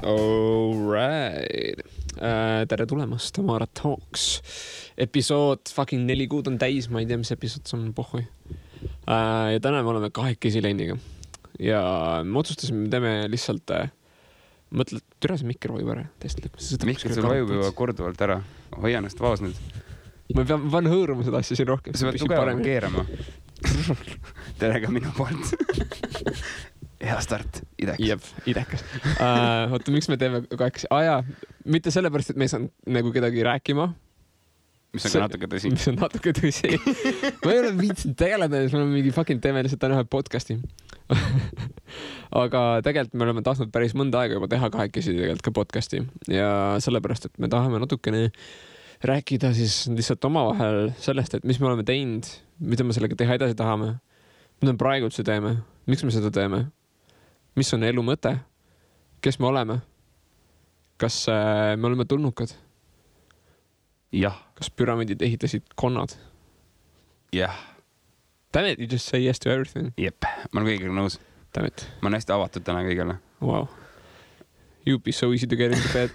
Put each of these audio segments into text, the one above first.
Alright. Tere tulemast Tamara Talks. Episood fucking 4 kuud on täis, ma ei tea, mis episood see on, pohhui. Ja täna me oleme kahekesi Lenniga. Ja me otsustasime, me teeme lihtsalt mõtled, türa see mikker vajub ära. Mikker sul vajub juba korduvalt ära. Hoia ennast vaos nüüd. Ma pean hõõruma seda asja siin rohkem. Sa pead tugevalt keerama. Tere ka minu poolt. Hea start, idekas. Jep, idekas. Oota, miks me teeme kahekesi? Mitte sellepärast, et me ei saanud nagu kedagi rääkima. Mis on ka natuke tõsi. Mis on natuke tõsi. Ma ei ole viitsinud tegeleda, siis me oleme mingi fucking teeme lihtsalt täna ühe podcasti. Aga tegelikult me oleme tahtnud päris mõnda aega juba teha kahekesi tegelikult ka podcasti. Ja sellepärast, et me tahame natukene rääkida siis lihtsalt omavahel sellest, et mis me oleme teinud, mida me sellega teha edasi tahame, mida me praegu üldse teeme, miks me seda teeme, mis on elu mõte, kes me oleme, kas me oleme tulnukad, jah, kas püramiidid ehitasid konnad. jah. Damn it, you just say yes to everything. Jep, ma olen kõigega nõus. Damn it. Ma olen hästi avatud täna kõigele. Wow. You'd be so easy to get into bed.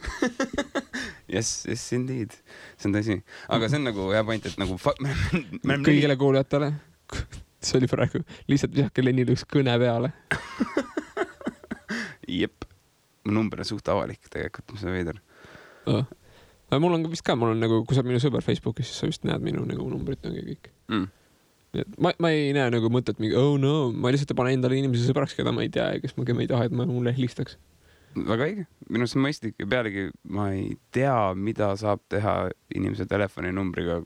Yes, indeed. See on tõsi. Aga see on nagu hea point, et nagu kõigile kuulijatele. See oli praegu lihtsalt visake Lennil üks kõne peale. Jep. Mu number on suht avalik tegelikult, mis on veider. Mul on vist ka, mul on nagu, kui sa minu sõber Facebookis, siis sa vist näed minu nagu numbrit ja kõik. Ma ei näe nagu mõtet mingi, oh no, ma lihtsalt panen endale inimese sõbraks, keda ma ei tea, kes ma ei taha, et mulle helistaks. Väga õige. Minu see mõistlik ja pealegi ma ei tea, mida saab teha inimese telefoninumbriga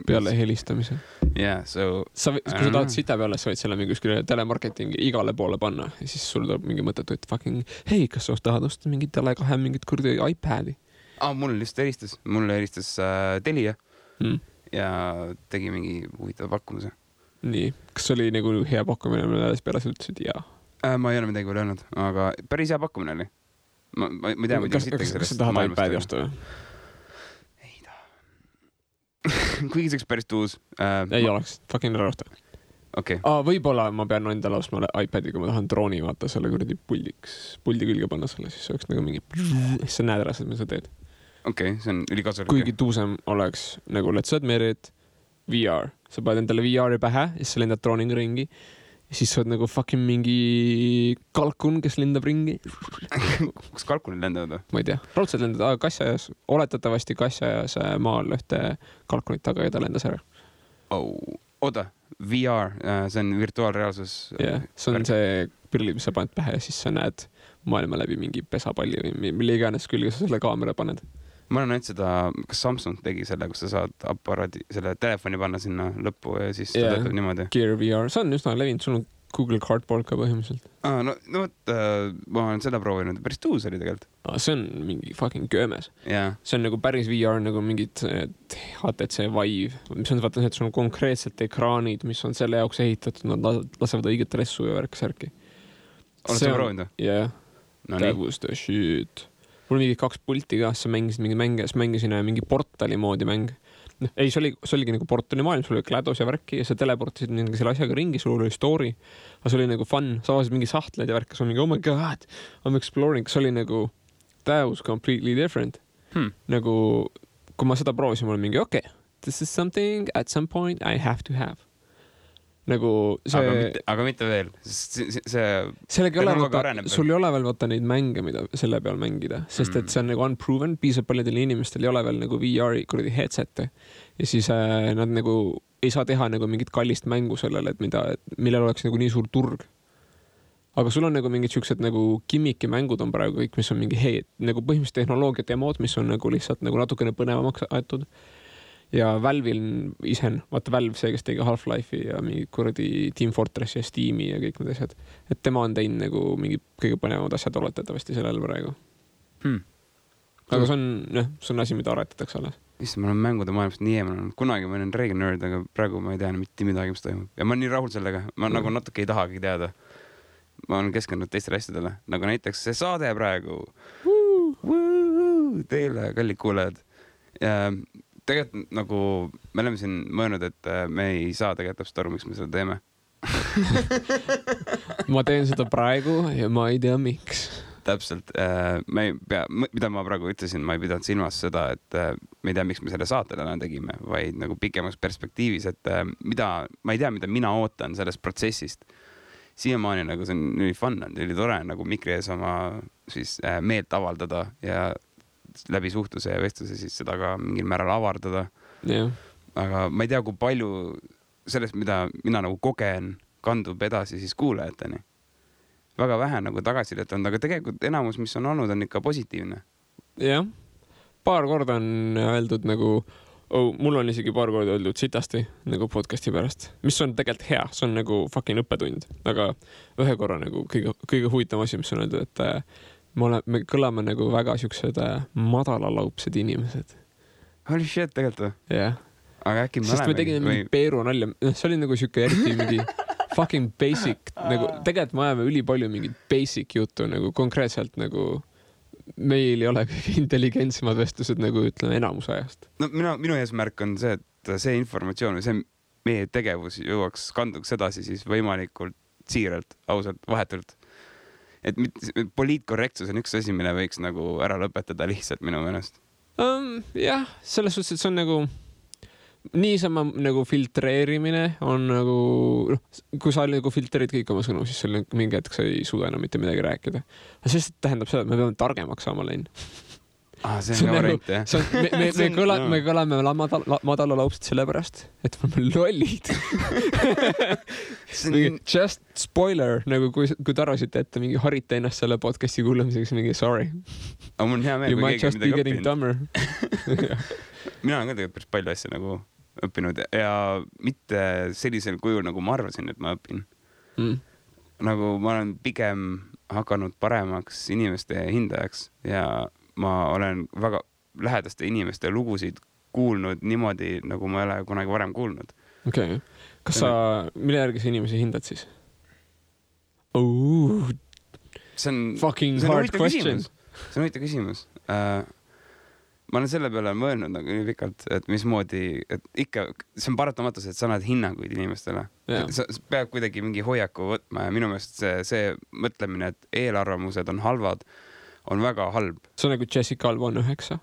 peale helistamise. Yeah, so kui sa tahad sita peale, sa võid selle mingi kuskile telemarketingi igale poole panna ja siis sul tuleb mingi mõttetu, et fucking hei, kas sa tahad osta mingi Tele2 mingit kurdi iPadi? Mulle helistas Telia ja tegi mingi huvitava pakkumise. Nii, kas oli nagu hea pakkumine, mille alles peale sa ütlesid jaa? Ma ei ole midagi veel öelnud, aga päris hea pakkumine oli. Ma ei tea, kas sa tahad iPadi osta või? Ei taha. Kuigi see oleks päris tuus. Ei oleks, fucking ära osta. Okay. Võib-olla ma pean endale ostma iPadi, kui ma tahan drooni vaata selle kuradi puldi külge panna selle, siis see oleks nagu mingi sa näed ära, mis sa teed. Okei, see on ülikasulik. Kuigi tuusem oleks nagu let's admit it, VR. Sa paned endale VR-i pähe ja siis sa lendad drooniga ringi. Ja siis sa oled nagu fucking mingi kalkun, kes lendab ringi. Kus kalkunid lendavad või? Ma ei tea. Raudselt lendad kassajas, oletatavasti kassajas maal ühte kalkunit taga ja ta lendas ära. Oda, VR, see on virtuaalreaalsus. Yeah, see on see prillid, mis sa paned pähe ja siis sa näed maailma läbi mingi pesapalli või mille iganes külge sa selle kaamera paned. Ma olen näinud seda, kas Samsung tegi selle, kus sa saad aparaadi, selle telefoni panna sinna lõppu ja siis ta töötab niimoodi. Gear VR, see on üsna levinud, sul on Google Cardboard ka põhimõtteliselt. No võt, ma olen seda proovinud, päris tuus oli tegelikult. See on mingi fucking köömes. Yeah. See on nagu päris VR, nagu mingid HTC Vive, mis on vaata, et sul on konkreetselt ekraanid, mis on selle jaoks ehitatud, nad lasevad õiget ressu ja värk-särki. Oled sa proovinud? Yeah. That was the shit. Mul mingi 2 pulti ka, sa mängisid mingi mänge, siis mängisin mingi portali moodi mäng. Ei, see oligi nagu portali maailm, sul oli GLaDOS ja värki ja sa teleportisid mingi selle asjaga ringi, sul oli story, aga see oli nagu fun, sa avasid mingi sahtled ja värk, sa oli mingi, oh my god, I'm exploring, see oli nagu, that was completely different. Nagu, kui ma seda proovisin, mul oli mingi, okay, this is something at some point I have to have. Nagu see... Aga mitte veel. Sul ei ole veel vaata neid mänge, mida selle peal mängida, sest et see on nagu unproven, piisab paljudel inimestel ei ole veel nagu VR-i kuradi headsette ja siis nad nagu ei saa teha nagu mingit kallist mängu sellele, et millel oleks nagu nii suur turg. Aga sul on nagu mingid siuksed nagu kimmiki mängud on praegu kõik, mis on mingi nagu põhimõtteliselt tehnoloogia demod, mis on nagu lihtsalt nagu natukene põnevamaks aetud. Ja Valve'il vaata Valve see, kes tegi Half-Life'i ja mingi kuradi Team Fortress ja Steam'i ja kõik need asjad. Et tema on teinud nagu mingi kõige põnevamad asjad oletatavasti sellel praegu. Aga see on asi, mida aretatakse alles. Ma olen mängude maailmast nii eemal. Kunagi ma olen Reagan nerd, aga praegu ma ei tea mitte midagi, mis toimub. Ja ma olen nii rahul sellega. Ma nagu natuke ei tahagi teada. Ma olen keskendunud teistele asjadele. Nagu näiteks see saade praegu. Teile, kallid kuulajad. Tegelikult nagu me oleme siin mõelnud, et me ei saa tegelikult täpselt aru, miks me seda teeme. Ma teen seda praegu ja ma ei tea miks. täpselt, ma ei pea, mida ma praegu ütlesin, ma ei pidanud silmas seda, et ma ei tea, miks me selle saate täna tegime, vaid nagu pikemas perspektiivis, et ma ei tea, mida mina ootan sellest protsessist. Siiamaani nagu see on nii fun, oli tore nagu mikri ees oma siis meelt avaldada ja läbi suhtluse ja vestluse siis seda ka mingil määral avardada. Yeah. Aga ma ei tea, kui palju sellest, mida mina nagu kogen, kandub edasi siis kuulajateni. Väga vähe nagu tagasisidet on, aga tegelikult enamus, mis on olnud, on ikka positiivne. Jah, paar korda on öeldud nagu, mul on isegi paar korda öeldud sitasti nagu podcasti pärast, mis on tegelikult hea, see on nagu fucking õppetund, aga ühe korra nagu kõige huvitavam asi, mis on öeldud, et me kõlame nagu väga siuksed madalalaupsed inimesed. Holy shit, tegelikult või? Jah. Aga äkki sest me tegime mingi Peeru nalja, see oli nagu siuke eriti mingi fucking basic, nagu tegelikult me ajame ülipalju mingit basic juttu nagu konkreetselt nagu meil ei ole kõige intelligentsemad vestlused nagu ütleme enamus ajast. No minu eesmärk on see, et see informatsioon või see meie tegevus jõuaks kanduks edasi siis võimalikult siiralt, ausalt, vahetult. Et poliitkorrektsus on üks asi, mille võiks nagu ära lõpetada lihtsalt minu meelest. Jah, selles suhtes, et see on nagu niisama nagu filtreerimine on nagu, kui sa nagu filtreerid kõik oma sõnu, siis seal mingi hetk sa ei suuda enam mitte midagi rääkida. Sest tähendab seda, et me peame targemaks saama läinud. See on variant, jah. Me kõlame madalalaupsed sellepärast, et me oleme lollid. Just spoiler, nagu kui te arvasite, et mingi harite ennast selle podcasti kuulamiseks, mingi sorry. Aga mul on hea meel, you might just be getting dumber. Mina olen ka tegelikult päris palju asja nagu õppinud ja mitte sellisel kujul, nagu ma arvasin, et ma õpin. Nagu ma olen pigem hakanud paremaks inimeste hindajaks ja ma olen väga lähedaste inimeste lugusid kuulnud niimoodi, nagu ma ei ole kunagi varem kuulnud. Okei. Kas sa, mille järgi sa inimesi hindad siis? See on fucking hard question. See on huvitav küsimus. Ma olen selle peale mõelnud nagu nii pikalt, et mismoodi, et ikka, see on paratamatus, et sa annad hinnanguid inimestele. Sa peab kuidagi mingi hoiaku võtma ja minu meelest see mõtlemine, et eelarvamused on halvad, on väga halb. See on nagu Jessica Alba on 9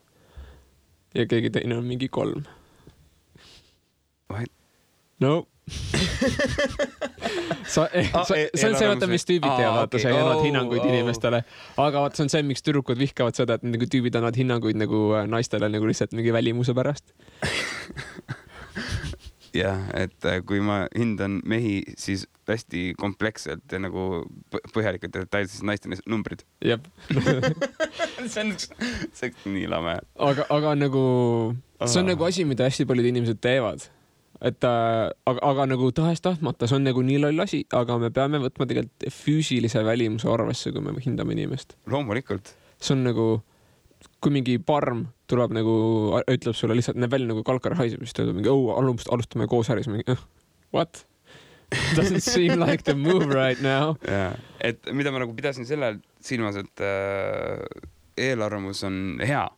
ja keegi teine on mingi 3. What? No. See on see, vaata, mis tüübid teevad, vaata, sa ei annad hinnanguid inimestele. Aga vaata, see on see, miks tüdrukud vihkavad seda, et nagu tüübid annad hinnanguid nagu naistele nagu lihtsalt mingi välimuse pärast. Jah, et kui ma hindan mehi, siis hästi kompleksselt ja nagu põhjalikult ja detailselt naiste numbrid. Jep. See on nii lame. Aga nagu, see on nagu asi, mida hästi paljud inimesed teevad. Et, aga nagu tahes-tahtmata, see on nagu nii loll asi, aga me peame võtma tegelikult füüsilise välimuse arvesse, kui me hindame inimest. Loomulikult. See on nagu, kui mingi parm tuleb nagu, ütleb sulle lihtsalt, näeb välja nagu kalkar haiseb, siis ta ütleb mingi, alustame koos äris. What? Doesn't seem like the move right now. Ja, et mida ma nagu pidasin sellel silmas, et eelarvamus on hea.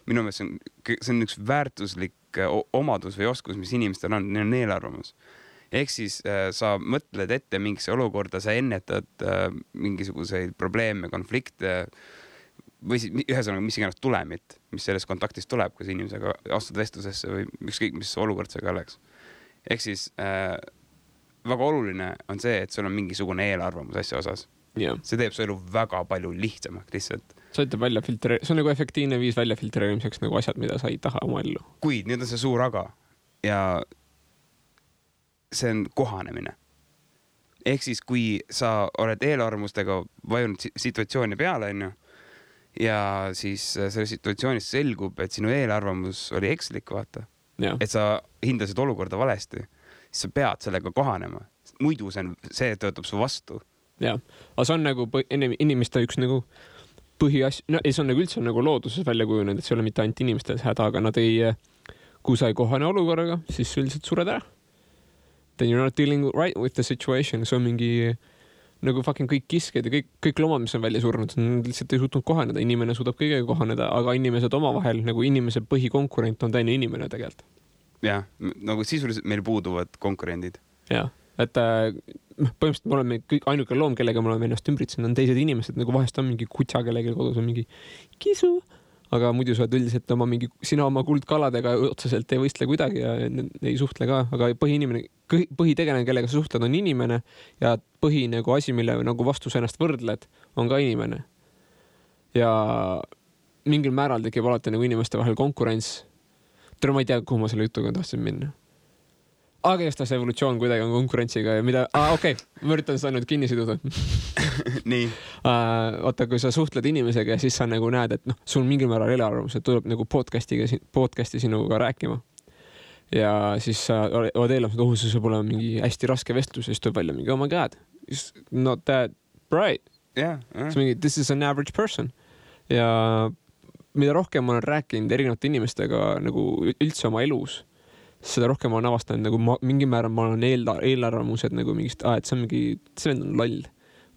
Minu meelest see on üks väärtuslik omadus või oskus, mis inimestel on, neil on eelarvamus. Ehk siis sa mõtled ette mingisse olukorda, sa ennetad mingisuguseid probleeme, konflikte või ühesõnaga mis iganes tulemit, mis sellest kontaktist tuleb, kui sa inimesega astud vestlusesse või ükskõik, mis olukord see ka oleks. Ehk siis väga oluline on see, et sul on mingisugune eelarvamus asja osas. Yeah. See teeb su elu väga palju lihtsamaks lihtsalt. See on nagu efektiivne viis välja filtreerimiseks nagu asjad, mida sa ei taha oma ellu. Kuid nüüd on see suur aga ja see on kohanemine. Ehk siis, kui sa oled eelarvamustega vajunud situatsiooni peale, ja siis selle situatsioonis selgub, et sinu eelarvamus oli ekslik, vaata. Ja. Et sa hindasid olukorda valesti, siis sa pead sellega kohanema. Muidu see töötab su vastu. Ja, aga see on nagu inimeste üks nagu põhiasja, no ei, see on nagu üldse nagu looduses välja kujunenud, et see ei ole mitte ainult inimestel häda, aga nad ei, kui sa ei kohane olukorraga, siis üldiselt sured ära. Then you're not dealing right with the situation. See on mingi nagu fucking kõik kisked ja kõik loomad, mis on välja surnud, lihtsalt ei suutnud kohaneda. Inimene suudab kõigega kohaneda, aga inimesed omavahel, nagu inimese põhikonkurent on teine inimene tegelikult. Jah, nagu sisuliselt meil puuduvad konkurendid. Ja, et põhimõtteliselt me oleme kõik ainuke loom, kellega me oleme ennast ümbritsenud, on teised inimesed, nagu vahest on mingi kutsa, kellegi kodus on mingi kisu, aga muidu sa oled üldiselt sina oma kuldkaladega otseselt ei võistle kuidagi ja ei suhtle ka, aga põhitegelane, kellega sa suhtled, on inimene ja põhi nagu asi, mille nagu vastu sa ennast võrdled, on ka inimene. Ja mingil määral tekib alati nagu inimeste vahel konkurents. Ma ei tea, kuhu ma selle jutuga tahtsin minna. Aga jästas evolutsioon kuidagi on konkurentsiga ja mida... okei, ma üritan seda nüüd kinni siduda. Nii. Oota, kui sa suhtled inimesega ja siis sa nagu näed, et sul mingil määral eelarvamus, et tuleb nagu podcasti sinuga rääkima. Ja siis sa oled eelarvamus, et see saab olema mingi hästi raske vestlus ja siis tuleb välja mingi, oh my god, it's not that bright. Yeah. This is an average person. Ja mida rohkem ma olen rääkinud erinevate inimestega nagu üldse oma elus, seda rohkem ma olen avastanud, nagu mingi määral ma olen eelarvamused nagu mingist, et see vend on loll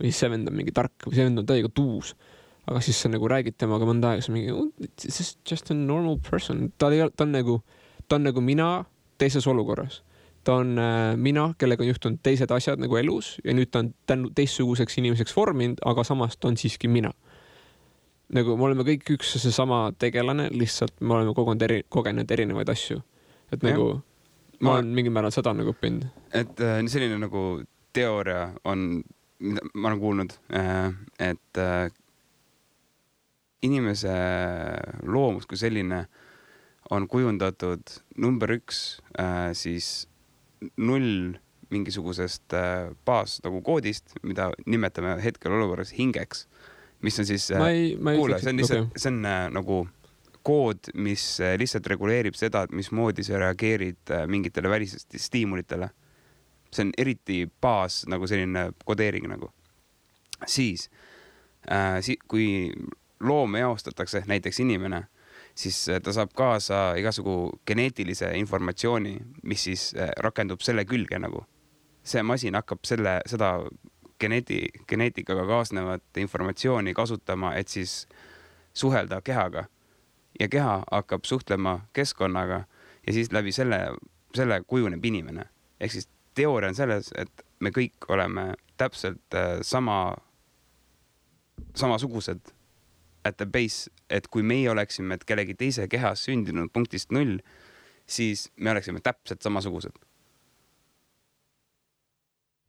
või see vend on mingi tark või see vend on täiega tuus. Aga siis sa nagu räägid temaga mõnda aega, see mingi, this is just a normal person. Ta on nagu mina teises olukorras. Ta on mina, kellega on juhtunud teised asjad nagu elus ja nüüd ta on teistsuguseks inimeseks vorminud, aga samas ta on siiski mina. Nagu me oleme kõik üks seesama tegelane, lihtsalt me oleme kogenud erinevaid asju. Et nagu ma olen mingil määral seda nagu õppinud. Et selline nagu teooria on, ma olen kuulnud, et inimese loomus kui selline on kujundatud number 1 siis 0 mingisugusest baas nagu koodist, mida nimetame hetkel olukorras hingeks, mis on siis, kuule, see on nagu kood, mis lihtsalt reguleerib seda, et mismoodi sa reageerid mingitele välisest stiimulitele. See on eriti baas nagu selline kodeering nagu. Siis, kui loom eostatakse, näiteks inimene, siis ta saab kaasa igasugu geneetilise informatsiooni, mis siis rakendub selle külge nagu. See masin hakkab seda geneetikaga kaasnevat informatsiooni kasutama, et siis suhelda kehaga. Ja keha hakkab suhtlema keskkonnaga ja siis läbi selle kujuneb inimene. Ehk siis teooria on selles, et me kõik oleme täpselt samasugused at the base, et kui meie oleksime kellegi teise kehas sündinud punktist 0, siis me oleksime täpselt samasugused.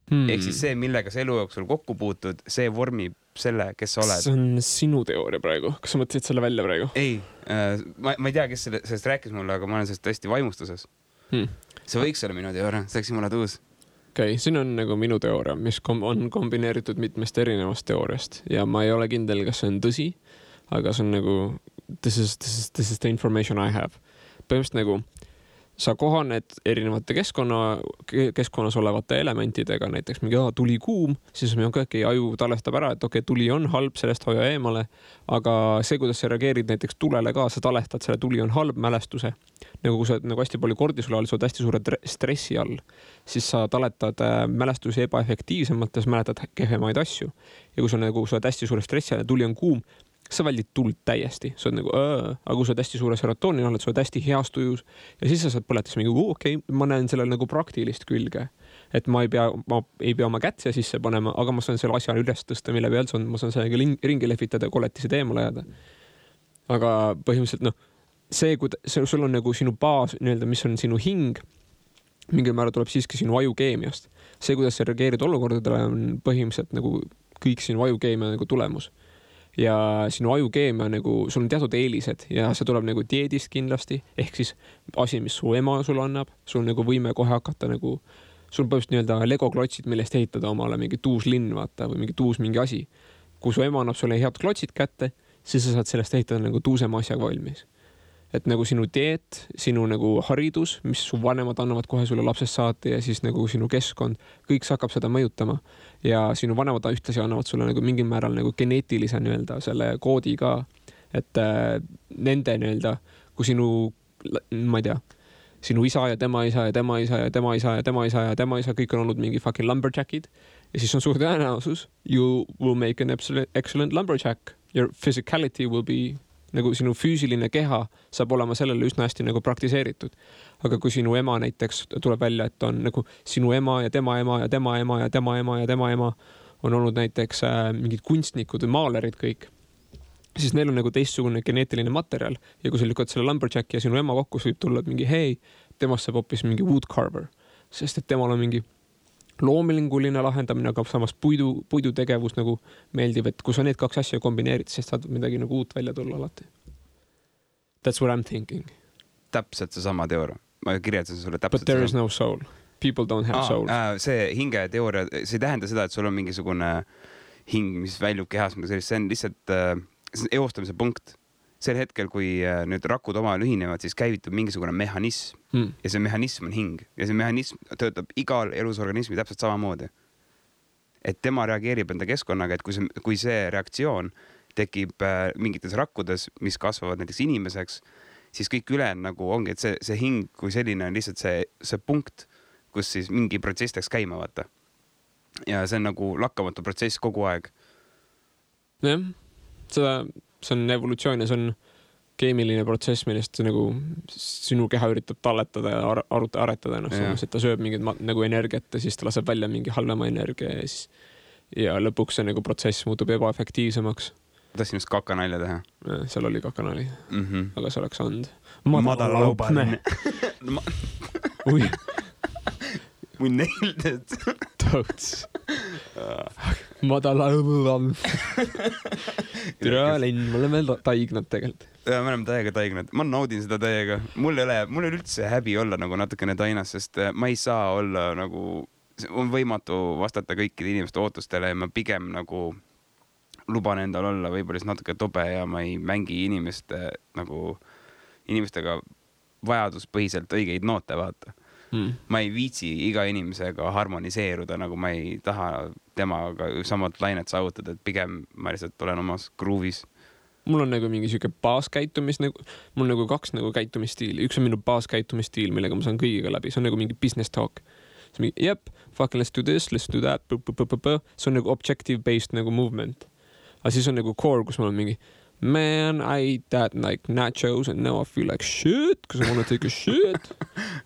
Ehk siis see, millega sa elu jooksul kokku puutud, see vormib selle, kes sa oled. See on sinu teooria praegu. Kas sa mõtlesid selle välja praegu? Ei, ma ei tea, kes sellest rääkis mulle, aga ma olen sellest tõesti vaimustuses. See võiks olla minu teooria, see oleks jumala tuus. Okei, siin on nagu minu teooria, mis on kombineeritud mitmest erinevast teooriast ja ma ei ole kindel, kas see on tõsi, aga see on nagu this is the information I have. Põhimõtteliselt nagu sa kohaned erinevate keskkonnas olevate elementidega, näiteks mingi tuli kuum, siis me aju talestab ära, et tuli on halb, sellest hoia eemale, aga see, kuidas sa reageerid näiteks tulele ka, sa talestad selle tuli on halb mälestuse. Nagu kui sa nagu hästi palju kordisul all, sa oled hästi suure stressi all, siis sa taletad mälestusi ebaefektiivsemalt ja sa mäletad kehvemaid asju. Ja kui sa oled hästi suure stressi all ja tuli on kuum, sa väldid tuld täiesti, sa oled nagu aga kui sa oled hästi suure serotoonini oled, sa oled hästi heas tujus ja siis sa saad põletas mingi ma näen sellel nagu praktilist külge, et ma ei pea oma kätt sisse panema, aga ma saan selle asja üles tõsta, mille peal ma saan sellega ringi lehvitada ja koletised eemale jääda. Aga põhimõtteliselt sul on nagu sinu baas, mis on sinu hing, mingil määral tuleb siiski sinu ajukeemiast. See, kuidas sa reageerid olukordadele, on põhimõtteliselt nagu kõik sinu ajukeemia nagu tulemus. Ja sinu ajukeemia nagu, sul on teatud eelised ja see tuleb nagu dieedist kindlasti, ehk siis asi, mis su ema sul annab, sul nagu võime kohe hakata nagu, sul põhimõtteliselt Lego klotsid, millest ehitada omale mingi tuus linn, vaata, või mingi asi. Kui su ema annab sulle head klotsid kätte, siis sa saad sellest ehitada nagu tuusema asjaga valmis. Et nagu sinu dieet, sinu nagu haridus, mis su vanemad annavad kohe sulle lapsest saati ja siis nagu sinu keskkond, kõik see hakkab seda mõjutama. Ja sinu vanemad ühtlasi annavad sulle nagu mingil määral nagu geneetilise selle koodi ka, et nende kui sinu, ma ei tea, sinu isa ja tema isa ja tema isa ja tema isa ja tema isa ja tema isa, kõik on olnud mingi fucking lumberjackid ja siis on suur tõenäosus, you will make an excellent lumberjack. Your physicality will be nagu sinu füüsiline keha saab olema sellele üsna hästi nagu praktiseeritud. Aga kui sinu ema näiteks tuleb välja, et on nagu sinu ema ja tema ema ja tema ema ja tema ema ja tema ema on olnud näiteks mingid kunstnikud või maalerid kõik, siis neil on nagu teistsugune geneetiline materjal ja kui sa lükkad selle lumberjacki ja sinu ema kokku, võib tulla mingi hei, temast saab hoopis mingi woodcarver, sest et temal on mingi loominguline lahendamine, aga samas puidutegevus nagu meeldib, et kui sa need kaks asja kombineerid, siis saad midagi nagu uut välja tulla alati. That's what I'm thinking. Täpselt seesama teooria. Ma kirjeldasin sulle täpselt. But there is no soul. People don't have soul. See hinge teooria, see ei tähenda seda, et sul on mingisugune hing, mis väljub kehas, see on lihtsalt eostamise punkt. Sel hetkel, kui nüüd rakud omavahel ühinevad, siis käivitub mingisugune mehhanism ja see mehhanism on hing ja see mehhanism töötab igal elusorganismi täpselt samamoodi. Et tema reageerib enda keskkonnaga, et kui see reaktsioon tekib mingites rakkudes, mis kasvavad näiteks inimeseks, siis kõik üle nagu ongi, et see hing kui selline on lihtsalt see punkt, kus siis mingi protsess läks käima vaata. Ja see on nagu lakkamatu protsess kogu aeg. Jah, see on evolutsioon ja see on keemiline protsess, millest nagu sinu keha üritab talletada ja aretada ennast, et ta sööb mingit nagu energiat ja siis ta laseb välja mingi halvema energia ja lõpuks see nagu protsess muutub ebaefektiivsemaks. Tahtsin just kakanalja teha. Seal oli kakanali, aga see oleks olnud madalaubaline. We nailed it. Totes. Madalaubaline. Türa linn, me oleme taignad tegelikult. Ja me oleme täiega taignad. Ma naudin seda täiega. Mul ei ole üldse häbi olla nagu natukene tainas, sest ma ei saa olla nagu, on võimatu vastata kõikide inimeste ootustele ja ma pigem nagu luban endal olla võib-olla natuke tobe ja ma ei mängi inimestega vajaduspõhiselt õigeid noote vaata. Ma ei viitsi iga inimesega harmoniseeruda, nagu ma ei taha temaga samad lainet saavutada, et pigem ma lihtsalt olen omas groovis. Mul on nagu mingi siuke baaskäitumis, mul on nagu kaks nagu käitumisstiili. Üks on minu baaskäitumisstiil, millega ma saan kõigiga läbi. See on nagu mingi business talk. See on mingi, fucking let's do this, let's do that. See on nagu objective-based nagu movement. Aga siis on nagu core, kus ma olen mingi man, I ate that like nachos and now I feel like shit, because I want to take a shit.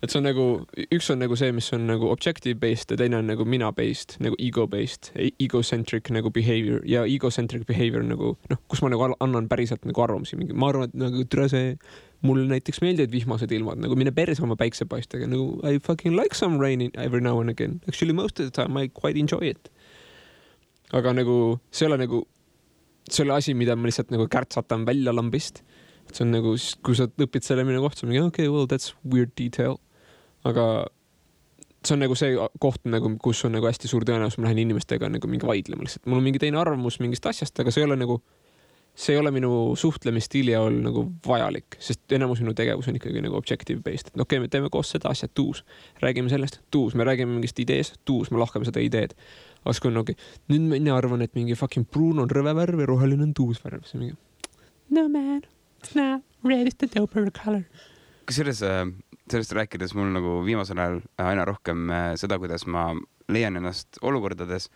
Et see on nagu, üks on nagu see, mis on nagu objective-based ja teine on nagu mina-based, nagu ego-based, egocentric nagu behavior ja egocentric behavior nagu, kus ma nagu annan päriselt nagu arvamusi. Ma arvan, et nagu mul näiteks meeldivad vihmased ilmad, nagu mine perse oma päiksepaistega, nagu I fucking like some rain every now and again. Actually most of the time I quite enjoy it. Aga nagu, see ole nagu see oli asi, mida ma lihtsalt nagu kärtsatan välja lambist. See on nagu, kui sa õpid selle minu kohta, mingi, okay, well, that's weird detail. Aga see on nagu see koht, nagu, kus on nagu hästi suur tõenäosus, ma lähen inimestega nagu mingi vaidlema lihtsalt. Mul on mingi teine arvamus mingist asjast, aga see ei ole minu suhtlemisstiili all nagu vajalik, sest enamus minu tegevus on ikkagi nagu objective-based. Et okei, me teeme koos seda asja, tuus. Räägime sellest, tuus. Me räägime mingist ideest, tuus. Me lahkame seda ideed. Aga kui on okay, nüüd mina arvan, et mingi fucking pruun on rõve värv ja roheline on tuus värv. See mingi, no man, it's not red is the doper color. Kas sellest rääkides mul nagu viimasel ajal aina rohkem seda, kuidas ma leian ennast olukordades,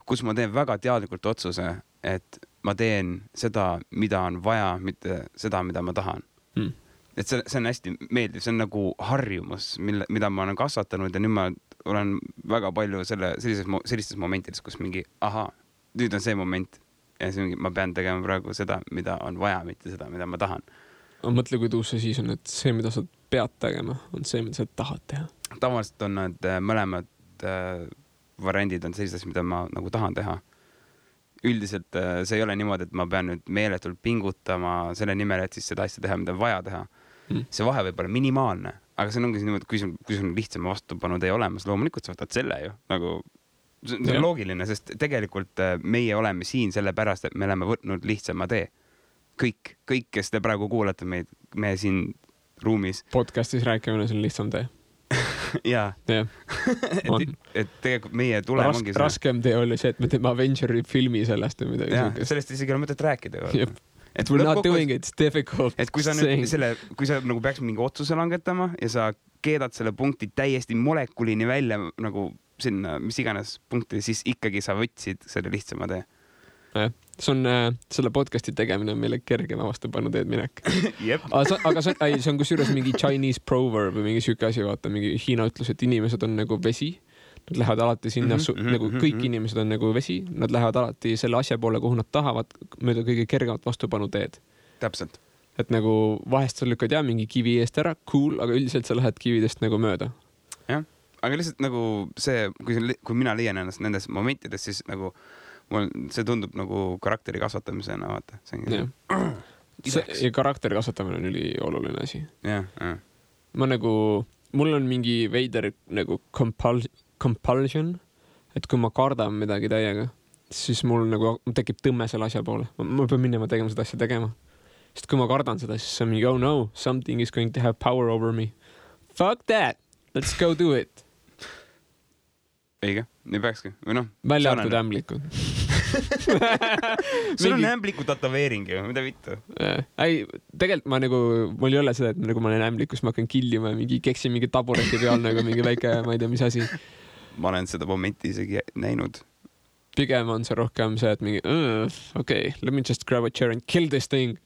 kus ma teen väga teadlikult otsuse, et ma teen seda, mida on vaja, mitte seda, mida ma tahan. Et see on hästi meeldiv, see on nagu harjumus, mida ma olen kasvatanud ja nüüd ma olen väga palju sellistes momentides, kus mingi, nüüd on see moment ja see mingi, ma pean tegema praegu seda, mida on vaja, mitte seda, mida ma tahan. Mõtle, kui tuus see siis on, et see, mida sa pead tegema, on see, mida sa tahad teha. Tavaliselt on need mõlemad variandid on sellised, mida ma nagu tahan teha. Üldiselt see ei ole niimoodi, et ma pean nüüd meeletult pingutama selle nimel, et siis seda asja teha, mida on vaja teha. See vahe võib olla minimaalne, aga see ongi niimoodi, kui sul lihtsam vastupanu tee olemas, loomulikult sa võtad selle ju. Nagu, see on loogiline, sest tegelikult meie oleme siin selle pärast, et me oleme võtnud lihtsama tee. Kõik, kes te praegu kuulate meid, me siin ruumis. Podcastis rääkimine, see on lihtsam tee. Jaa. Et tegelikult meie tulem ongi see. Raskem tee oli see, et me teeme Avengeri filmi sellest või midagi. Jaa, sellest isegi ei ole mõtet rääkida. Et we're not doing it, it's difficult. Et kui sa nagu peaks mingi otsuse langetama ja sa keedad selle punkti täiesti molekulini välja nagu sinna, mis iganes punkti, siis ikkagi sa võtsid selle lihtsama tee. see on selle podcasti tegemine on meile kergema vastupanu teed minek. Jep. aga see on kusjuures mingi Chinese proverb või mingi siuke asi, vaata mingi Hiina ütlus, et inimesed on nagu vesi. Nad lähevad alati sinna, nagu kõik inimesed on nagu vesi, nad lähevad alati selle asja poole, kuhu nad tahavad, mööda kõige kergemat vastupanu teed. Täpselt. Et nagu vahest sa lükkad mingi kivi eest ära, cool, aga üldiselt sa lähed kividest nagu mööda. Jah, aga lihtsalt nagu see, kui mina leian ennast nendes momentides, siis nagu see tundub nagu karakteri kasvatamisena, vaata. Ja karakteri kasvatamine on üli oluline asi. Jah. Mul on mingi veider nagu compulsion, et kui ma kardan midagi täiega, siis mul nagu tekib tõmme selle asja poole. Ma pean minema tegema seda asja tegema. Sest kui ma kardan seda, siis see on mingi, oh no, something is going to have power over me. Fuck that! Let's go do it! Eiga, nii peakski. Või noh, välja arvatud ämblikud. Sul on ämbliku tatoveering ju, mida vittu? Ei, tegelikult mul ei ole seda, et nagu ma olen ämblikus, ma hakkan killima ja mingi keksin mingi tabureti peal nagu mingi väike, ma ei tea, mis asi. Ma olen seda momenti isegi näinud. Pigem on see rohkem see, et mingi, okay, let me just grab a chair and kill this thing.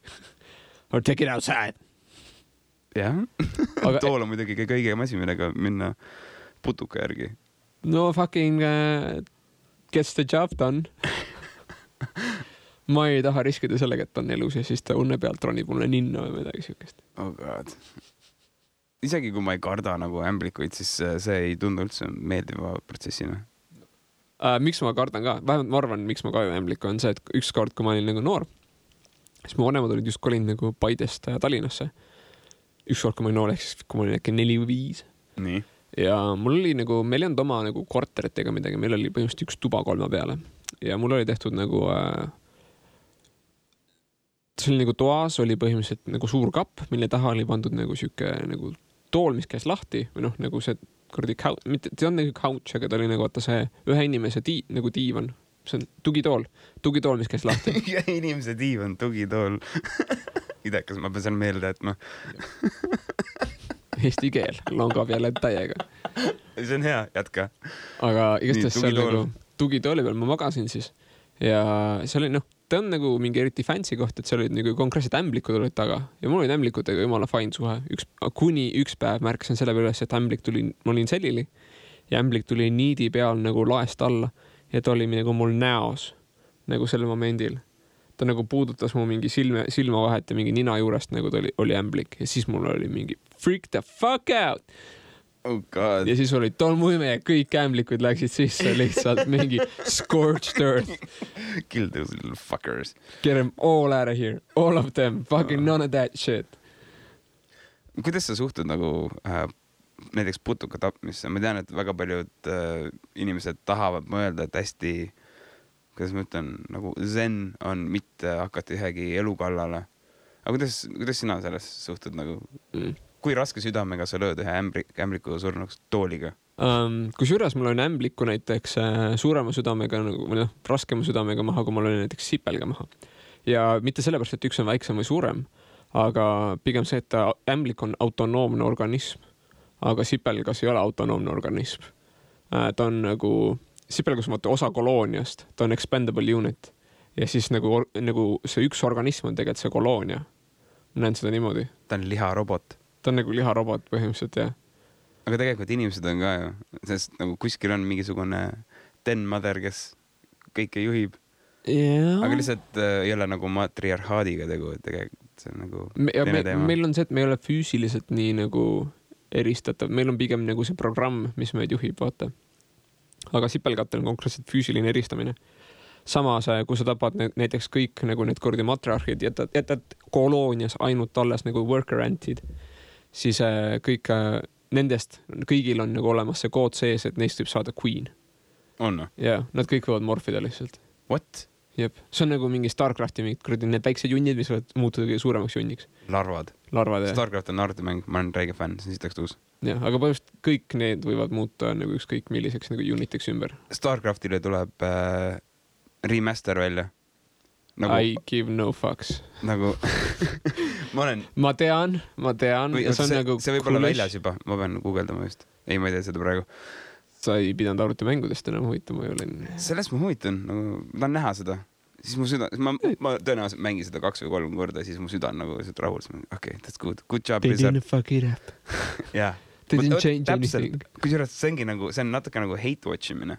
Or take it outside. Jah. Tool on muidugi kõige asi, millega minna putuka järgi. No fucking gets the job done. Ma ei taha riskida sellega, et ta on elus ja siis ta unne pealt ronib mulle ninna või midagi siukest. Oh god. Isegi kui ma ei karda nagu ämblikuid, siis see ei tundu üldse meeldiva protsessina. Miks ma kardan ka? Vähemalt ma arvan, miks ma kardan ämbliku on see, et ükskord, kui ma olin nagu noor, siis mu vanemad olid just kolinud nagu Paidest Tallinnasse. Ükskord, kui ma olin noor, ehk siis kui ma olin äkki 4 või 5. Nii. Ja mul oli nagu, meil ei olnud oma nagu korterit ega midagi, meil oli põhimõtteliselt üks tuba 3 peale ja mul oli tehtud nagu see oli nagu toas oli põhimõtteliselt nagu suur kapp, mille taha oli pandud nagu siuke nagu tool, mis käis lahti või noh, nagu see kuradi mitte, see on nagu couch, aga ta oli nagu vaata see ühe inimese nagu diivan, see on tugitool, mis käis lahti. Ühe inimese diivan, tugitool. Idekas, ma pean seal meelde, et ma Eesti keel longab jälle täiega. See on hea, jätka. Aga igatahes seal nagu tugitooli peal ma magasin siis ja see oli ta on nagu mingi eriti fancy koht, et seal olid nagu konkreetselt ämblikud olid taga ja mul olid ämblikutega jumala fine suhe. Kuni üks päev märkasin selle peale, et ämblik tuli, ma olin sellili ja ämblik tuli niidi peal nagu laest alla ja ta oli nagu mul näos nagu sellel momendil. Ta nagu puudutas mu mingi silmavahet ja mingi nina juurest nagu ta oli ämblik ja siis mul oli mingi freak the fuck out. Oh god. Ja siis oli tolmuime ja kõik ämblikud läksid sisse lihtsalt mingi scorched earth. Kill those little fuckers. Get them all out of here. All of them. Fucking none of that shit. Kuidas sa suhtud nagu näiteks putuka tapmisse? Ma tean, et väga paljud inimesed tahavad mõelda, et hästi kuidas ma ütlen, nagu zen on mitte hakata ühegi elu kallale. Aga kuidas sina selles suhtud nagu? Kui raske südamega sa lööd ühe ämbliku surnuks tooliga? Kusjuures mul on ämbliku näiteks suurema südamega, või raskema südamega maha, kui mul oli näiteks sipelga maha. Ja mitte sellepärast, et üks on väiksem või suurem, aga pigem see, et ämblik on autonoomne organism, aga sipelgas ei ole autonoomne organism. Ta on nagu sipelgas on osa kolooniast, ta on expendable unit ja siis nagu see üks organism on tegelikult see koloonia. Ma näen seda niimoodi. Ta on liharobot. Ta on nagu liharobot põhimõtteliselt, jah. Aga tegelikult inimesed on ka ju, sest nagu kuskil on mingisugune den mother, kes kõike juhib. Yeah. Aga lihtsalt ei ole nagu matriarhaadiga tegu, et tegelikult see on nagu teine teema. Meil on see, et me ei ole füüsiliselt nii nagu eristatav. Meil on pigem nagu see programm, mis meid juhib, vaata. Aga sipelgatel on konkreetselt füüsiline eristamine. Samas, kui sa tapad näiteks kõik nagu need kordi matriarhid, jätad koloonias ainult alles nagu worker antid, siis kõik nendest, kõigil on nagu olemas see kood sees, et neist võib saada queen. On? Jaa, nad kõik võivad morfida lihtsalt. What? Jep, see on nagu mingi Starcrafti mingid kuradi need väiksed junnid, mis võivad muutuda suuremaks junniks. Larvad, jah. Starcraft on arvutimäng, ma olen räige fänn, see on sitaks tuus. Jah, aga põhimõtteliselt kõik need võivad muuta nagu ükskõik milliseks nagu uniteks ümber. Starcraftile tuleb remaster välja. Nagu, I give no fucks. Nagu ma tean. Või, see võib olla väljas juba, ma pean guugeldama just. Ei, ma ei tea seda praegu. Sa ei pidanud arvutimängudest enam huvitama, ma olin. Sellest ma huvitan, nagu, ma tahan näha seda. siis mu süda, ma tõenäoliselt mängin seda 2 või 3 korda, siis mu süda on nagu lihtsalt rahul. Okay, that's good job. They didn't fuck it up. jah. They didn't change anything. Kusjuures see ongi nagu, see on natuke nagu hate watch imine.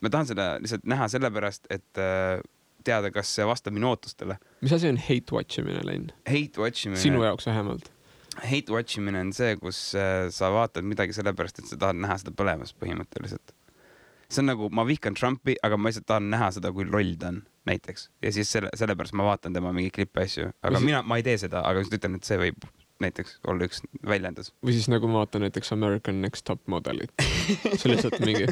Ma tahan seda lihtsalt näha sellepärast, et teada, kas see vastab minu ootustele. Mis asi on hate watch imine, Len? Hate watch imine. Sinu jaoks vähemalt. Hate watch imine on see, kus sa vaatad midagi sellepärast, et sa tahad näha seda põlemas põhimõtteliselt. See on nagu, ma vihkan Trumpi, aga ma lihtsalt tahan näha seda, kui loll ta on näiteks. Ja siis sellepärast ma vaatan tema mingi klippe asju. Aga ma ei tee seda, aga just ütlen, et see võib näiteks olla üks väljendus. Või siis nagu ma vaatan näiteks American Next Top Modelit. See lihtsalt mingi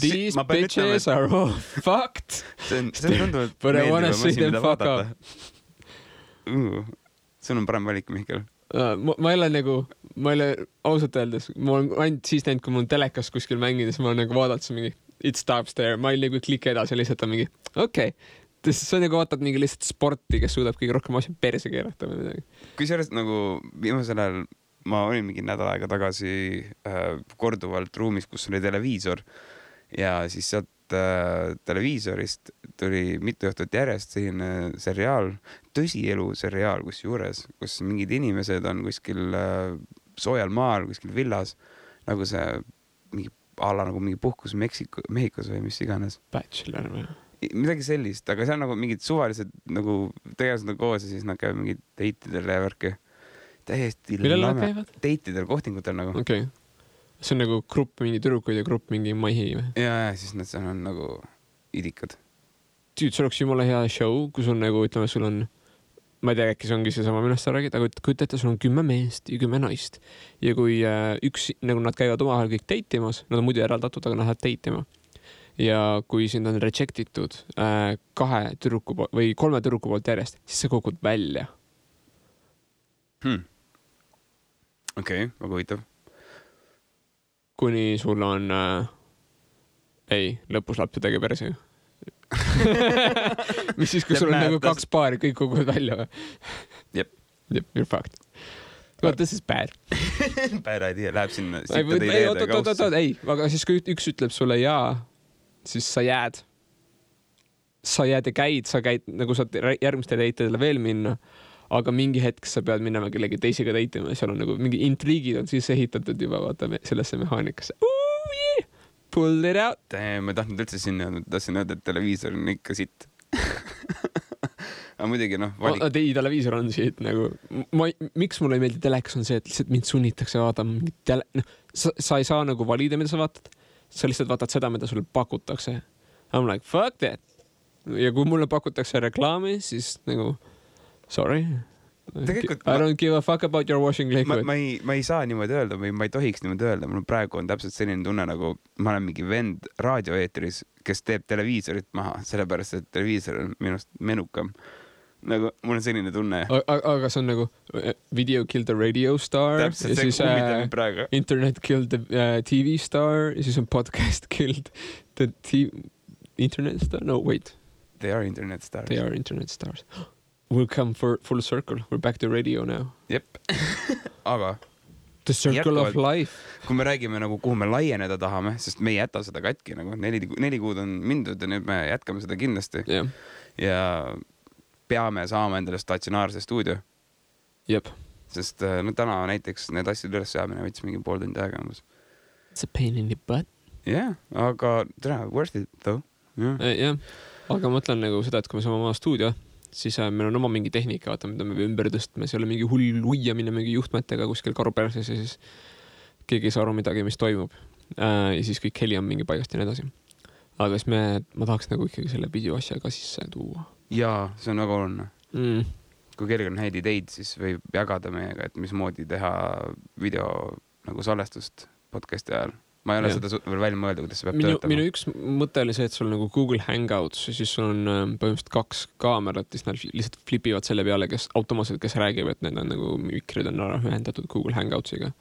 These bitches are all fucked. See on tunduvalt meeldivam asi, mida vaadata. Sul on parem valik, Mihkel. Ma ei ole ausalt öeldes, ma olen ainult siis näinud, kui mul on telekas kuskil mängides, ma olen nagu vaadanud see mingi it stops there, ma ei nagu kliki edasi, lihtsalt on mingi okei. See on nagu vaatad mingi lihtsalt sporti, kes suudab kõige rohkem asja perse keerata või midagi. Kui sellest nagu viimasel ajal ma olin mingi nädal aega tagasi korduvalt ruumis, kus oli televiisor ja siis sealt televiisorist tuli mitu õhtut järjest selline seriaal, tõsielu seriaal kusjuures, kus mingid inimesed on kuskil soojal maal, kuskil villas, nagu see mingi ala nagu mingi puhkus Mehhikos või mis iganes. Bachelor või? Midagi sellist, aga see on nagu mingid suvalised nagu tegelased on koos ja siis nad käivad mingid deitidel ja värki. Täiesti lame. Deitidel, kohtingutel nagu. Okei. See on nagu grupp mingi tüdrukuid ja grupp mingi mahi või? Ja siis nad seal on nagu idikad. Tüüd, see oleks jumala hea show, kus on nagu, ütleme, sul on, ma ei tea, äkki see ongi see sama, millest sa räägid, aga kujutate, sul on 10 meest ja 10 naist. Ja kui nagu nad käivad omahel kõik deitimas, nad on muidu eraldatud, aga nad lähevad deitima. Ja kui sind on rejectitud 2 tüdruku või 3 tüdruku poolt järjest, siis sa kokud välja. Okei, väga huvitav. Kuni sul on lõpus laps ja tegi perse. Mis siis, kui sul on nagu 2 paari, kõik koguvad välja või? Jep, you're fucked. Well, this is bad. Bad idea, läheb sinna. Ei, aga siis kui üks ütleb sulle jaa, siis sa jääd ja käid, nagu saad järgmiste deitidele veel minna, aga mingi hetk sa pead minema kellegi teisega deitima ja seal on nagu mingi intriigid on siis ehitatud juba vaata sellesse mehaanikasse. Yeah! Pull it out. Ma tahtnud üldse sinna, tahtsin öelda, et televiisor on ikka sitt. Aga muidugi televiisor on siit nagu, miks mulle ei meeldi telekas on see, et lihtsalt mind sunnitakse vaatama sa ei saa nagu valida, mida sa vaatad, sa lihtsalt vaatad seda, mida sulle pakutakse. I'm like, fuck that. Ja kui mulle pakutakse reklaami, siis nagu sorry. I don't give a fuck about your washing liquid. Ma ei saa niimoodi öelda või ma ei tohiks niimoodi öelda. Mul praegu on täpselt selline tunne, nagu ma olen mingi vend raadioeetris, kes teeb televiisorit maha, sellepärast, et televiisor on minust menukam. Nagu mul on selline tunne. Aga see on nagu video killed the radio star. Täpselt, see kummitab praegu. Internet killed the TV star ja siis on podcast killed the internet star. No, wait. They are internet stars. They are internet stars. We'll come for full circle. We're back to radio now. Jep. Aga the circle of life. Kui me räägime nagu kuhu me laieneda tahame, sest me ei jäta seda katki nagu 4 kuud on mindud ja nüüd me jätkame seda kindlasti. Yeah. Ja peame saama endale statsionaarse stuudio. Jep. Sest täna näiteks need asjad üles saamine võttis mingi 3 tundi aega umbes. It's a pain in the butt. Yeah, aga worth it though. Yeah. Aga mõtlen nagu seda, et kui me saame oma stuudio, siis meil on oma mingi tehnika, vaata, mida me ümber tõstme, see ei ole mingi hull uiamine mingi juhtmetega kuskil karuperses ja siis keegi ei saa aru midagi, mis toimub. Ja siis kõik heli on mingi paigast ja nii edasi. Aga siis ma tahaks nagu ikkagi selle video asja ka sisse tuua. Jaa, see on väga oluline. Kui kellelgi on häid ideid, siis võib jagada meiega, et mismoodi teha video nagu salvestust podcasti ajal. Ma ei ole seda veel välja mõelda, kuidas see peab töötama. Minu üks mõte oli see, et sul nagu Google Hangouts ja siis sul on põhimõtteliselt 2 kaamerat, siis nad lihtsalt flipivad selle peale, kes automaatselt, kes räägib, et need on nagu mikrid on ühendatud Google Hangoutsiga.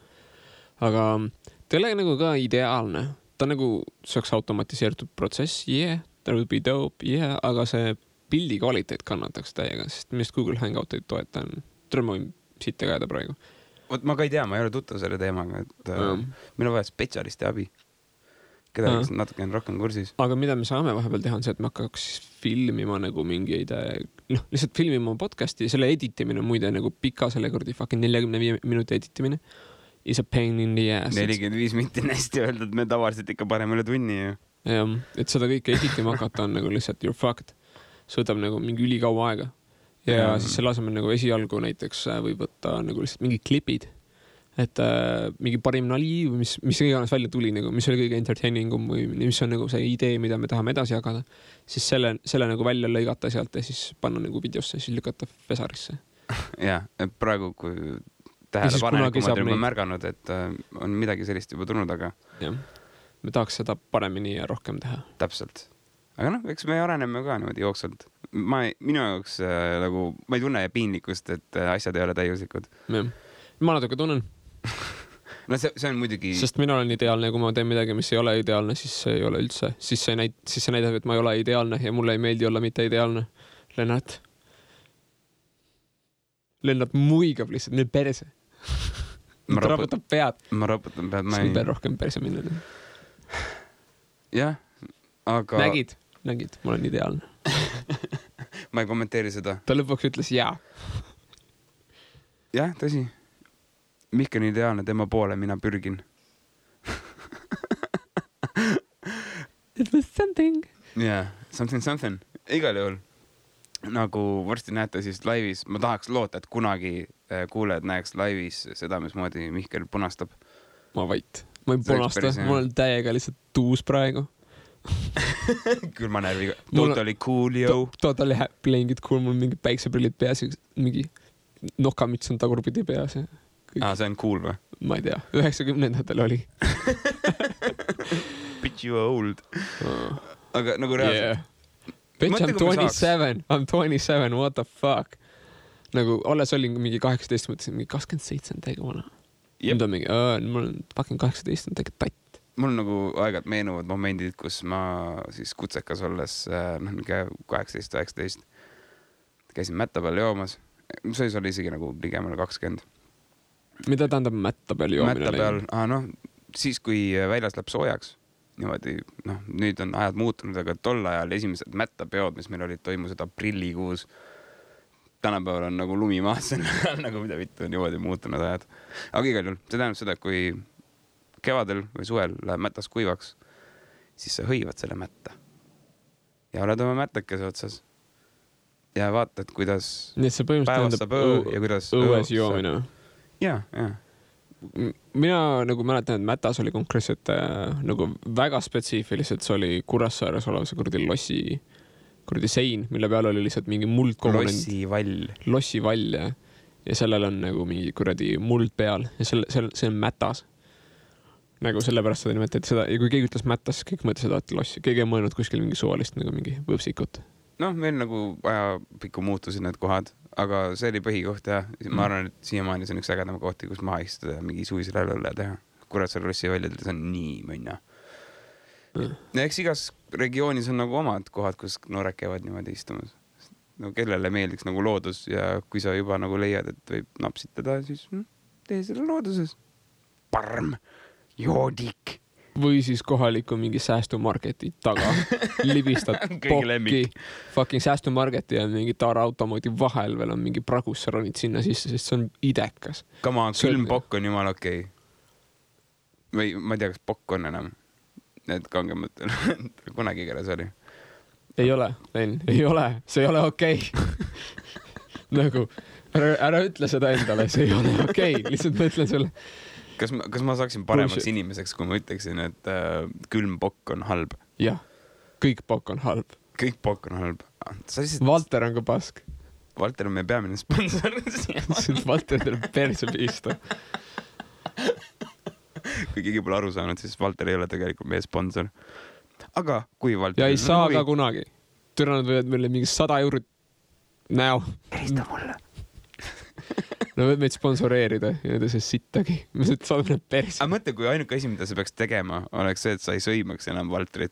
Aga ta ei ole nagu ka ideaalne. Ta nagu saaks automatiseeritud protsess, that would be dope, aga see pildi kvaliteet kannataks täiega, sest millest Google Hangout ei toeta. Ma võin siit tegada praegu. Ma ka ei tea, ma ei ole tuttav selle teemaga, et meil on vaja spetsialisti abi. keda oleks natuke rohkem kursis. Aga mida me saame vahepeal teha on see, et me hakkaks filmima nagu mingeid, lihtsalt filmima podcasti, selle editimine muide nagu pika selle kurdi fucking 45 minuti editimine is a pain in the ass. 45 minuti on hästi öeldud, me tavaliselt ikka parem üle tunni ju. Jah, et seda kõike editima hakata on nagu lihtsalt you're fucked. See võtab nagu mingi ülikaua aega. Ja siis selle asemel nagu esialgu näiteks võib võtta nagu lihtsalt mingid klipid. Et mingi parim nali või mis iganes välja tuli, nagu, mis oli kõige entertainingum või mis on nagu see idee, mida me tahame edasi jagada, siis selle nagu välja lõigata sealt ja siis panna nagu videosse ja siis lükata Fesarisse. Jah, praegu kui tähelepanelikumad on märganud, et on midagi sellist juba tulnud, aga jah, me tahaks seda paremini ja rohkem teha. Täpselt. Aga noh, eks me areneme ka niimoodi jooksvalt. Minu jaoks nagu, ma ei tunne piinlikkust, et asjad ei ole täiuslikud. Ja. Ma natuke tunnen. No see on muidugi... Sest mina olen ideaalne ja kui ma teen midagi, mis ei ole ideaalne, siis see ei ole üldse. Siis see näitab, et ma ei ole ideaalne ja mulle ei meeldi olla mitte ideaalne. Lennart muigab lihtsalt, nii perse. Ma raputan pead. Ma raputan pead. Ma ei pea rohkem perse minna. Jah, aga... Nägid, ma olen ideaalne. Ma ei kommenteeri seda. Ta lõpuks ütles jaa. Jah, tõsi. Mihkel on ideaalne, tema poole mina pürgin. It was something. Yeah, something. Igal juhul. Nagu varsti näete siis laivis, ma tahaks loota, et kunagi kuulejad näeks laivis seda, mismoodi Mihkel punastab. Ma vait. Ma ei punasta, mul on täiega lihtsalt tuus praegu. Küll ma närviga. Totally cool, yo. Totally playing it cool, mul mingi päikseprillid peas, mingi nokamits on tagurpidi peas. See on cool või? Ma ei tea, 90-ndatel oli. Bitch, you are old. Aga nagu reaalselt. Yeah. Bitch, I'm 27, what the fuck? Nagu alles olin mingi 18, mõtlesin, mingi 27 on täiega vana. Nüüd on mingi, mul on fucking 18, on täiega tatt. Mul nagu aegad meenuvad momendid, kus ma siis kutsekas olles, 18-19, käisin mätta peal joomas. See oli isegi nagu ligemale 20. Mida tähendab mätta peal joomine? Mätta peal, siis kui väljas läheb soojaks, niimoodi, nüüd on ajad muutunud, aga tol ajal esimesed mättapeod, mis meil olid, toimusid aprillikuus. Tänapäeval on nagu lumi maas, nagu mida vittu on niimoodi muutunud ajad. Aga igal juhul, see tähendab seda, kui kevadel või suvel läheb mätas kuivaks, siis sa hõivad selle mätta. Ja oled oma mättakese otsas. Ja vaatad, kuidas päevast saab ja kuidas õues joomine. Ja. Mina nagu mäletan, et mätas oli konkreetselt nagu väga spetsiifiliselt, see oli Kuressaares olev see kurdi sein, mille peal oli lihtsalt mingi muldkomponent. Lossivall ja sellel on nagu mingi kuradi muld peal ja see on mätas. Nagu sellepärast seda nimetati seda ja kui keegi ütles mätas, kõik mõtles seda, et lossi. Keegi on mõelnud kuskil mingi suvalist nagu mingi võpsikut. Meil nagu aja pikku muutusid need kohad, aga see oli põhikoht ja ma arvan, et siiamaani see on üks ägedama kohti, kus maha istuda ja mingi suvisele õlle teha. Kuressaare lossi väljadel, see on nii mõnna. Ja eks igas regioonis on nagu omad kohad, kus noored käivad niimoodi istumas. No, kellele meeldiks nagu loodus ja kui sa juba nagu leiad, et võib napsitada, siis tee selle looduses. Parm, joodik. Või siis kohaliku mingi säästumarketi taga libistad pokki, fucking säästumarketi ja mingi taaraautomoodi vahel veel on mingi pragus, sa ronid sinna sisse, sest see on idekas. Kama, külm pokk on jumal okei. Või ma ei tea, kas pokk on enam. Need kangemõttel. Kunagi keeles oli. Ei ole, Ben, ei ole. See ei ole okei. Nagu, ära ütle seda endale, see ei ole okei. Lihtsalt ma ütlen sulle. Kas ma saaksin paremaks inimeseks, kui ma ütleksin, et külm pokk on halb? Jah, kõik pokk on halb. Kõik pokk on halb. Valter on ka pask. Valter on meie peamine sponsor. Valter tuleb perse piista. Kui keegi pole aru saanud, siis Valter ei ole tegelikult meie sponsor. Aga kui Valter... Ja ei saa ka kunagi. Türanad võivad meile mingi 100 eurot näo. Helista mulle. No võid meid sponsoreerida ja need see sittagi. Me saadame need persi. Aga mõtle, kui ainuke asi, mida sa peaks tegema, oleks see, et sa ei sõimaks enam Valtrit.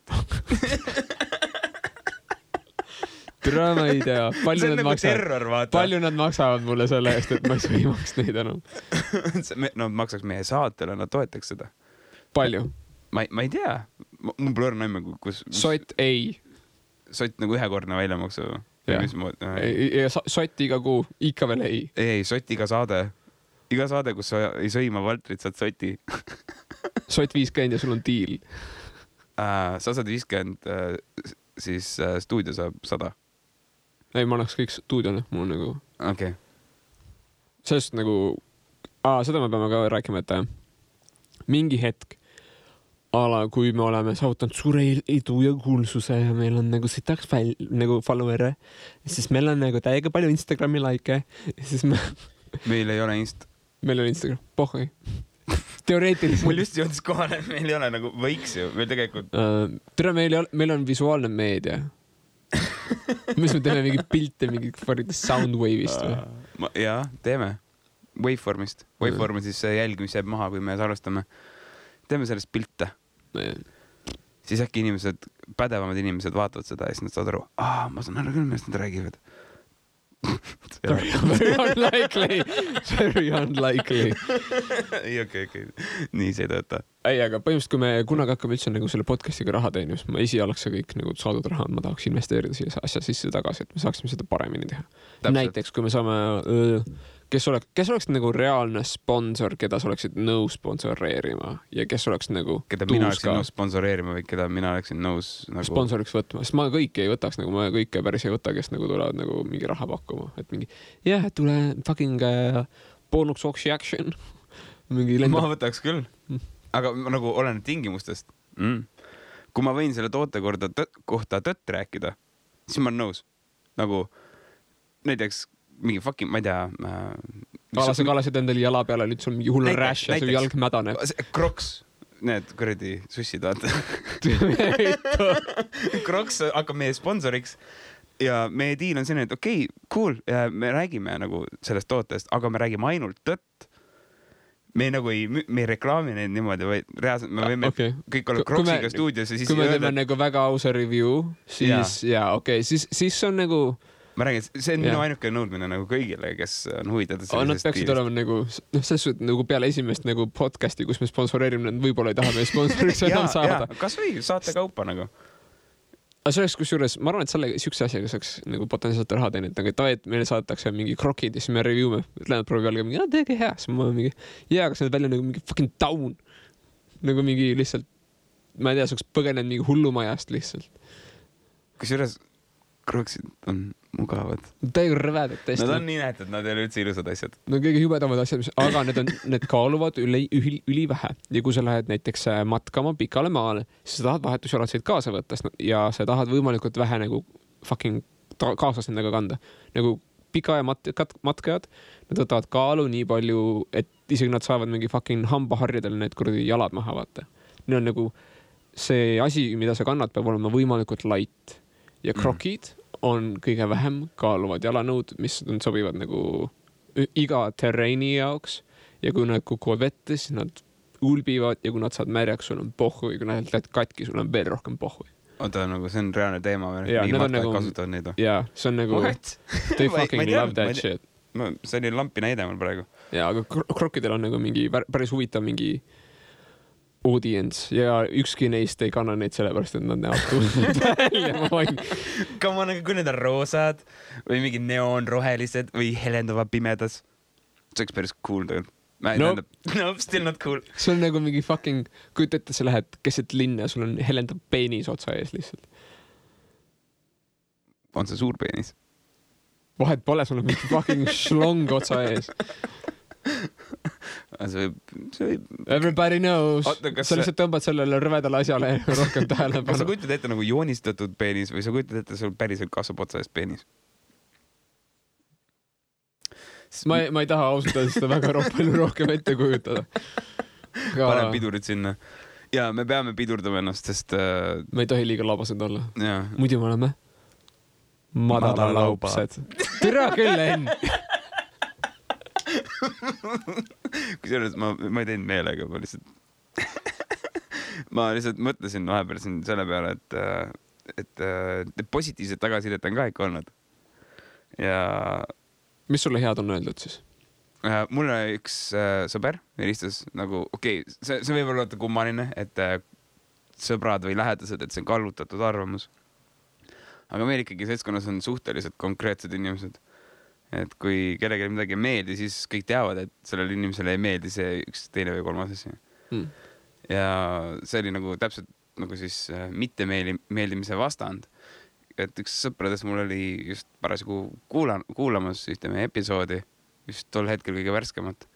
Türa, ma ei tea. See on nagu terror, vaata. Palju nad maksavad mulle selle eest, et ma ei sõimaks neid enam? No maksaks meie saatele, nad toetaks seda. Palju? Ma ei tea. mul pole õrna aimu, kus... Sott ei. Sott nagu ühekordne väljamaksu. Ja sott iga kuu, ikka veel ei. Ei, sott iga saade. Iga saade, kus sa ei sõima Valtrit, saad sotti. Sott 50 ja sul on diil. Sa saad 50, siis stuudio saab 100. Ei, ma annaks kõik stuudione, mul on nagu... Okay. Sellest nagu... seda me peame ka rääkima, et mingi hetk kui me oleme saavutanud suure edu ja kuulsuse ja meil on nagu sitaks nagu follower'e, siis meil on nagu täiega palju Instagrami like ja siis meil ei ole Meil on Instagram, pohhui. Teoreetiliselt. Mul just jõudis kohale, meil ei ole nagu võiks ju, meil tegelikult... Tere, meil on visuaalne meedia. Mis me teeme mingi pilte, mingi soundwave'ist või? Jaa, teeme. Waveformist. Waveform on siis see jälg, mis jääb maha, kui me salvestame. Teeme sellest pilte. Siis äkki pädevamad inimesed vaatavad seda ja siis nad saavad aru, ma saan aru küll, millest nad räägivad. Very unlikely. Ei, okei. Nii see ei tööta. Ei, aga põhimõtteliselt, kui me kunagi hakkame üldse nagu selle podcastiga raha teenima, siis ma esialgse kõik nagu saadud raha, ma tahaks investeerida siia asja sisse tagasi, et me saaksime seda paremini teha. Täpselt. Näiteks, kui me saame... Kes oleks nagu reaalne sponsor, keda sa oleksid nõus sponsoreerima ja kes oleks nagu keda mina oleksin nõus sponsoreerima või keda mina oleksin nõus nagu... sponsoriks võtma, sest ma kõike ei võtaks, nagu ma kõike päris ei võta, kes nagu tulevad nagu mingi raha pakkuma, et mingi tule fucking Bonux Action mingi lendab. Ma võtaks küll, aga nagu olen tingimustest. Kui ma võin selle toote kohta tõtt rääkida, siis ma olen nõus. Nagu näiteks mingi fucking, ma ei tea... Kalasid endale jala peale, nüüd sul mingi hull rash ja su jalg mädane. Crocs, need kuradi sussid, vaata. Crocs hakkab meie sponsoriks ja meie diil on selline, et okei, cool, me räägime nagu sellest tootest, aga me räägime ainult tõtt. Me nagu ei reklaami neid niimoodi, vaid reaalselt me võime kõik olla Crocsiga stuudios ja siis... Kui me teeme nagu väga ausa review, siis siis on nagu... Ma räägin, see on minu ainuke nõudmine nagu kõigile, kes on huvitatud sellisest nad peaksid olema nagu, selles suhtes nagu peale esimest nagu podcasti, kus me sponsoreerime, nad võib-olla ei taha meie sponsoriks enam saada. Kas või saate kaupa nagu. Aga see oleks kusjuures, ma arvan, et siukse asjaga saaks nagu potentsiaalselt raha teenida, aga et meile saadetakse mingi krokid ja siis me review'me, Lennart proovib jälle mingi, teege hea, siis ma mingi, kas need välja nagu mingi fucking down. Nagu mingi lihtsalt, ma ei tea, saaks põgenenud mingi hullumajast lihtsalt. Kusjuures kroksid on mugavad. Täiega rõvedad tõesti. Nad on nii näetud, nad ei ole üldse ilusad asjad. No kõige hübedamad asjad, aga need kaaluvad üli vähe. Ja kui sa lähed näiteks matkama pikale maale, siis sa tahad vahetusjalatseid kaasa võtta ja sa tahad võimalikult vähe nagu fucking kaasas nendega kanda. Nagu pika ja matkajad, nad võtavad kaalu nii palju, et isegi nad saavad mingi fucking hambaharjadel need kuradi jalad maha vaata. Need on nagu see asi, mida sa kannad, peab olema võimalikult light. Ja krokid on kõige vähem kaaluvad jalanõud, mis sobivad nagu iga terreini jaoks ja kui nad kukuvad vette, siis nad ulbivad ja kui nad saad märjaks, sul on pohhu ja kui nad lähed katki, sul on veel rohkem pohhu. Oota, nagu see on reaalne teema või? Nii matkad nagu, kasutavad neid? Jaa, see on nagu... What? They fucking love that shit. See oli lampi näide mul praegu. Jaa, aga krokidel on nagu mingi päris huvitav mingi audience ja ükski neist ei kanna neid sellepärast, et nad näevad tundnud välja. Come on, kui need on roosad või mingi neoonrohelised või helendavad pimedas. See oleks päris cool tegelikult. No, still not cool. See on nagu mingi fucking, kujuta ette, sa lähed keset linna ja sul on helendab peenis otsa ees lihtsalt. On see suur peenis? Vahet pole, sul on mingi fucking šlong otsa ees. Everybody knows. Sa lihtsalt tõmbad sellele rõvedale asjale rohkem tähelepanu. Kas sa kujutad ette nagu joonistatud peenis või sa kujutad ette, sul päriselt kasvab otsa ees peenis? Ma ei taha ausalt seda väga palju rohkem ette kujutada. Panen pidurid sinna. Ja me peame pidurdama ennast, sest... Me ei tohi liiga labased olla. Muidu me oleme madalalaupsed. Tere küll, Enn! Kusjuures ma ei teinud meelega, ma lihtsalt mõtlesin vahepeal siin selle peale, et positiivset tagasisidet on ka ikka olnud. Ja... Mis sulle head on öeldud siis? Mulle üks sõber helistas nagu, see võib olla kummaline, et sõbrad või lähedased, et see on kallutatud arvamus. Aga meil ikkagi seltskonnas on suhteliselt konkreetsed inimesed. Et kui kellelegi midagi ei meeldi, siis kõik teavad, et sellele inimesele ei meeldi see üks, teine või kolmas asi. Ja see oli nagu täpselt nagu siis mitte meeldimise vastand. Et üks sõpradest mul oli just parasjagu kuulamas ühte meie episoodi, just tol hetkel kõige värskemat.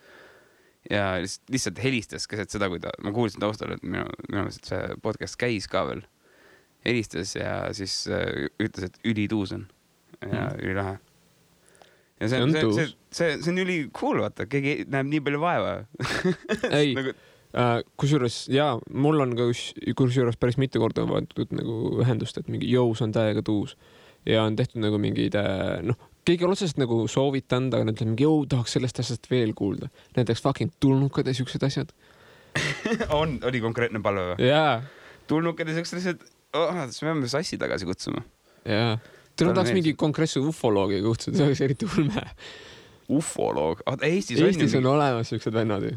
Ja lihtsalt helistas keset seda, kui ma kuulsin taustal, et minu meelest see podcast käis ka veel. Helistas ja siis ütles, et ülituus on ja ülilahe. Ja see on üli cool, vaata, keegi näeb nii palju vaeva. Ei, kusjuures, jaa, mul on ka kusjuures päris mitu korda võetud nagu ühendust, et mingi jõus on täiega tuus ja on tehtud nagu mingid, keegi on otsest nagu soovitanud, aga nad ütlevad mingi, tahaks sellest asjast veel kuulda. Näiteks fucking tulnukad ja siuksed asjad. Oli konkreetne palve või? Jaa. Tulnukad ja siuksed asjad, me peame sassi tagasi kutsuma. Jaa. Täna tahaks mingi konkreetse ufoloogi kutsuda, see oleks eriti ulme. Ufoloog? Eestis on olemas siuksed vennad ju.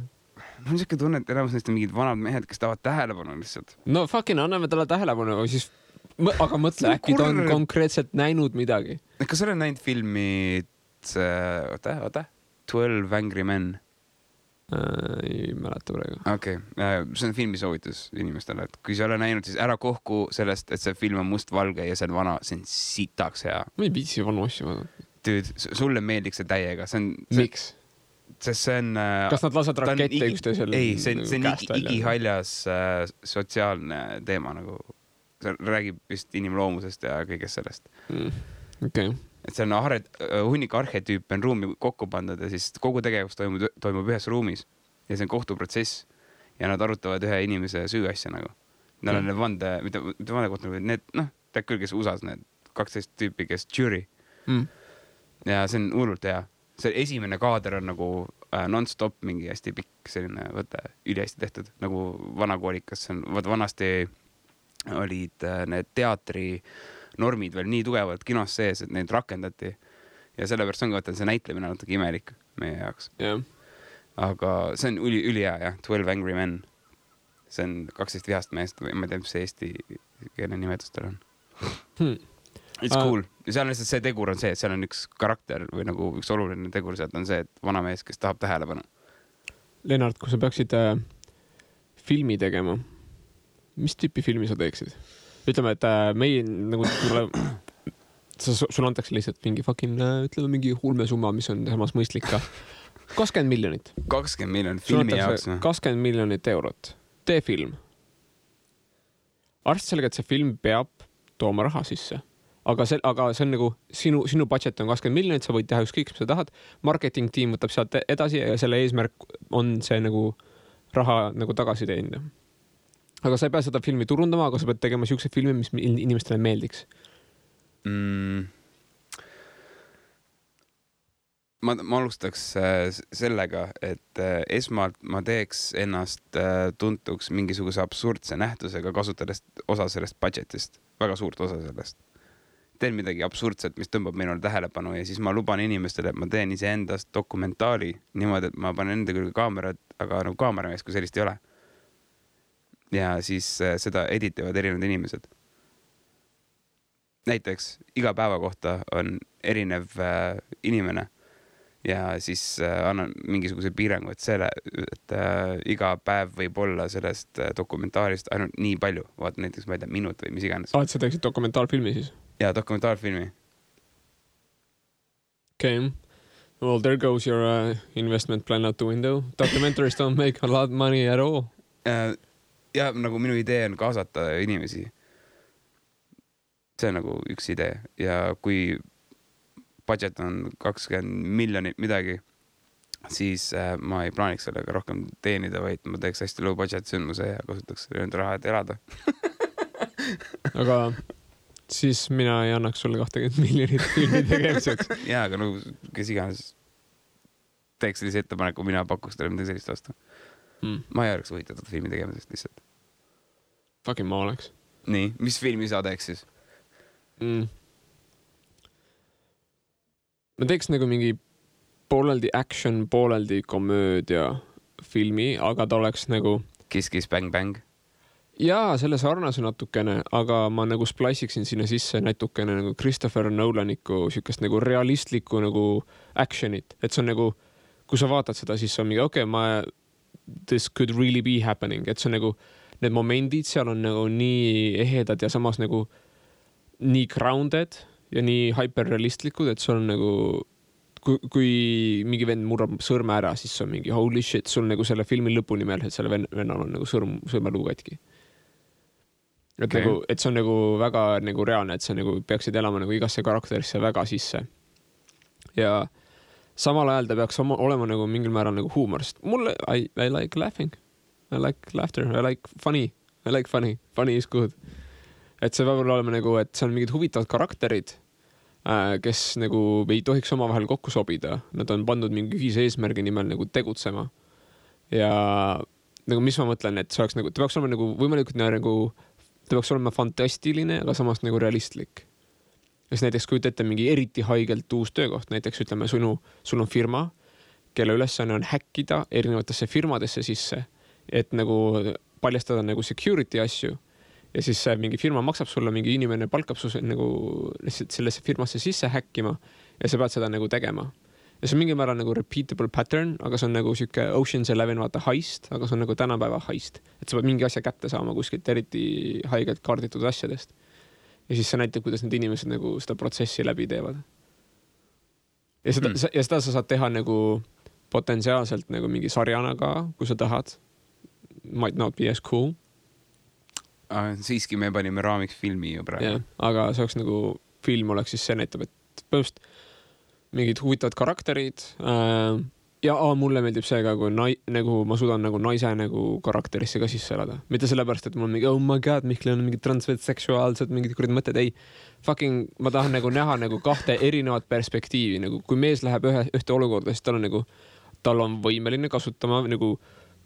Mul on siuke tunne, et enamus neist on mingid vanad mehed, kes tahavad tähelepanu lihtsalt. No fucking anname talle tähelepanu, siis aga mõtle, äkki ta on konkreetselt näinud midagi. Kas sa oled näinud filmi 12 Angry Men? Ei mäleta praegu. Okei, see on filmi soovitus inimestele, et kui sa ole näinud, siis ära kohku sellest, et see film on mustvalge ja see on vana, see on sitaks hea. Ma ei viitsi vanu asju vaadata. Dude, sulle meeldiks see täiega. Miks? Sest see on... Kas nad lased rakette üksteisel? Ei, see on igihaljas sotsiaalne teema nagu. See räägib vist inimloomusest ja kõigest sellest. Okay. Et see on hunnik arhetüüp on ruumi kokku pandud ja siis kogu tegevus toimub ühes ruumis ja see on kohtuprotsess ja nad arutavad ühe inimese süüasja nagu. Nad on need vande, mitte vande kohta, need, tead küll, kes USA-s need 12 tüüpi, kes jury. Ja see on hullult hea. See esimene kaader on nagu non-stop mingi hästi pikk selline võte, üli hästi tehtud, nagu vanakoolikas. Vanasti olid need teatri normid veel nii tugevalt kinos sees, et neid rakendati. Ja sellepärast on ka, et see näitlemine natuke imelik meie jaoks. Yeah. Aga see on üli hea, jah. 12 Angry Men. See on 12 vihast meest, või ma ei tea, mis see eesti keele nimetustel on. It's cool. Ja seal on lihtsalt see tegur on see, et seal on üks karakter või nagu üks oluline tegur sealt on see, et vana mees, kes tahab tähelepanu. Lennart, kui sa peaksid filmi tegema, mis tüüpi filmi sa teeksid? Ütleme, et meie nagu sul antakse lihtsalt mingi fucking, ütleme mingi hulmesumma, mis on samas mõistlik ka. 20 miljonit. 20 miljonit filmi jaoks. 20 miljonit eurot. Tee film. Arvestades sellega, et see film peab tooma raha sisse. Aga see on nagu sinu budget on 20 miljonit, sa võid teha ükskõik, mis sa tahad. Marketing tiim võtab sealt edasi ja selle eesmärk on see nagu raha nagu tagasi teenida. Aga sa ei pea seda filmi turundama, aga sa pead tegema siukse filmi, mis inimestele meeldiks. Ma alustaks sellega, et esmalt ma teeks ennast tuntuks mingisuguse absurdse nähtusega, kasutades osa sellest budgetist, väga suurt osa sellest. Teen midagi absurdset, mis tõmbab minule tähelepanu ja siis ma luban inimestele, et ma teen iseendast dokumentaali niimoodi, et ma panen enda külge kaamerat, aga nagu kaameramees, kui sellist ei ole. Ja siis seda editivad erinevad inimesed. Näiteks iga päeva kohta on erinev inimene ja siis annan mingisuguse piirangu, et iga päev võib olla sellest dokumentaalist ainult nii palju. Vaata näiteks, ma ei tea, minut või mis iganes. Et sa teeksid dokumentaalfilmi siis? Ja dokumentaalfilmi. Okay. Well, there goes your investment plan out the window. Documentaries don't make a lot of money at all. Ja nagu minu idee on kaasata inimesi. See on nagu üks idee. Ja kui budget on 20 miljonit midagi, siis ma ei plaaniks sellega rohkem teenida, vaid ma teeks hästi low budget sündmuse ja kasutaks nende raha, et elada. Aga siis mina ei annaks sulle 20 miljonit filmi tegemiseks. Jaa, aga nagu kes iganes teeks sellise ettepaneku, mina pakuks teile midagi sellist vastu. Ma ei oleks võitatud filmi tegemisest lihtsalt. Fucking ma oleks. Nii, mis filmi sa teeks siis? Ma teeks nagu mingi pooleldi action, pooleldi komöödia filmi, aga ta oleks nagu... Kiss, kiss, bang, bang. jaa, selle sarnase natukene, aga ma nagu spliciksin sinna sisse natukene nagu Christopher Nolaniku siukest nagu realistlikku nagu action'it, et see on nagu, kui sa vaatad seda, siis on mingi this could really be happening, et see on nagu, need momendid seal on nagu nii ehedad ja samas nagu nii grounded ja nii hyperrealistlikud, et sul on nagu, kui mingi vend murrab sõrme ära, siis on mingi holy shit, sul nagu selle filmi lõpuni meeles, et selle vennal on nagu sõrmeluu katki. Et, okay. Nagu, et see on nagu väga nagu reaalne, et sa nagu peaksid elama nagu igasse karakterisse väga sisse. Ja samal ajal ta peaks olema nagu mingil määral nagu huumor, sest mulle, I like laughing. I like laughter. I like funny. Funny is good. Et see peab olema nagu, et see on mingid huvitavad karakterid, kes nagu ei tohiks omavahel kokku sobida. Nad on pandud mingi ühise eesmärgi nimel nagu tegutsema. Ja nagu mis ma mõtlen, et see oleks nagu, ta peaks olema nagu võimalikult nagu ta peaks olema fantastiline, aga samas nagu realistlik. Kes näiteks kujuta ette mingi eriti haigelt uus töökoht, näiteks ütleme, sul on firma, kelle ülesanne on häkkida erinevatesse firmadesse sisse, et nagu paljastada nagu security asju ja siis mingi firma maksab sulle, mingi inimene palkab su nagu sellesse firmasse sisse häkkima ja sa pead seda nagu tegema. Ja see on mingi määral nagu repeatable pattern, aga see on nagu siuke Ocean's 11 vaata heist, aga see on nagu tänapäeva heist. Et sa pead mingi asja kätte saama kuskilt eriti haigelt kaarditud asjadest. Ja siis see näitab, kuidas need inimesed nagu seda protsessi läbi teevad. Ja seda sa saad teha nagu potentsiaalselt nagu mingi sarjana ka, kui sa tahad. Might not be as cool. Siiski me panime raamiks filmi ju praegu. Yeah, aga see oleks nagu, film oleks siis see näitab, et põhimõtteliselt mingid huvitavad karakterid ja mulle meeldib see ka, kui nagu ma suudan nagu naise nagu karakterisse ka sisse elada. Mitte sellepärast, et mul on mingi, oh my god, Mihkel on mingi transseksuaalsed, mingid kurid mõtted, ei. Fucking, ma tahan nagu näha nagu kahte erinevat perspektiivi, nagu kui mees läheb ühte olukorda, siis tal on võimeline kasutama nagu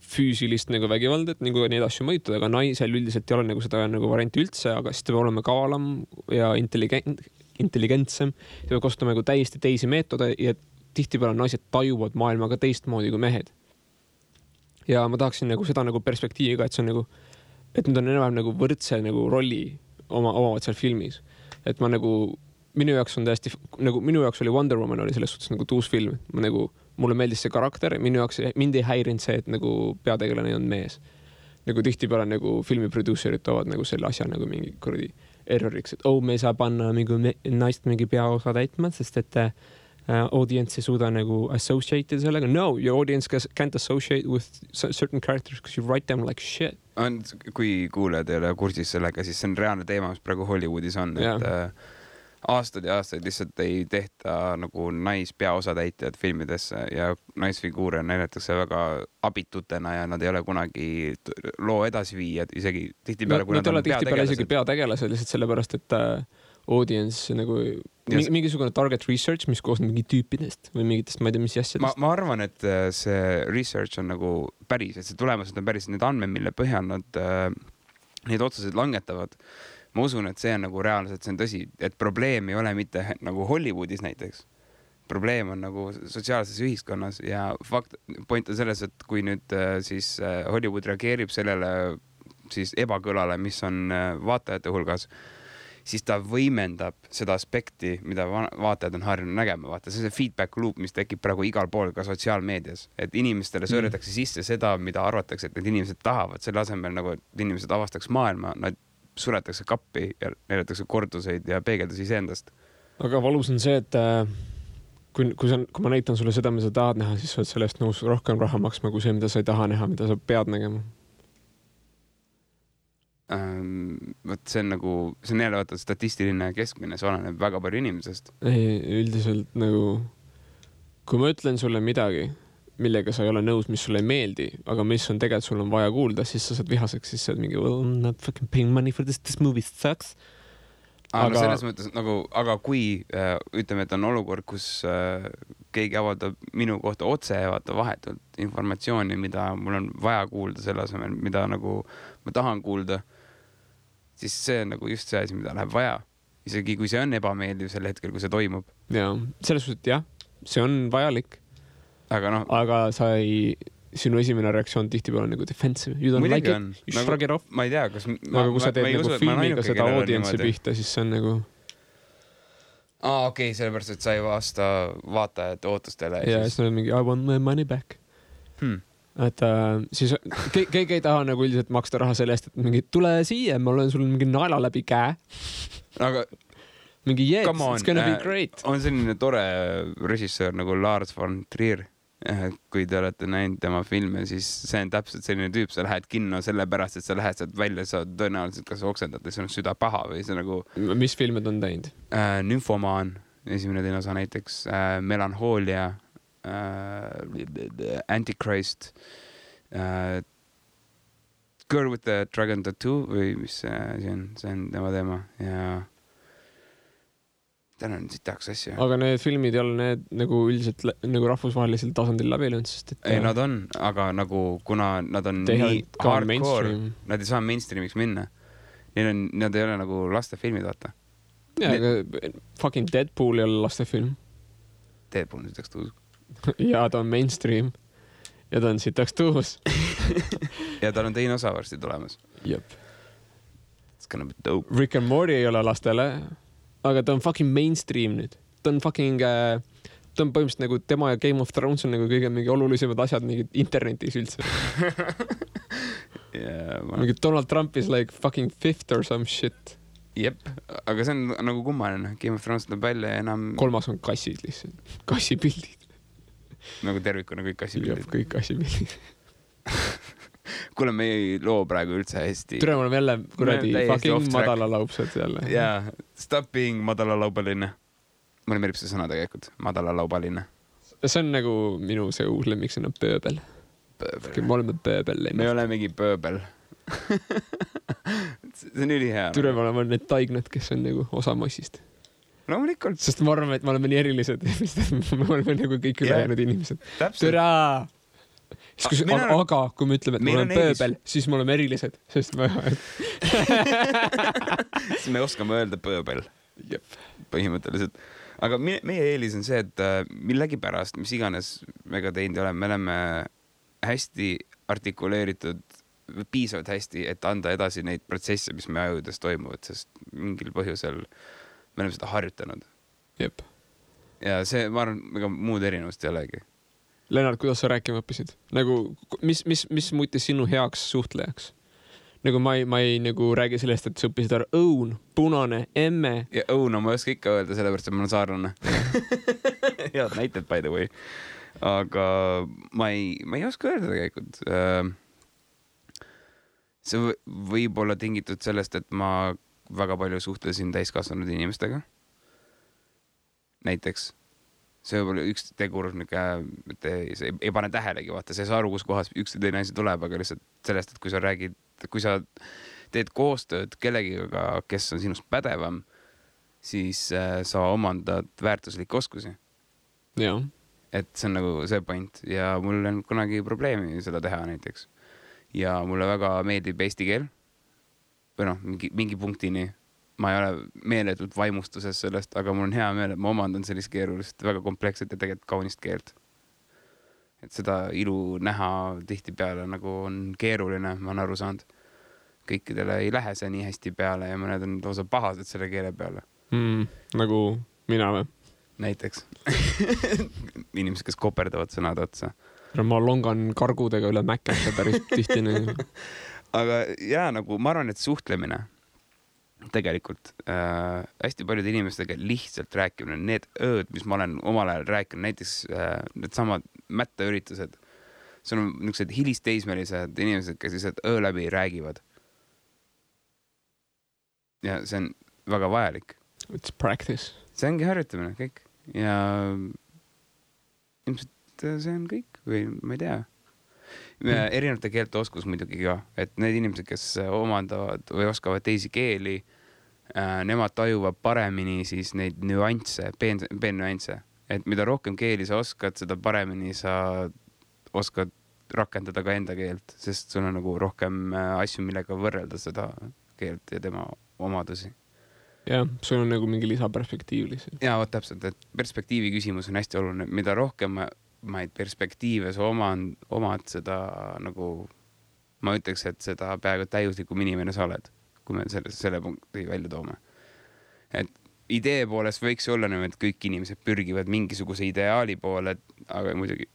füüsilist nagu vägivaldet, nagu neid asju mõjutada, aga naisel üldiselt ei ole nagu seda nagu varianti üldse, aga siis ta peab olema kavalam ja intelligentsem, ta peab kasutama nagu täiesti teisi meetode ja tihtipeale naised tajuvad maailmaga teistmoodi kui mehed. Ja ma tahaksin nagu seda nagu perspektiivi ka, et see on nagu, et nad on enam nagu võrdse nagu rolli omavad seal filmis. Et ma nagu, minu jaoks oli Wonder Woman oli selles suhtes nagu tuus film. Mulle meeldis see karakter, mind ei häirinud see, et nagu peategelane on mees. Nagu tihtipeale nagu filmi producerid toovad nagu selle asja nagu mingi kuradi erroriks, et me saa panna naist mingi peaosa täitma, sest et audience ei suuda nagu associate sellega. No, your audience can't associate with certain characters because you write them like shit. Kui kuulajad ei ole kursis sellega, siis see on reaalne teema, mis praegu Hollywoodis on, et aastaid ja aastaid lihtsalt ei tehta nagu naispeaosatäitjad filmidesse ja naisfiguure näidatakse väga abitutena ja nad ei ole kunagi loo edasiviijad, isegi tihtipeale, kui nad on peategelased. Isegi peategelased lihtsalt sellepärast, et audience nagu mingisugune target research, mis koosneb mingi tüüpidest või mingitest, ma ei tea, mis asjadest. Ma arvan, et see research on nagu päris, et see tulemused on päris need andmed, mille põhjal nad neid otsuseid langetavad. Ma usun, et see on nagu reaalselt, see on tõsi, et probleem ei ole mitte nagu Hollywoodis näiteks. Probleem on nagu sotsiaalses ühiskonnas ja point on selles, et kui nüüd siis Hollywood reageerib sellele siis ebakõlale, mis on vaatajate hulgas, siis ta võimendab seda aspekti, mida vaatajad on harjunud nägema. Vaata, see on see feedback loop, mis tekib praegu igal pool ka sotsiaalmeedias, et inimestele söödetakse sisse seda, mida arvatakse, et need inimesed tahavad, selle asemel nagu, et inimesed avastaks maailma, nad suretakse kappi ja näidatakse korduseid ja peegeldusi iseendast. Aga valus on see, et kui ma näitan sulle seda, mida sa tahad näha, siis sa oled sellest nõus rohkem raha maksma kui see, mida sa ei taha näha, mida sa pead nägema. See on nagu, see on jälle vaata statistiline keskmine, see oleneb väga palju inimesest. Ei, üldiselt nagu, kui ma ütlen sulle midagi, millega sa ei ole nõus, mis sulle ei meeldi, aga mis on tegelikult sul on vaja kuulda, siis sa saad vihaseks, siis sa oled mingi, well, I'm not fucking paying money for this movie sucks. No selles mõttes nagu, aga kui ütleme, et on olukord, kus keegi avaldab minu kohta otse vaata vahetult informatsiooni, mida mul on vaja kuulda selle asemel, mida nagu ma tahan kuulda, siis see on nagu just see asi, mida läheb vaja. Isegi kui see on ebameeldiv sel hetkel, kui see toimub. Ja, selles suhtes, jah, see on vajalik. Aga sa ei, sinu esimene reaktsioon tihtipeale on nagu defensive. You don't muidugi like it, you nagu, shrug it off. Ma ei tea, kas... Aga kui sa teed nagu filmiga seda audientsi pihta, siis see on nagu... okei, sellepärast, et sa ei vasta vaatajate ootustele. Ja siis on mingi I want my money back. Et siis keegi ei taha nagu üldiselt maksta raha selle eest, et mingi tule siia, ma olen sul mingi naela läbi käe. Aga... mingi it's gonna be great. On selline tore režissöör nagu Lars von Trier. Kui te olete näinud tema filme, siis see on täpselt selline tüüp, sa lähed kinno sellepärast, et sa lähed sealt välja, sa tõenäoliselt kas oksendad ja see on süda paha või see nagu... Mis filmed on teinud? Nymfomaan, esimene teine osa näiteks, Melanhoolia, Antichrist, Girl with the Dragon Tattoo või mis see on tema teema ja... Täna on siit tahaks asju. Aga need filmid ei ole need nagu üldiselt nagu rahvusvahelisel tasandil läbi löönud, sest et... Ei, nad on, aga nagu kuna nad on nii hardcore, nad ei saa mainstreamiks minna. Nad ei ole nagu lastefilmid, vaata. Ja, aga fucking Deadpool ei ole lastefilm. Deadpool on sitaks tuus. Ja ta on mainstream. Ja ta on sitaks tuus. Ja tal on teine osa varsti tulemas. Jep. It's gonna be dope. Rick and Morty ei ole lastele. Aga ta on fucking mainstream nüüd. Ta on fucking... ta on põhimõtteliselt nagu tema ja Game of Thrones on nagu kõige mingi olulisemad asjad mingi internetis üldse. Mingi Donald Trump is like fucking fifth or some shit. Jep, aga see on nagu kummaline. Game of Thrones tuleb välja ja enam... 3. on kassid lihtsalt. Kassipildid. Nagu tervikuna kõik kassipildid. Jep, kõik kassipildid. Kuule, me ei loo praegu üldse hästi. Türe, me oleme jälle kuradi fucking madalalaupsed jälle. Jaa, stop being madalalaubaline. Mulle meelib see sõna tegelikult, madalalaubaline. See on nagu minu see uus lemmiksõna pööbel. Me oleme pööbel. Me olemegi pööbel. See on üli hea. Türe, me oleme need taignad, kes on nagu osa massist. Loomulikult. Sest ma arvan, et me oleme nii erilised. Me oleme nagu kõik ülejäänud inimesed. Türe! Aga kui me ütleme, et me oleme pööbel, siis me oleme erilised, sest me... siis me oskame öelda pööbel. Jep. Põhimõtteliselt. Aga meie eelis on see, et millegi pärast, mis iganes mega teinud oleme, me oleme hästi artikuleeritud, piisavalt hästi, et anda edasi neid protsesse, mis me ajudes toimuvad, sest mingil põhjusel me oleme seda harjutanud. Jep. Ja see, ma arvan, ega muud erinevust ei olegi. Lennart, kuidas sa rääkima õppisid? Nagu, mis muutis sinu heaks suhtlejaks? Nagu ma ei nagu räägi sellest, et sa õppisid ära õun, punane, emme. Ja õun on ma oska ikka öelda, sellepärast, et ma olen saarlane. Head näited, by the way. Aga ma ei oska öelda tegelikult. See võib olla tingitud sellest, et ma väga palju suhtlesin täiskasvanud inimestega. Näiteks. See võib olla üks tegur, et ei pane tähelegi, vaata, see saa aru, kus kohas üks või teine asi tuleb, aga lihtsalt sellest, et kui sa teed koostööd kellegiga, kes on sinust pädevam, siis sa omandad väärtuslikke oskusi. Ja. Et see on nagu see point ja mul on kunagi probleemi seda teha näiteks. Ja mulle väga meeldib eesti keel või noh, mingi punktini. Ma ei ole meeletult vaimustuses sellest, aga mul on hea meel, et ma omandan sellist keerulist, väga kompleksset ja tegelikult kaunist keelt. Et seda ilu näha tihti peale nagu on keeruline, ma olen aru saanud. Kõikidele ei lähe see nii hästi peale ja mõned on lausa pahased selle keele peale. Nagu mina või? Näiteks. Inimesed, kes koperdavad sõnad otsa. Ma longan kargudega üle mäkete päris tihti. Aga jaa, nagu ma arvan, et suhtlemine tegelikult hästi paljude inimestega lihtsalt rääkimine, need ööd, mis ma olen omal ajal rääkinud, näiteks need samad mättaüritused, see on niisugused hilisteismelised inimesed, kes lihtsalt öö läbi räägivad. Ja see on väga vajalik. It's practice. See ongi harjutamine, kõik. Ja ilmselt see on kõik või ma ei tea. Erinevate keelte oskus muidugi ka, et need inimesed, kes omandavad või oskavad teisi keeli, nemad tajuvad paremini siis neid nüansse, peennüansse. Et mida rohkem keeli sa oskad, seda paremini sa oskad rakendada ka enda keelt, sest sul on nagu rohkem asju, millega võrrelda seda keelt ja tema omadusi. Jah, sul on nagu mingi lisaperspektiiv lihtsalt. Jaa, täpselt, et perspektiivi küsimus on hästi oluline. Mida rohkem perspektiive sa omad seda nagu, ma ütleks, et seda peaaegu täiuslikum inimene sa oled, kui me selle punkti välja toome. Et idee poolest võiks olla et kõik inimesed pürgivad mingisuguse ideaali poole, aga muidugi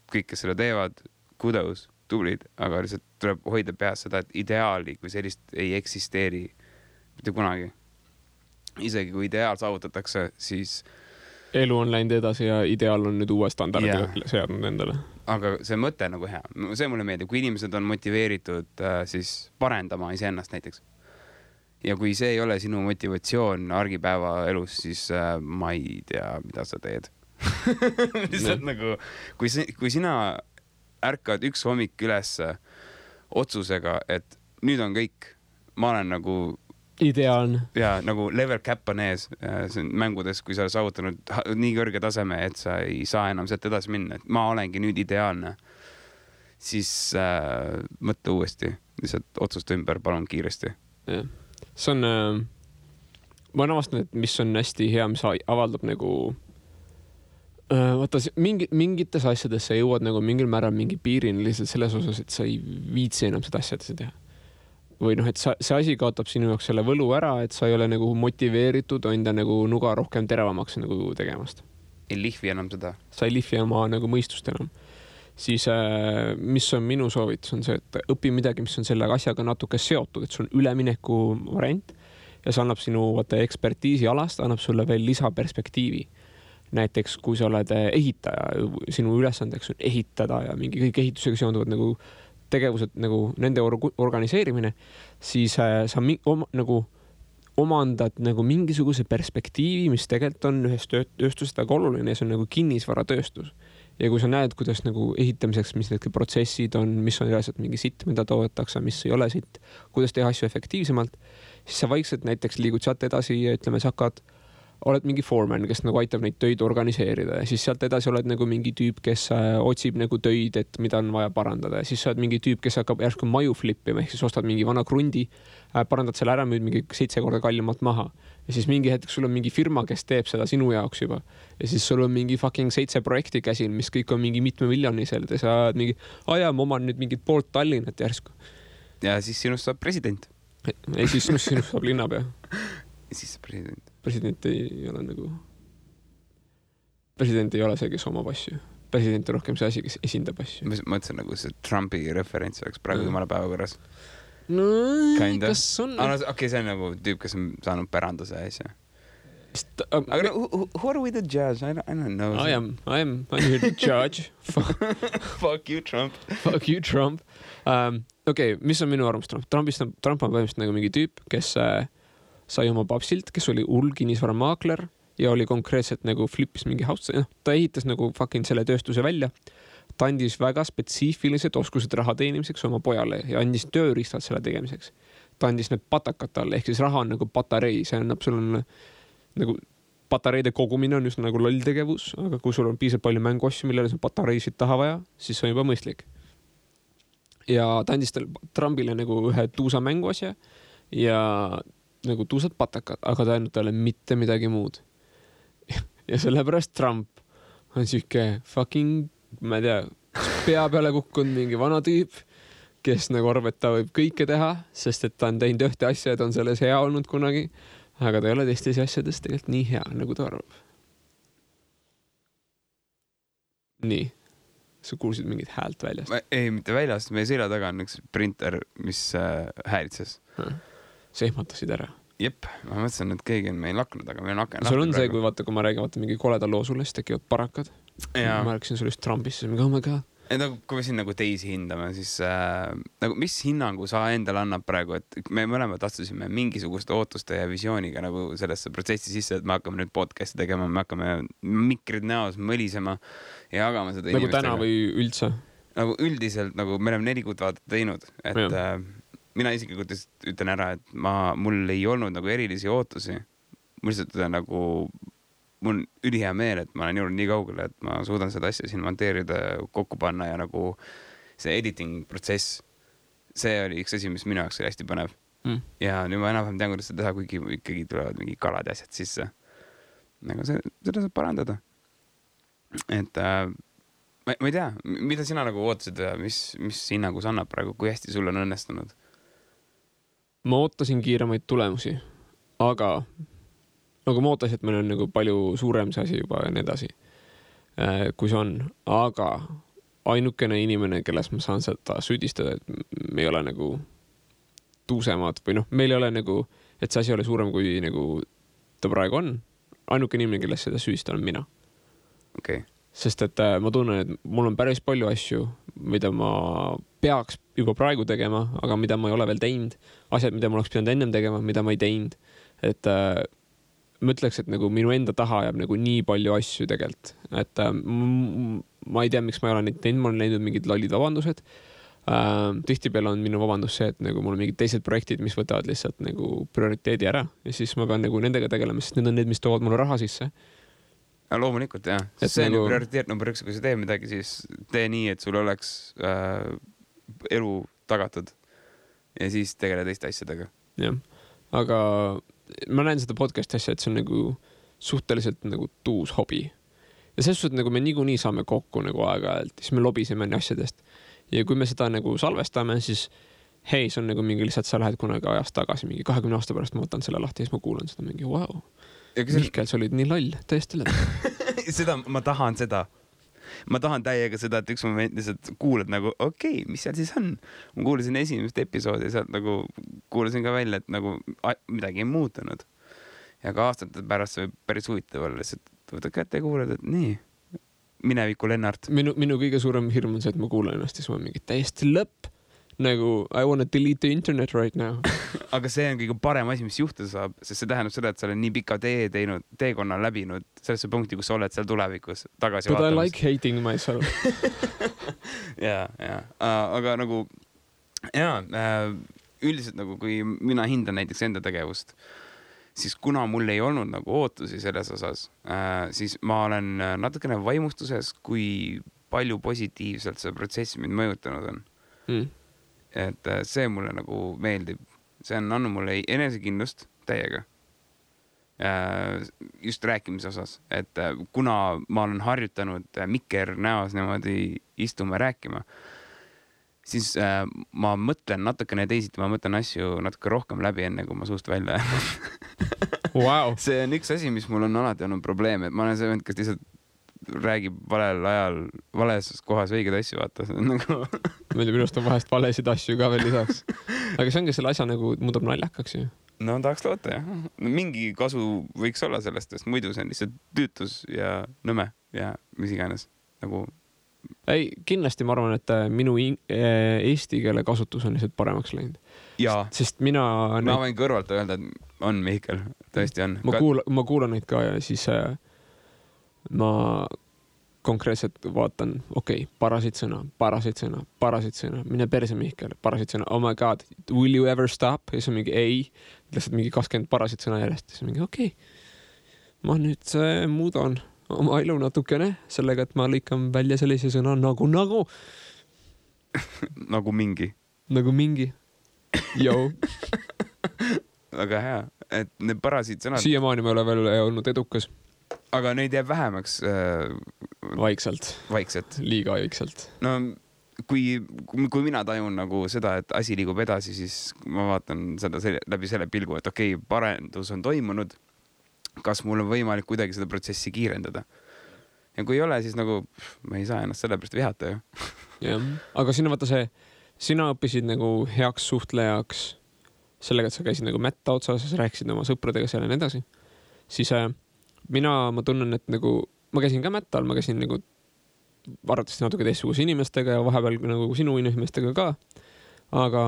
kõik, kes selle teevad, kudos, tublid, aga lihtsalt tuleb hoida peas seda, et ideaali kui sellist ei eksisteeri mitte kunagi. Isegi kui ideaal saavutatakse, siis elu on läinud edasi ja ideaal on nüüd uue standardi seadnud endale. Aga see mõte nagu hea. See mulle meeldib, kui inimesed on motiveeritud siis parendama iseennast näiteks. Ja kui see ei ole sinu motivatsioon argipäeva elus, siis ma ei tea, mida sa teed. Lihtsalt nagu, kui sina ärkad üks hommik üles otsusega, et nüüd on kõik, ma olen nagu ideaalne. Ja nagu level cap on ees mängudes, kui sa oled saavutanud nii kõrge taseme, et sa ei saa enam sealt edasi minna, et ma olengi nüüd ideaalne, siis mõtle uuesti, lihtsalt otsusta ümber, palun kiiresti. Ja. See on, ma olen avastanud, et mis on hästi hea, mis avaldab nagu vaata, mingites asjades sa jõuad nagu mingil määral mingi piirini lihtsalt selles osas, et sa ei viitsi enam seda asjadesse teha. Või noh, et see asi kaotab sinu jaoks selle võlu ära, et sa ei ole nagu motiveeritud enda nagu nuga rohkem teravamaks nagu tegemast. Ei lihvi enam seda. Sa ei lihvi oma nagu mõistust enam. Siis mis on minu soovitus on see, et õpi midagi, mis on selle asjaga natuke seotud, et sul on ülemineku variant ja see annab sinu ekspertiisi alast, annab sulle veel lisaperspektiivi. Näiteks, kui sa oled ehitaja, sinu ülesandeks on ehitada ja mingi kõik ehitusega seonduvad nagu tegevused nagu nende organiseerimine, siis sa nagu omandad nagu mingisuguse perspektiivi, mis tegelikult on ühes tööstusest väga oluline ja see on nagu kinnisvaratööstus. Ja kui sa näed, kuidas nagu ehitamiseks, mis need protsessid on, mis on reaalselt mingi sitt, mida toodetakse, mis ei ole sitt, kuidas teha asju efektiivsemalt, siis sa vaikselt näiteks liigud sealt edasi ja ütleme, sa oled mingi foreman, kes nagu aitab neid töid organiseerida ja siis sealt edasi oled nagu mingi tüüp, kes otsib nagu töid, et mida on vaja parandada ja siis sa oled mingi tüüp, kes hakkab järsku maju flippima, ehk siis ostad mingi vana krundi, parandad selle ära, müüd mingi 7 korda kallimalt maha ja siis mingi hetk sul on mingi firma, kes teeb seda sinu jaoks juba ja siis sul on mingi fucking 7 projekti käsil, mis kõik on mingi mitme miljonisel ja sa oled mingi, ma oman nüüd mingit poolt Tallinnat järsku. Ja siis sinust saab president. Ei, siis sinust saab linnapea. Ja siis president. President ei ole nagu... President ei ole see, kes omab asju. President on rohkem see asi, kes esindab asju. Ma mõtlesin nagu see Trumpi referents oleks praegu jumala päevakorras. No, kas on... Okei, see on nagu tüüp, kes on saanud päranduse asja. Aga who are we the judge? I don't know. I'm here to judge. Fuck you, Trump. Fuck you, Trump. Okei, mis on minu arvamus Trump? Trump on põhimõtteliselt nagu mingi tüüp, kes... sai oma papsilt, kes oli hull kinnisvaramaakler ja oli konkreetselt nagu flippis mingi house, ta ehitas nagu fucking selle tööstuse välja. Ta andis väga spetsiifilised oskused raha teenimiseks oma pojale ja andis tööriistad selle tegemiseks. Ta andis need patakad talle, ehk siis raha on nagu patarei, see annab sul nagu patareide kogumine on just nagu loll tegevus, aga kui sul on piisavalt palju mänguasju, millele sul patareisid taha vaja, siis see on juba mõistlik. Ja ta andis Trumpile nagu ühe tuusa mänguasja ja nagu tuusad patakad, aga ta ainult talle mitte midagi muud. Ja sellepärast Trump on siuke fucking, ma ei tea, pea peale kukkunud mingi vana tüüp, kes nagu arvab, et ta võib kõike teha, sest et ta on teinud ühte asja ja ta on selles hea olnud kunagi, aga ta ei ole teistes asjades tegelikult nii hea, nagu ta arvab. Nii. Sa kuulsid mingit häält väljast? Ei, mitte väljast. Meie selja taga on üks printer, mis häälitses. Sa ehmatasid ära. Jep, ma mõtlesin, et keegi on meil laknud, aga meil on laknud. Sul on see, kui vaata, kui ma räägin, vaata mingi koleda loo sulle, siis tekivad parakad. Ja. Ma rääkisin sulle just Trumpist, siis mingi, oh my god. Kui me siin nagu teisi hindame, siis nagu, mis hinnangu sa endale annab praegu, et me mõlemad astusime mingisuguste ootuste ja visiooniga nagu sellesse protsessi sisse, et me hakkame nüüd podcasti tegema, me hakkame mikrid näos mõlisema ja jagama seda nagu inimestega. Täna või üldse? Nagu üldiselt, nagu me oleme 4 kuud vaata teinud, et mina isiklikult ütlen ära, et mul ei olnud nagu erilisi ootusi. Mul lihtsalt nagu, mul on ülihea meel, et ma olen jõudnud nii kaugele, et ma suudan seda asja siin monteerida, kokku panna ja nagu see editing protsess, see oli üks asi, mis minu jaoks oli hästi põnev. Ja nüüd ma enam tean, kuidas seda teha, kuigi ikkagi tulevad mingi kalad ja asjad sisse. Nagu seda saab parandada. Et ma ei tea, mida sina nagu ootasid ja mis hinnagu sa annab praegu, kui hästi sul on õnnestunud? Ma ootasin kiiremaid tulemusi, aga nagu ma ootasin, et meil on nagu palju suurem see asi juba ja nii edasi, kui see on, aga ainukene inimene, kelles ma saan seda süüdistada, et me ei ole nagu tuusemad või meil ei ole nagu, et see asi ole suurem kui nagu ta praegu on. Ainukene inimene, kelles seda süüdistada on mina. Okay. Sest et ma tunnen, et mul on päris palju asju, mida ma peaks juba praegu tegema, aga mida ma ei ole veel teinud. Asjad, mida ma oleks pidanud ennem tegema, mida ma ei teinud. Et ma ütleks, et nagu minu enda taha jääb nagu nii palju asju tegelikult. Et ma ei tea, miks ma ei ole neid teinud, ma olen leidnud mingid lollid vabandused. Tihtipeale on minu vabandus see, et nagu mul on mingid teised projektid, mis võtavad lihtsalt nagu prioriteedi ära ja siis ma pean nagu nendega tegelema, sest need on need, mis toovad mulle raha sisse. Loomulikult, jah. See on ju prioriteet number 1, kui sa tee midagi, siis tee nii, et sul oleks elu tagatud ja siis tegele teiste asjadega. Jah, aga ma näen seda podcasti asja, et see on nagu suhteliselt nagu tuus hobi. Ja selles suhtes, nagu me niikuinii saame kokku nagu aeg-ajalt, siis me lobiseme asjadest. Ja kui me seda nagu salvestame, siis hei, see on nagu mingi lihtsalt, sa lähed kunagi ajast tagasi, mingi 20 aasta pärast ma võtan selle lahti ja siis ma kuulan seda mingi, wow. Mihkel, sa olid nii loll, tõesti lõpp. Ma tahan seda. Ma tahan täiega seda, et üks moment lihtsalt kuulad nagu, okei, mis seal siis on? Ma kuulasin esimest episoodi ja sealt nagu kuulasin ka välja, et nagu midagi ei muutunud. Ja ka aastate pärast see päris huvitav olla, lihtsalt võtad kätte ja kuulad, et nii. Mineviku Lennart. Minu kõige suurem hirm on see, et ma kuulan ennast ja siis ma mingi täiesti lõpp. Nagu I wanna delete the internet right now. Aga see on kõige parem asi, mis juhtuda saab, sest see tähendab seda, et sa oled nii pika teekonna läbinud sellesse punkti, kus sa oled seal tulevikus tagasi But vaatamas. I like hating myself. ja. Aga nagu üldiselt nagu, kui mina hindan näiteks enda tegevust, siis kuna mul ei olnud nagu ootusi selles osas, siis ma olen natukene vaimustuses, kui palju positiivselt see protsess mind mõjutanud on. Et see mulle nagu meeldib. See on andnud mulle enesekindlust täiega. Just rääkimise osas. Et kuna ma olen harjutanud mikker näos niimoodi istuma rääkima, siis ma mõtlen natukene teisiti, ma mõtlen asju natuke rohkem läbi enne, kui ma suust välja. Wow. See on üks asi, mis mul on alati olnud probleem, et ma olen see vend, kes lihtsalt räägib valel ajal, vales kohas õiged asju, vaata. Nagu... Minu arust on vahest valesid asju ka veel lisaks. Aga see ongi selle asja nagu muudab naljakaks ju. No tahaks loota, jah. Mingi kasu võiks olla sellest, sest muidu see on lihtsalt tüütus ja nõme ja mis iganes. Nagu... Ei, kindlasti ma arvan, et minu eesti keele kasutus on lihtsalt paremaks läinud. Jaa. Sest mina... Ma võin kõrvalt öelda, et on Mihkel. Tõesti on. Ma kuulan neid ka ja siis ma konkreetselt vaatan, okei, parasid sõna, mine perse Mihkel, parasid sõna, oh my god, will you ever stop? Ja siis on mingi ei, lihtsalt mingi 20 parasid sõna järjest. Siis on mingi okei, ma nüüd muudan oma elu natukene sellega, et ma lõikan välja sellise sõna nagu. Nagu mingi. Nagu mingi. Joo. Väga hea, et need parasid sõnad... Siiamaani me ole veel olnud edukas. Aga neid jääb vähemaks... Vaikselt. Liiga vaikselt. No, kui mina tajun nagu seda, et asi liigub edasi, siis ma vaatan seda läbi selle pilgu, et okei, parendus on toimunud. Kas mul on võimalik kuidagi seda protsessi kiirendada? Ja kui ei ole, siis nagu ma ei saa ennast selle pärast vihata ju. Jah, aga sina õppisid nagu heaks suhtlejaks sellega, et sa käisid nagu mätta otsas ja sa rääkisid oma sõpradega seal ja nii edasi. Siis ma tunnen, et nagu ma käisin ka mättal, ma käisin nagu arvatavasti natuke teistsuguse inimestega ja vahepeal nagu sinu inimestega ka. Aga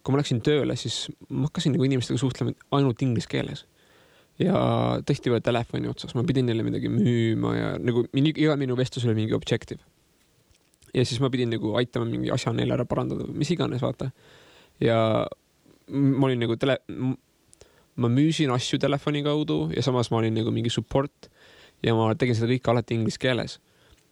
kui ma läksin tööle, siis ma hakkasin nagu inimestega suhtlema ainult inglise keeles. Ja tõesti veel telefoni otsas, ma pidin neile midagi müüma ja nagu iga minu vestlus oli mingi objective. Ja siis ma pidin nagu aitama mingi asja neile ära parandada, mis iganes, vaata. Ja ma olin nagu ma müüsin asju telefoni kaudu ja samas ma olin nagu mingi support ja ma tegin seda kõike alati inglise keeles.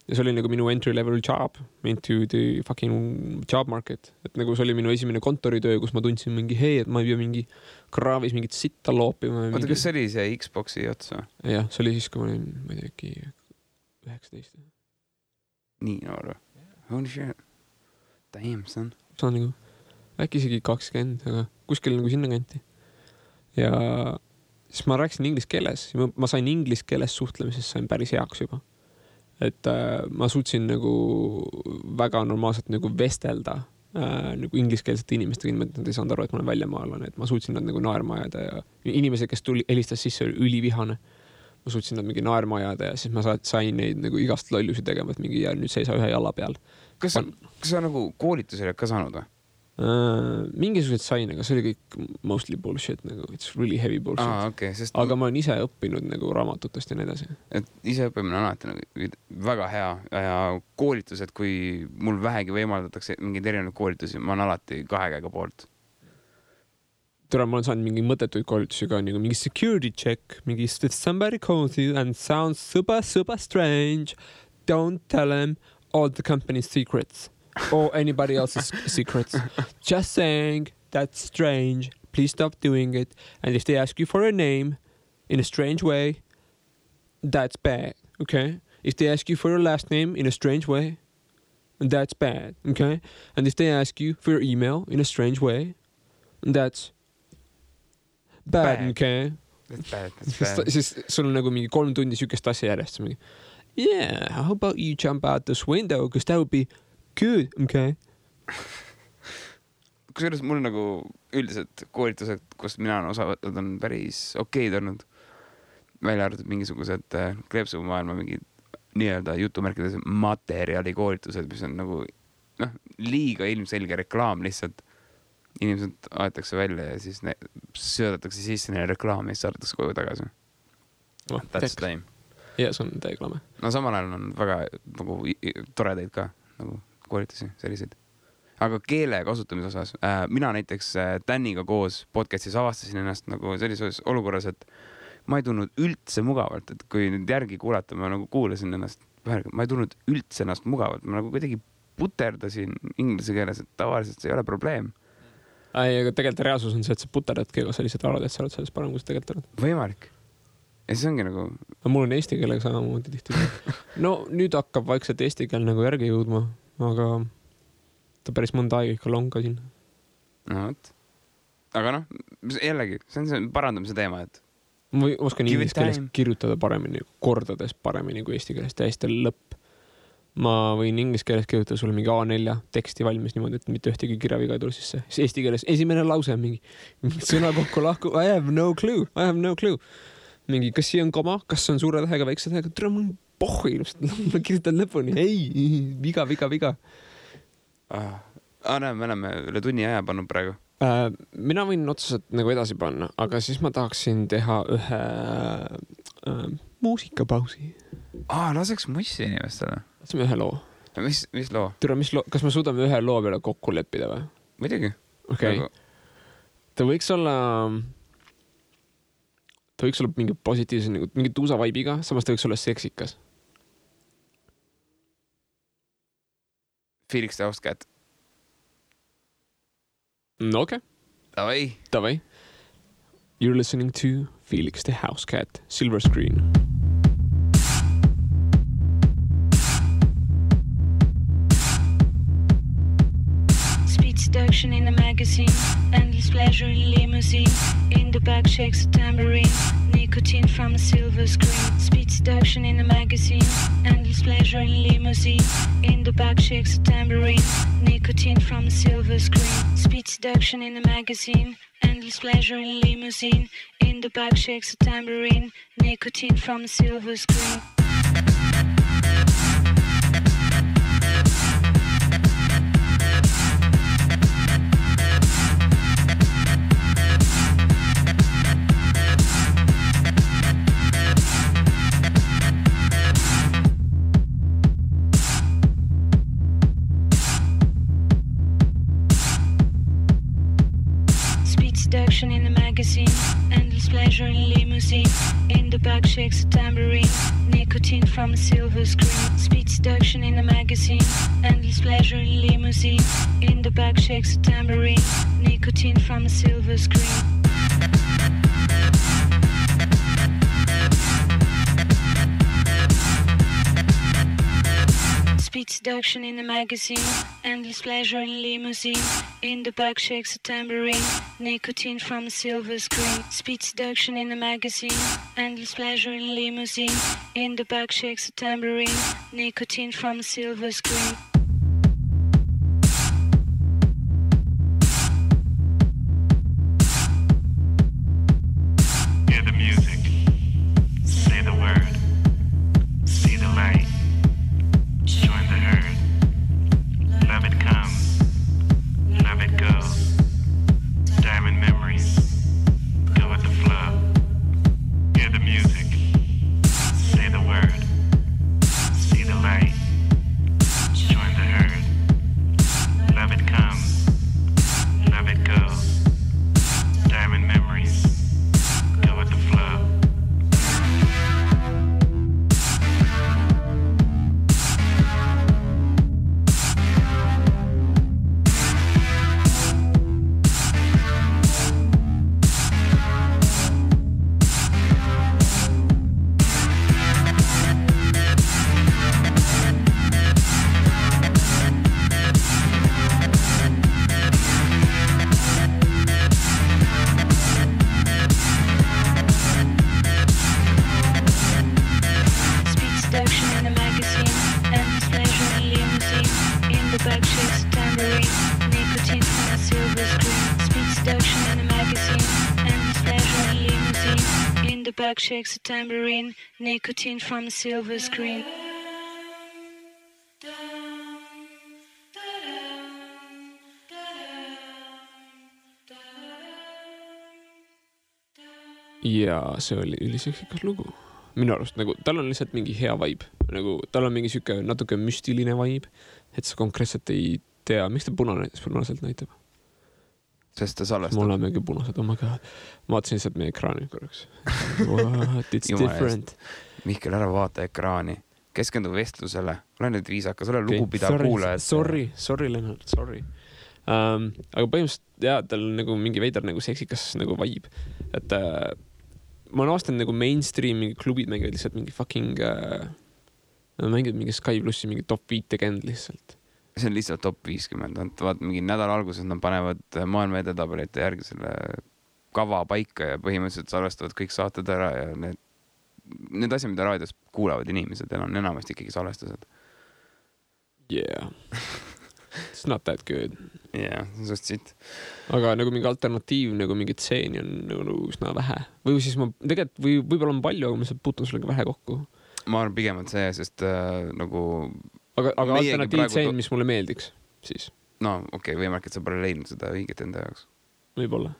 Ja see oli nagu minu entry level job into the fucking job market. Et nagu see oli minu esimene kontoritöö, kus ma tundsin mingi hei, et ma ei pea mingi kraavis mingit sitta loopima. Oota, kas see oli see Xboxi otsa? Jah, see oli siis, kui ma olin, ma ei tea, 19. nii noor või? Holy shit. Damn, son. See on nagu äkki isegi 20, aga kuskil nagu sinna kanti. Ja siis ma rääkisin inglise keeles. Ma sain inglise keeles suhtlemisest sain päris heaks juba. Et ma suutsin nagu väga normaalselt nagu vestelda nagu ingliskeelsete inimestega, inimesed nad ei saanud aru, et ma olen väljamaalane, et ma suutsin nad nagu naerma ajada ja inimesed, kes helistas sisse, oli ülivihane. Ma suutsin nad mingi naerma ajada ja siis ma sain neid nagu igast lollusi tegema, et mingi ja nüüd seisa ühe jala peal. Kas sa nagu koolitusele ka saanud või? Mingisugused sain, aga see oli kõik mostly bullshit, nagu it's really heavy bullshit. Okay, aga ma olen ise õppinud nagu raamatutest ja nii edasi. Et ise õppimine on alati nagu väga hea ja koolitused, kui mul vähegi võimaldatakse mingeid erinevaid koolitusi, ma olen alati 2 käega poolt. Tere, ma olen saanud mingi mõttetuid koolitusi ka, nagu mingi security check, mingi if somebody calls you and sounds super strange, don't tell them all the company's secrets. Or anybody else's secrets. Just saying, that's strange. Please stop doing it. And if they ask you for a name in a strange way, that's bad, okay? If they ask you for your last name in a strange way, that's bad, okay? And if they ask you for your email in a strange way, that's bad. Okay? That's bad. Siis sul on nagu mingi 3 tundi sükest asja järjest. Yeah, how about you jump out this window? Because that would be good, okay. Kusjuures mul nagu üldiselt koolitused, kus mina olen osa võtnud, on päris okeid olnud. Välja arvatud mingisugused kleepsumaailma mingid nii-öelda jutumärkides materjali koolitused, mis on nagu liiga ilmselge reklaam lihtsalt. Inimesed aetakse välja ja siis söödatakse sisse neile reklaami ja siis saadetakse koju tagasi. That's time. Ja, see on teeklame. No samal ajal on väga nagu toredaid ka nagu koolitusi, selliseid. Aga keele kasutamise osas, mina näiteks Daniga koos podcastis avastasin ennast nagu sellises olukorras, et ma ei tundnud üldse mugavalt, et kui nüüd järgi kuulata, ma nagu kuulasin ennast, ma ei tundnud üldse ennast mugavalt, ma nagu kuidagi puterdasin inglise keeles, et tavaliselt see ei ole probleem. Aga tegelikult reaalsus on see, et sa puterdadki, aga sa lihtsalt arvad, et sa oled selles parem, kui sa tegelikult oled. Võimalik. Ja see ongi nagu... Mul on eesti keelega samamoodi tihti. No nüüd hakkab vaikselt eesti keel nagu järgi jõudma, aga ta päris mõnda aega ikka longa siin. No, aga jällegi, see on see parandamise teema, et... Ma oskan inglise keeles kirjutada paremini, kordades paremini kui eesti keeles, täiesti lõpp. Ma võin inglise keeles kirjutada sulle mingi A4 teksti valmis niimoodi, et mitte ühtegi kirjaviga ei tule sisse. Eesti keeles esimene lause on mingi sõna kokku lahku, I have no clue. Mingi, kas siia on koma, kas on suure tähega, väikse tähega, tere, mul on pohhi, ma kirjutan lõpuni, ei, viga. Me oleme üle tunni aja pannud praegu. Mina võin otseselt nagu edasi panna, aga siis ma tahaksin teha ühe muusikapausi. Laseks mussi inimestele. Laseme ühe loo. Mis loo? Tere, kas me suudame ühe loo peale kokku leppida või? Muidugi. Okay. Ta võiks olla mingi positiivse, mingi tuusa vaibiga, samas ta võiks olla seksikas. Felix the House Cat. No, okay. Davai. You're listening to Felix the House Cat, Silver Screen. Speed seduction in the magazine, endless pleasure in limousine. In the back shakes a tambourine, nicotine from a silver screen. Speed seduction in the magazine, endless pleasure in limousine. In the back shakes a tambourine, nicotine from a silver screen. Speed seduction in the magazine, endless pleasure in limousine. In the back shakes a tambourine, nicotine from a silver screen. Seduction in the magazine, endless pleasure in limousine. In the back shakes a tambourine, nicotine from a silver screen. Speed seduction in the magazine, endless pleasure in limousine. In the back shakes a tambourine, nicotine from a silver screen. Speed seduction in the magazine, endless pleasure in limousine. In the back shakes a tambourine, nicotine from a silver screen. Speed seduction in the magazine, endless pleasure in limousine. In the back shakes a tambourine, nicotine from a silver screen. Hear the music, say the word, see the light, join the herd. Love it comes, love it goes. Diamond memories, go with the flow. Hear the music, say the word, see the light, join the herd. Love it comes, love it goes. Diamond memories, go with the flow. Speed seduction in the magazine, endless pleasure in limousine. In the back shakes a tambourine, nicotine from a silver screen. Speed seduction in the magazine, endless pleasure in limousine. In the back shakes a tambourine, nicotine from a silver screen. ja see oli üliseksikas lugu. Minu arust nagu tal on lihtsalt mingi hea vibe, nagu tal on mingi siuke natuke müstiline vibe, et sa konkreetselt ei tea, miks ta punaselt näitab. Sest ta salvestab. Mul on mingi punased, oh my god. Ma vaatasin lihtsalt meie ekraani korraks. What, it's different. Mihkel, ära vaata ekraani. Keskendu vestlusele. Ole nüüd viisakas, ole lugupidav kuulajad. Sorry, Lennart, sorry. Aga põhimõtteliselt jah, tal on nagu mingi veidar nagu seksikas nagu vibe. Et ma olen aastanud nagu mainstream mingi klubid mängivad lihtsalt mingi fucking mängivad mingi Sky Plussi mingi top 50 lihtsalt. See on lihtsalt top 50. Vaat mingi nädala alguses nad panevad maailma edetabelite järgi selle kava paika ja põhimõtteliselt salvestavad kõik saated ära ja need asjad, mida raadios kuulavad inimesed, on enamasti ikkagi salvestused. Yeah. It's not that good. Yeah, just siit. Aga nagu mingi alternatiiv, nagu mingi tseeni on nagu üsna vähe. Või siis ma tegelikult, võib-olla on palju, aga ma saab puutun sellega vähe kokku. Ma arvan pigemalt see, sest nagu... Aga alternatiiv tseen, mis mulle meeldiks, siis? No okei, võimalik, et sa pole leidnud seda õiget enda jaoks. Võib-olla.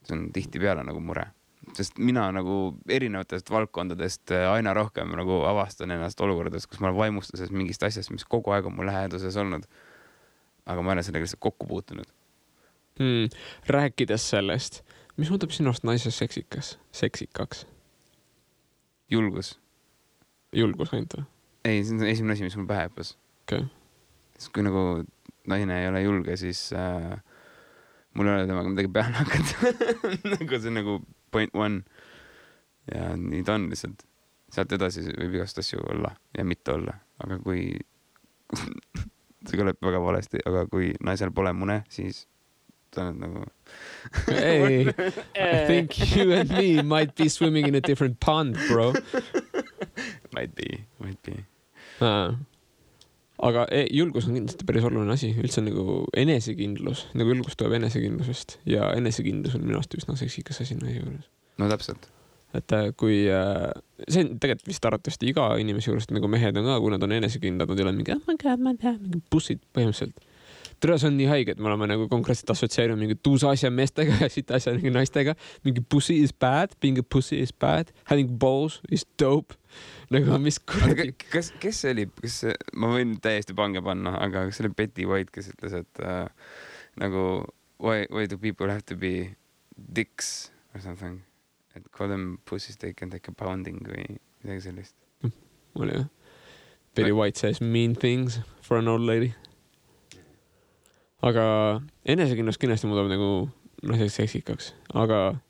See on tihti peale nagu mure. Sest mina nagu erinevatest valdkondadest aina rohkem nagu avastan ennast olukordades, kus ma olen vaimustuses mingist asjast, mis kogu aeg on mul läheduses olnud. Aga ma olen sellega lihtsalt kokku puutunud. Rääkides sellest, mis muudab sinust naise seksikaks? Julgus. Julgus ainult või? Ei, see on esimene asi, mis mul pähe hüppas. Okay. Sest kui nagu naine ei ole julge, siis mul ei ole temaga midagi peale hakata. Nagu see on nagu point one. Ja nii ta on lihtsalt. Sealt edasi võib igast asju olla ja mitte olla. Aga kui see kõleb väga valesti, aga kui naisel pole mune, siis ta on nagu Hey, I think you and me might be swimming in a different pond, bro. Might be. Aga julgus on kindlasti päris oluline asi. Üldse nagu enesekindlus. Nagu julgus tuleb enesekindlusest. Ja enesekindlus on minu arust üsna seksikas asi naise juures. No täpselt. Et kui... see on tegelikult vist arvatavasti iga inimese juures, nagu mehed on ka, kui nad on enesekindlad, nad ei ole mingi, oh my god, ma tean, mingi bussid põhimõtteliselt. Tere, see on nii haige, et me oleme nagu konkreetselt assotsieerinud mingi tuusa asja meestega ja siit asja mingi naistega. Mingi pussy is bad, being a pussy is bad, having balls is dope. Nagu mis kuradi... Kes see oli? Ma võin täiesti pange panna, aga kas see oli Betty White, kes ütles, et nagu why do people have to be dicks or something? Et call them pussies, they can take a pounding või midagi sellist. Oli jah. Betty White says mean things for an old lady. Aga enesekindlust kindlasti muudab nagu naiseks seksikaks. Aga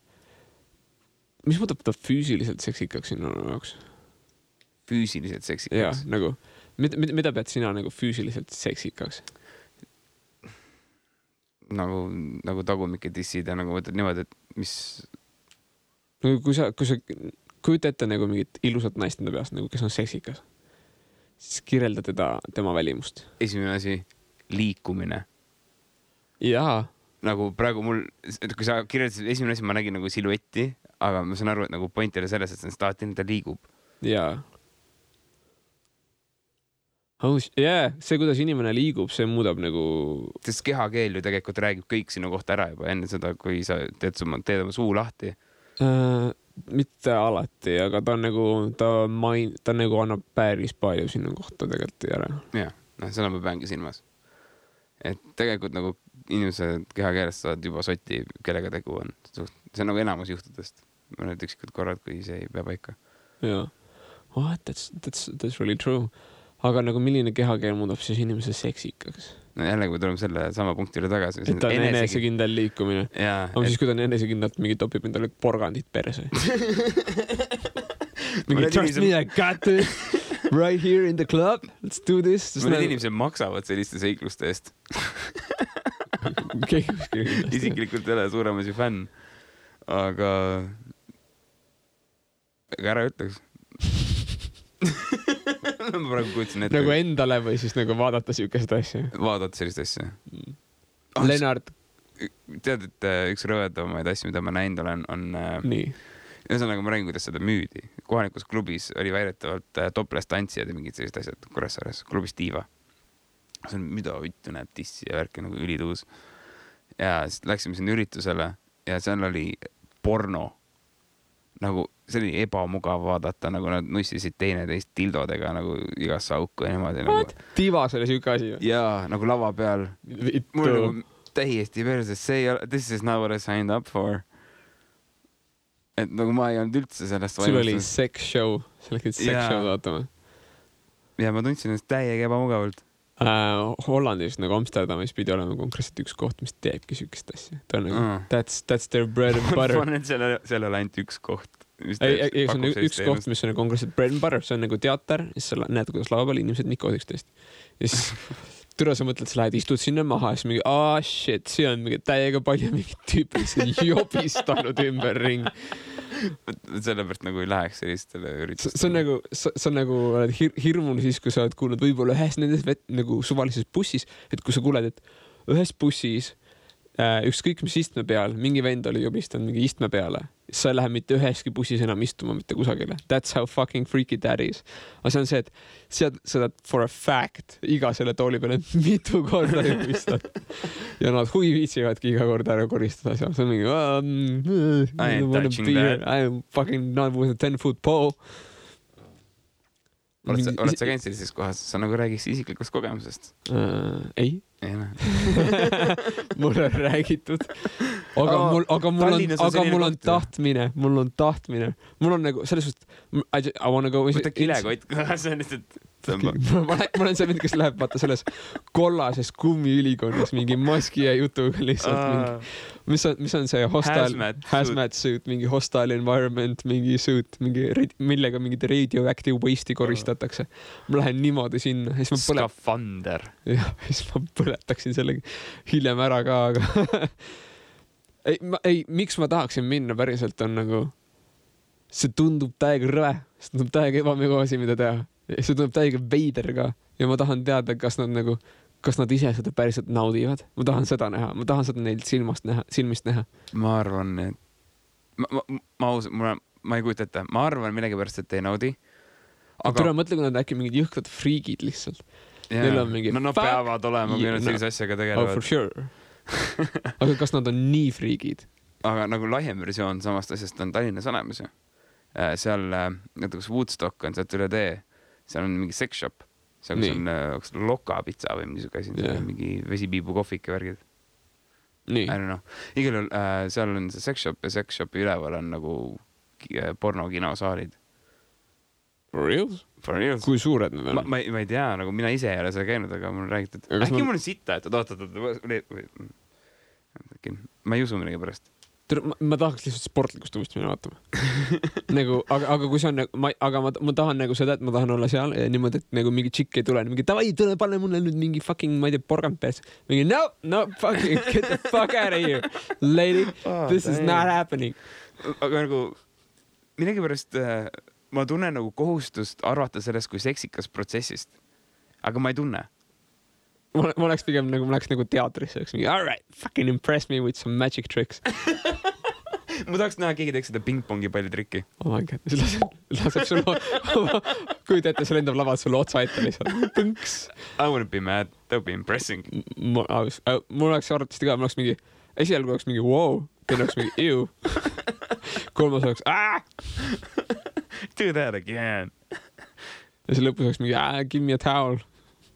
mis muudab ta füüsiliselt seksikaks sinu jaoks? Füüsiliselt seksikaks? Jah, nagu Mida pead sina nagu füüsiliselt seksikaks? Nagu tagumike dissid ja nagu võtad niimoodi, et mis... Kui sa kujuta ette nagu mingit ilusat naist enda peast, nagu kes on seksikas, siis kirjelda tema välimust. Esimene asi, liikumine. Jaa. Nagu praegu mul, kui sa kirjeldasid esimene asi, ma nägin nagu siluetti, aga ma saan aru, et nagu point oli selles, et see staatin, ta liigub. Jaa. See, kuidas inimene liigub, see muudab nagu... Sest kehakeel ju tegelikult räägib kõik sinu kohta ära juba enne seda, kui sa teed oma suu lahti. Mitte alati, aga ta nagu annab päris palju sinu kohta tegelikult ära. Jah, seda ma peangi silmas. Et tegelikult nagu inimesed kehakeelest saavad juba sotti, kellega tegu on. See on nagu enamus juhtudest. Ma nüüd üksikud korrad, kui see ei pea paika. Jaa. That's really true. Aga nagu milline kehakeel muudab siis inimese seksikaks? No jälle, kui tuleme selle sama punkti üle tagasi. Et ta on enesekindel liikumine. Aga siis, kui ta on enesekindlalt mingi topib endale porgandit perse. Mingi trust me, I got it right here in the club. Let's do this. Mõned inimesed maksavad selliste seikluste eest. Isiklikult ei ole suuremasi fänn. Aga ära ütleks. Ma praegu kuutsin ette. Nagu endale või siis nagu vaadata siukest asja? Vaadata sellist asja. Lennart. Tead, et üks rõvedamaid asju, mida ma näinud olen, on... Nii. Ühesõnaga ma räägin, kuidas seda müüdi. Kohalikus klubis oli väidetavalt topless tantsijad ja mingid sellised asjad Kuressaares. Klubis Diiva. See on, mida vittu näeb tissi ja värki nagu ülituus. Ja siis läksime sinna üritusele ja seal oli porno. Nagu see oli ebamugav vaadata, nagu nad nussisid teineteist dildodega nagu igasse auku ja niimoodi. What? Nagu... Divas oli siuke asi? Jaa, nagu lava peal. Mul nagu täiesti perses, this is not what I signed up for. Et nagu ma ei olnud üldse sellest vaimustus. Sul oli sex show, sa läksid sex show vaatama. Ja ma tundsin ennast täiega ebamugavalt. Hollandis nagu Amsterdamis pidi olema konkreetselt üks koht, mis teebki siukest asja. Ta on nagu, that's their bread and butter. Ma arvan, et seal oli ainult üks koht. Ei, see on üks koht, mis on konkreetselt bread and butter. See on nagu teater, siis sa näed, kuidas lava peal inimesed nikovad üksteist. Ja siis türa sa mõtled, sa lähed, istud sinna maha ja siis mingi, shit, see on mingi täiega palju mingid tüüpid, mis on jobistanud ümber ring. Sellepärast nagu ei läheks sellistele üritustele. See on nagu hirmul siis, kui sa oled kuulnud võib-olla ühes nendes nagu suvalises bussis, et kui sa kuuled, et ühes bussis ükskõik mis istme peal, mingi vend oli jobistanud mingi istme peale, sa ei lähe mitte üheski bussis enam istuma mitte kusagile. That's how fucking freaky that is. Aga see on see, et seda for a fact iga selle tooli peale mitu korda jobistad. Ja nad huvi viitsivadki iga kord ära koristada seal. See on mingi I ain't touching that. I'm fucking not with a 10-foot pole. Oled sa käinud sellises kohas? Sa nagu räägiks isiklikust kogemusest? Ei. Ei näe. Mul on räägitud. Aga mul on tahtmine. Mul on nagu selles suhtes I wanna go... Võta kilekott kohe, see on lihtsalt... Ma olen see mind, kes läheb vaata selles kollases kummiülikonnas mingi maski ja jutuga lihtsalt mingi, mis on see hazmat suit, mingi hostile environment, mingi suit, millega mingid radioactive waste'i koristatakse. Ma lähen niimoodi sinna. Skafander. Ja, siis ma põletaksin selle hiljem ära ka, aga ei, miks ma tahaksin minna päriselt on nagu see tundub täiega rõve, see tundub täiega ebamegavasi, mida teha. See tundub täiega veider ka ja ma tahan teada, kas nad ise seda päriselt naudivad. Ma tahan seda näha, ma tahan seda neilt silmist näha. Ma arvan, et ma ei kujuta ette. Ma arvan millegipärast, et ei naudi. Aga mõtle, kui nad äkki mingid jõhkrad friigid lihtsalt. Neil on mingi peavad olema, kui nad sellise asjaga tegelevad. For sure. Aga kas nad on nii friigid? Aga nagu laiem versioon samast asjast on Tallinnas olemas ju. Seal näiteks Woodstock on sealt üle tee. Seal on mingi sex shop. Seal on loka pitsa või mingi asi. Mingi vesipiibu kohvik ja värgid. Nii. I don't know. Igal juhul seal on see sex shop ja sex shopi üleval on nagu pornokinosaalid. For reals? For reals. Kui suured need on? Ma ei tea, nagu mina ise ei ole seal käinud, aga mul on räägitud. Äkki mul on sitta, et oot. Ma ei usu millegi pärast. ma tahaks lihtsalt sportlikust uuesti minna vaatama nagu, aga kui see on nagu, aga ma tahan nagu seda, et ma tahan olla seal ja niimoodi, et nagu mingi tšikk ei tule, mingi davai, tule pane mulle nüüd mingi fucking, ma ei tea, porgand peas. Mingi no, fucking get the fuck out of here, lady, this is not happening. Aga nagu millegipärast ma tunnen nagu kohustust arvata sellest kui seksikas protsessist, aga ma ei tunne. Ma oleks pigem nagu, ma läheks nagu teatrisse, oleks mingi, all right, fucking impress me with some magic tricks. Ma tahaks näha, keegi teeks seda pingpongi palli trikki. Oh my god, laseb sulle, kuid ette, see lendab lavalt sulle otsa ette lihtsalt. Põnks. I wouldn't be mad, that would be impressing. Mul oleks arvatavasti ka, mul oleks mingi, esialgu oleks mingi wow, teine oleks mingi ew. Kolmas oleks Do that again. Ja see lõpus oleks mingi give me a towel.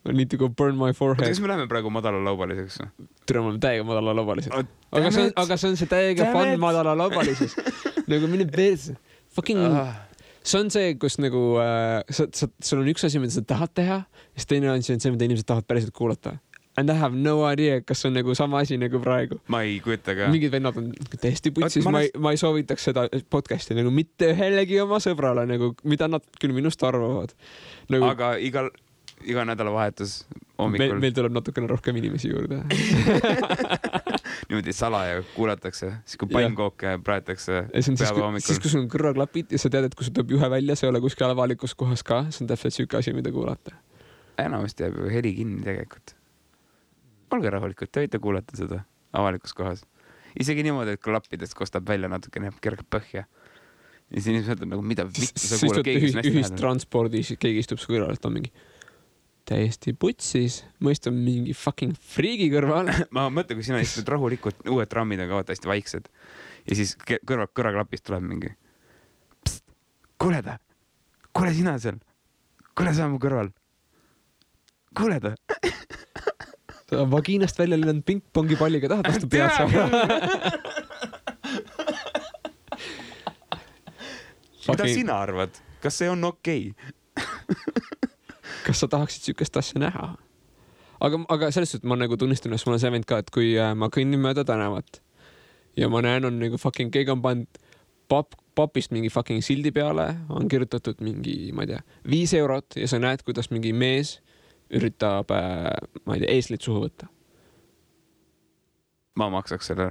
I need to go burn my forehead. Kas me läheme praegu madalalaubaliseks? Tere, me oleme täiega madalalaubalised. Aga see on see täiega fun madalalaubalises. Nagu mine perse. Fucking... See on see, kus nagu... Sul on üks asi, mida sa tahad teha, ja teine on see, mida inimesed tahavad päriselt kuulata. And I have no idea, kas on nagu sama asi nagu praegu. Ma ei kujuta ka. Mingid vennad on täiesti putsis. Ma ei soovitaks seda podcasti nagu mitte ühelegi oma sõbrale, nagu, mida nad küll minust arvavad. Nagu... Aga iga nädalavahetus hommikul. Meil tuleb natukene rohkem inimesi juurde. Niimoodi salaja kuulatakse, siis kui pannkooke praetakse päeva hommikul. Siis kui sul on kõrvaklapid ja sa tead, et kui sul tuleb juhe välja, see ei ole kuskil avalikus kohas ka, see on täpselt süke asi, mida kuulata. Enamasti jääb ju heli kinni tegelikult. Olge rahulikud, te võite kuulata seda avalikus kohas. Isegi niimoodi, et klappidest kostab välja natukene kergelt põhja. Ja siis inimesed on nagu, mida vittu sa kuulad, keegi on hästi ühistranspordis, keegi istub su kõrval, et on mingi täiesti putsis, mõist on mingi fucking friigi kõrval. Ma mõtlen, kui sina istud rahulikult, uued trammid on ka hästi vaiksed ja siis kõrvaklapist tuleb mingi pst, kuule sina seal, kuule sa mu kõrval, kuule ta. Sa vagiinast välja lennanud pingpongi palliga tahad vastu pead saada. Mida sina arvad? Kas see on okei? Kas sa tahaksid sükest asja näha? Aga selles suhtes ma nagu tunnistan, et mul on see vend ka, et kui ma kõnnin mööda tänavat ja ma näen, on nagu fucking keegi on pannud papist mingi fucking sildi peale, on kirjutatud mingi, ma ei tea, 5 eurot ja sa näed, kuidas mingi mees üritab, ma ei tea, eeslit suhu võtta. Ma maksaks selle.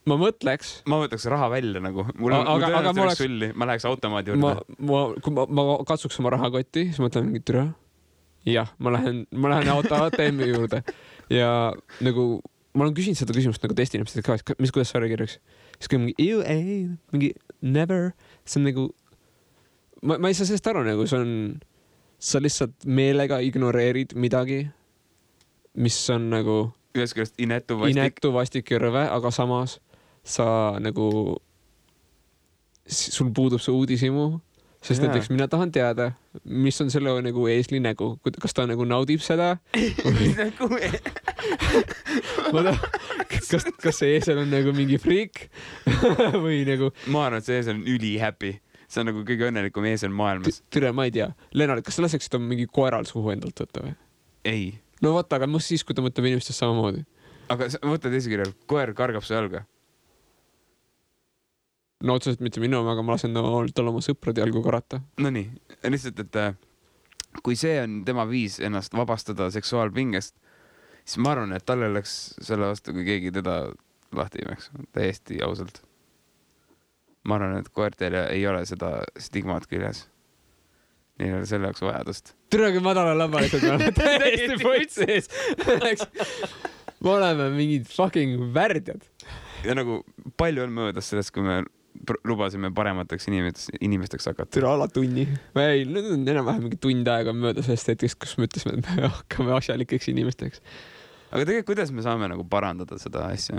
Ma mõtleks raha välja nagu. Ma läheks automaadi juurde. Kui ma katsuks oma rahakotti, siis mõtlen mingi türa. Jah, ma lähen ATM-i juurde. Ja nagu, ma olen küsinud seda küsimust nagu teiste inimestele ka, kuidas sa kirjaks. Siis kui mingi never. See on nagu, ma ei saa sellest aru nagu, sa lihtsalt meelega ignoreerid midagi, mis on nagu inetu vastik ja rõve, aga samas sa nagu, sul puudub see uudisimu, sest näiteks mina tahan teada, mis on selle nagu eesli nägu, kas ta nagu naudib seda? Kas see eesel on nagu mingi friik? Või nagu... Ma arvan, et see eesel on üli happy. See on nagu kõige õnnelikum eesel maailmas. Türe, ma ei tea. Lennart, kas sa laseksid on mingi koeral suhu endalt võtta või? Ei. No vaata, aga mõst siis, kui ta mõtleb inimestest samamoodi. Aga mõtled esikirjal, koer kargab su jalga? No otseselt mitte minu, aga ma lasen tal oma sõprade jalgu karata. No nii, lihtsalt, et kui see on tema viis ennast vabastada seksuaalpingest, siis ma arvan, et talle oleks selle vastu, kui keegi teda lahti imeks. Täiesti ausalt. Ma arvan, et koertel ei ole seda stigmaat küljes. Neil ei ole selle jaoks vajadust. Türagi madala lambalised, me oleme täiesti poitsees. Me oleme mingid fucking värdjad. Ja nagu palju on möödas sellest, kui me lubasime paremateks inimesteks hakata. Türa ala tunni. Ei, nüüd on enam-vähem mingi tund aega mööda sellest hetkest, kus me ütlesime, et me hakkame asjalikeks inimesteks. Aga tegelikult, kuidas me saame nagu parandada seda asja?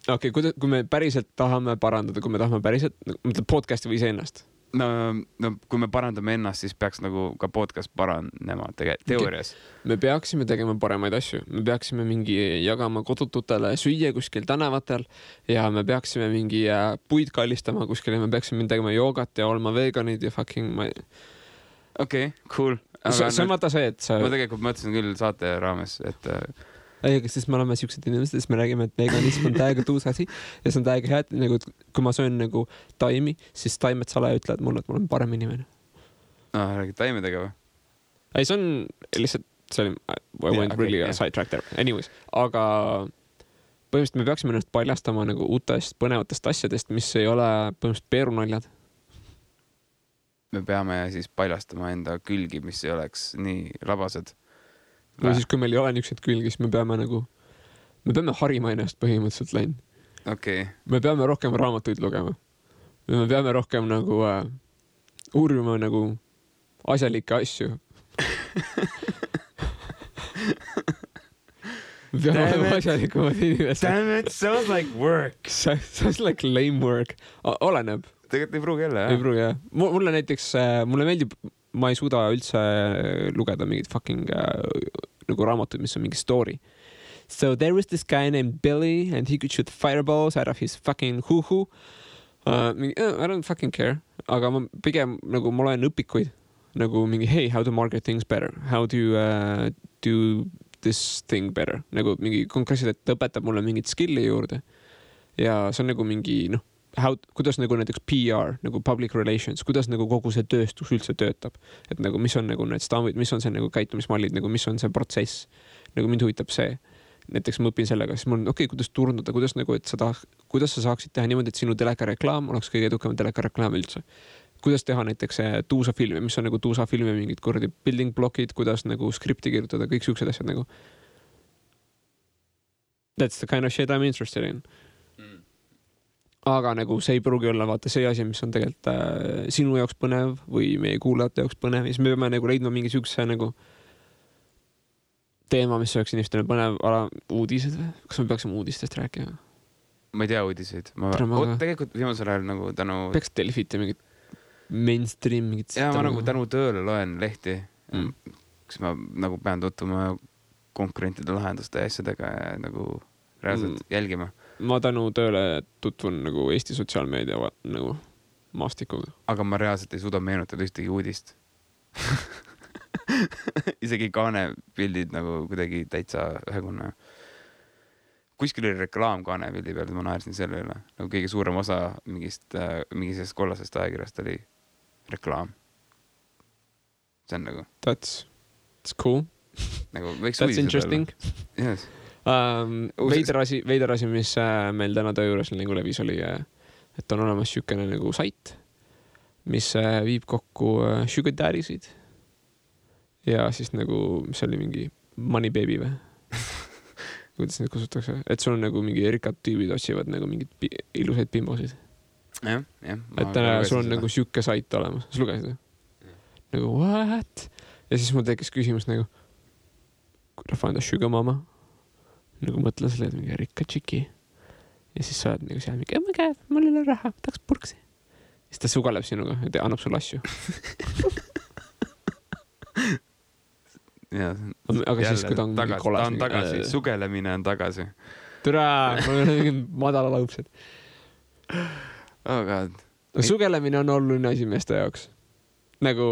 Kui me päriselt tahame parandada, kui me tahame päriselt, mõtleb podcasti või iseennast? No, kui me parandame ennast, siis peaks nagu ka podcast paranema teoorias. Me peaksime tegema paremaid asju. Me peaksime mingi jagama kodututele süüa kuskil tänavatel ja me peaksime mingi puid kallistama kuskil ja me peaksime tegema joogat ja olema veganid ja fucking... Okei, cool. See on vaata see, et sa... Ma tegelikult mõtlesin küll saate raames, et ei, sest me oleme siuksed inimesed, siis me räägime, et veganism on täiega tuus asi ja see on täiega hea, et nagu, kui ma söön nagu taimi, siis taimed salaja ütlevad mulle, et ma olen parem inimene. Räägid taimedega või? Ei, see on lihtsalt, see oli, I went really sidetrack there. Anyways, aga põhimõtteliselt me peaksime ennast paljastama nagu uutest põnevatest asjadest, mis ei ole põhimõtteliselt peerunaljad. Me peame siis paljastama enda külgi, mis ei oleks nii labased. Või siis, kui meil ei ole niisugused külgi, siis me peame harima ennast põhimõtteliselt läinud. Okay. Me peame rohkem raamatuid lugema. Me peame rohkem nagu uurima nagu asjalikke asju. Me peame olema asjalikumad inimesed. Damn it, sounds like work. Sounds like lame work. Oleneb. Tegelikult ei pruugi jälle, jah? Ei pruugi, jah. Mulle näiteks, mulle meeldib, ma ei suuda üldse lugeda mingit fucking nagu raamatuid, mis on mingi story. So there was this guy named Billy and he could shoot fireballs out of his fucking hoo-hoo. I don't fucking care. Aga ma pigem nagu ma loen õpikuid nagu mingi hey, how to market things better. How to do this thing better. Nagu mingi konkreetselt, et õpetab mulle mingit skilli juurde. Ja see on nagu mingi, kuidas nagu näiteks PR, nagu public relations, kuidas nagu kogu see tööstus üldse töötab. Et nagu mis on nagu need stambid, mis on see nagu käitumismallid, nagu mis on see protsess. Nagu mind huvitab see. Näiteks ma õpin sellega, siis mul on kuidas turundada, kuidas nagu, et kuidas sa saaksid teha niimoodi, et sinu telekareklaam oleks kõige edukam telekareklaam üldse. Kuidas teha näiteks tuusa filmi, mis on nagu tuusa filmi mingid kordi building blockid, kuidas nagu skripti kirjutada, kõik siuksed asjad nagu. That's the kind of shit I'm interested in. Aga nagu see ei pruugi olla vaata see asi, mis on tegelikult sinu jaoks põnev või meie kuulajate jaoks põnev. Ja siis me peame nagu leidma mingi siukse nagu teema, mis oleks inimestele põnev, uudised või? Kas me peaksime uudistest rääkima? Ma ei tea uudiseid. Tegelikult viimasel ajal nagu tänu... Peaks Delfit ja mingid mainstream, mingid... Ja ma nagu tänu tööle loen lehti, kus ma nagu pean tutvuma konkurentide lahenduste asjadega ja nagu reaalselt jälgima. Ma tänu tööle tutvun nagu Eesti sotsiaalmeedia nagu maastikuga. Aga ma reaalselt ei suuda meenutada ühtegi uudist. Isegi kaanepildid nagu kuidagi täitsa ühekonna. Kuskil oli reklaam kaanepildi peal, ma naersin selle üle. Nagu kõige suurem osa mingisest kollasest ajakirjast oli reklaam. See on nagu... That's cool. Nagu võiks That's interesting. Yes. Veider asi, mis meil täna töö juures nagu levis oli, et on olemas siukene nagu sait, mis viib kokku sugar daddy'sid ja siis nagu, mis oli mingi money baby või? Kuidas neid kusutakse? Et sul on nagu mingi erikad tüübid otsivad nagu mingid ilusaid pimbosid. Jah. Et sul on nagu siuke sait olemas. Sa lugesid? Nagu what? Ja siis mul tekkis küsimus nagu, could I find a sugar mama? Nagu mõtlen selle, et mingi rikka tšiki. Ja siis sa oled nagu seal mingi, oh my god, mul ei ole raha, tahaks purksi. Ja siis ta sugaleb sinuga ja annab sulle asju. Aga siis, kui ta on mingi kolas. Ta on tagasi, sugelemine on tagasi. Türa, mul on mingi madala laupsed. Oh god. Sugelemine on oluline asi meeste jaoks. Nagu...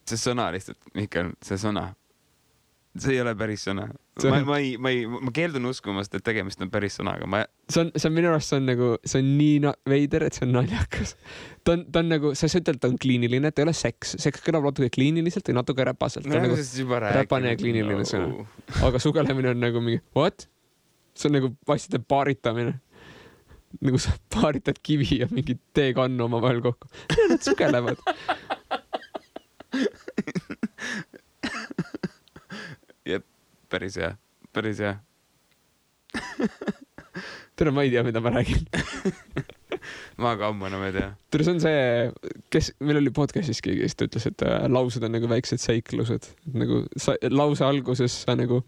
See sõna lihtsalt, Mihkel, see sõna. See ei ole päris sõna. Ma keeldun uskumast, et tegemist on päris sõnaga. See on minu arust, see on nii veider, et see on naljakas. Ta on nagu, sa ütled, ta on kliiniline, et ei ole seks. Seks kõlab natuke kliiniliselt või natuke räpaselt. Ta on nagu räpane ja kliiniline sõna. Aga sugelemine on nagu mingi, what? See on nagu vastide paaritamine. Nagu sa paaritad kivi ja mingi teekannu oma vahel kokku. Nad sugelevad. Jep, päris hea. Tere, ma ei tea, mida ma räägin. Ma ka ammu enam ei tea. Tere, see on see, meil oli podcastis keegi, kes ütles, et laused on nagu väiksed seiklused. Nagu lause alguses sa nagu,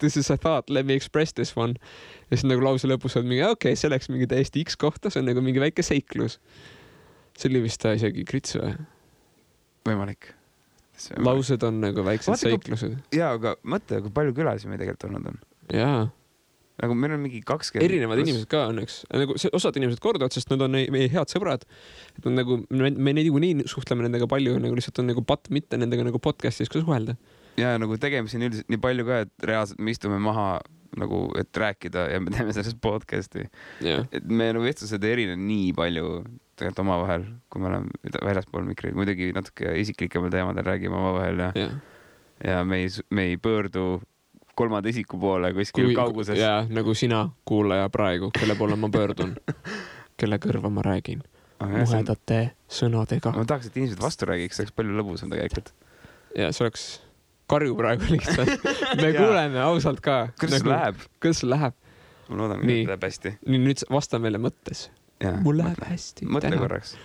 this is a thought, let me express this one. Ja siis nagu lause lõpus on mingi, okei, see läks mingi täiesti X kohta, see on nagu mingi väike seiklus. See oli vist isegi krits või? Võimalik. Laused on nagu väiksed seiklused. Jaa, aga mõtle, kui palju külalisi me tegelikult olnud on. Jaa. Nagu meil on mingi 20... Erinevad inimesed ka õnneks. Nagu osad inimesed korduvad, sest nad on meie head sõbrad. Et on nagu, me nii suhtleme nendega palju, nagu lihtsalt on nagu patt mitte nendega nagu podcastis ka suhelda. ja nagu tegemisi on üldiselt nii palju ka, et reaalselt me istume maha nagu, et rääkida ja me teeme sellest podcast'i. Et me nagu vestlused ei erine nii palju tegelikult omavahel, kui me oleme väljaspool mikri. Muidugi natuke isiklikemal teemadel räägime omavahel ja me ei pöördu kolmanda isiku poole kuskil kauguses. Ja nagu sina kuulaja praegu, kelle poole ma pöördun, kelle kõrva ma räägin. Muhedate sõnadega. Ma tahaks, et inimesed vastu räägiks, see oleks palju lõbusam tegelikult. Ja see oleks karju praegu lihtsalt. Me kuuleme ausalt ka. Kuidas see läheb? Ma loodan, et läheb hästi. Nüüd vasta meile mõttes. Mul läheb hästi. Mõtle korraks.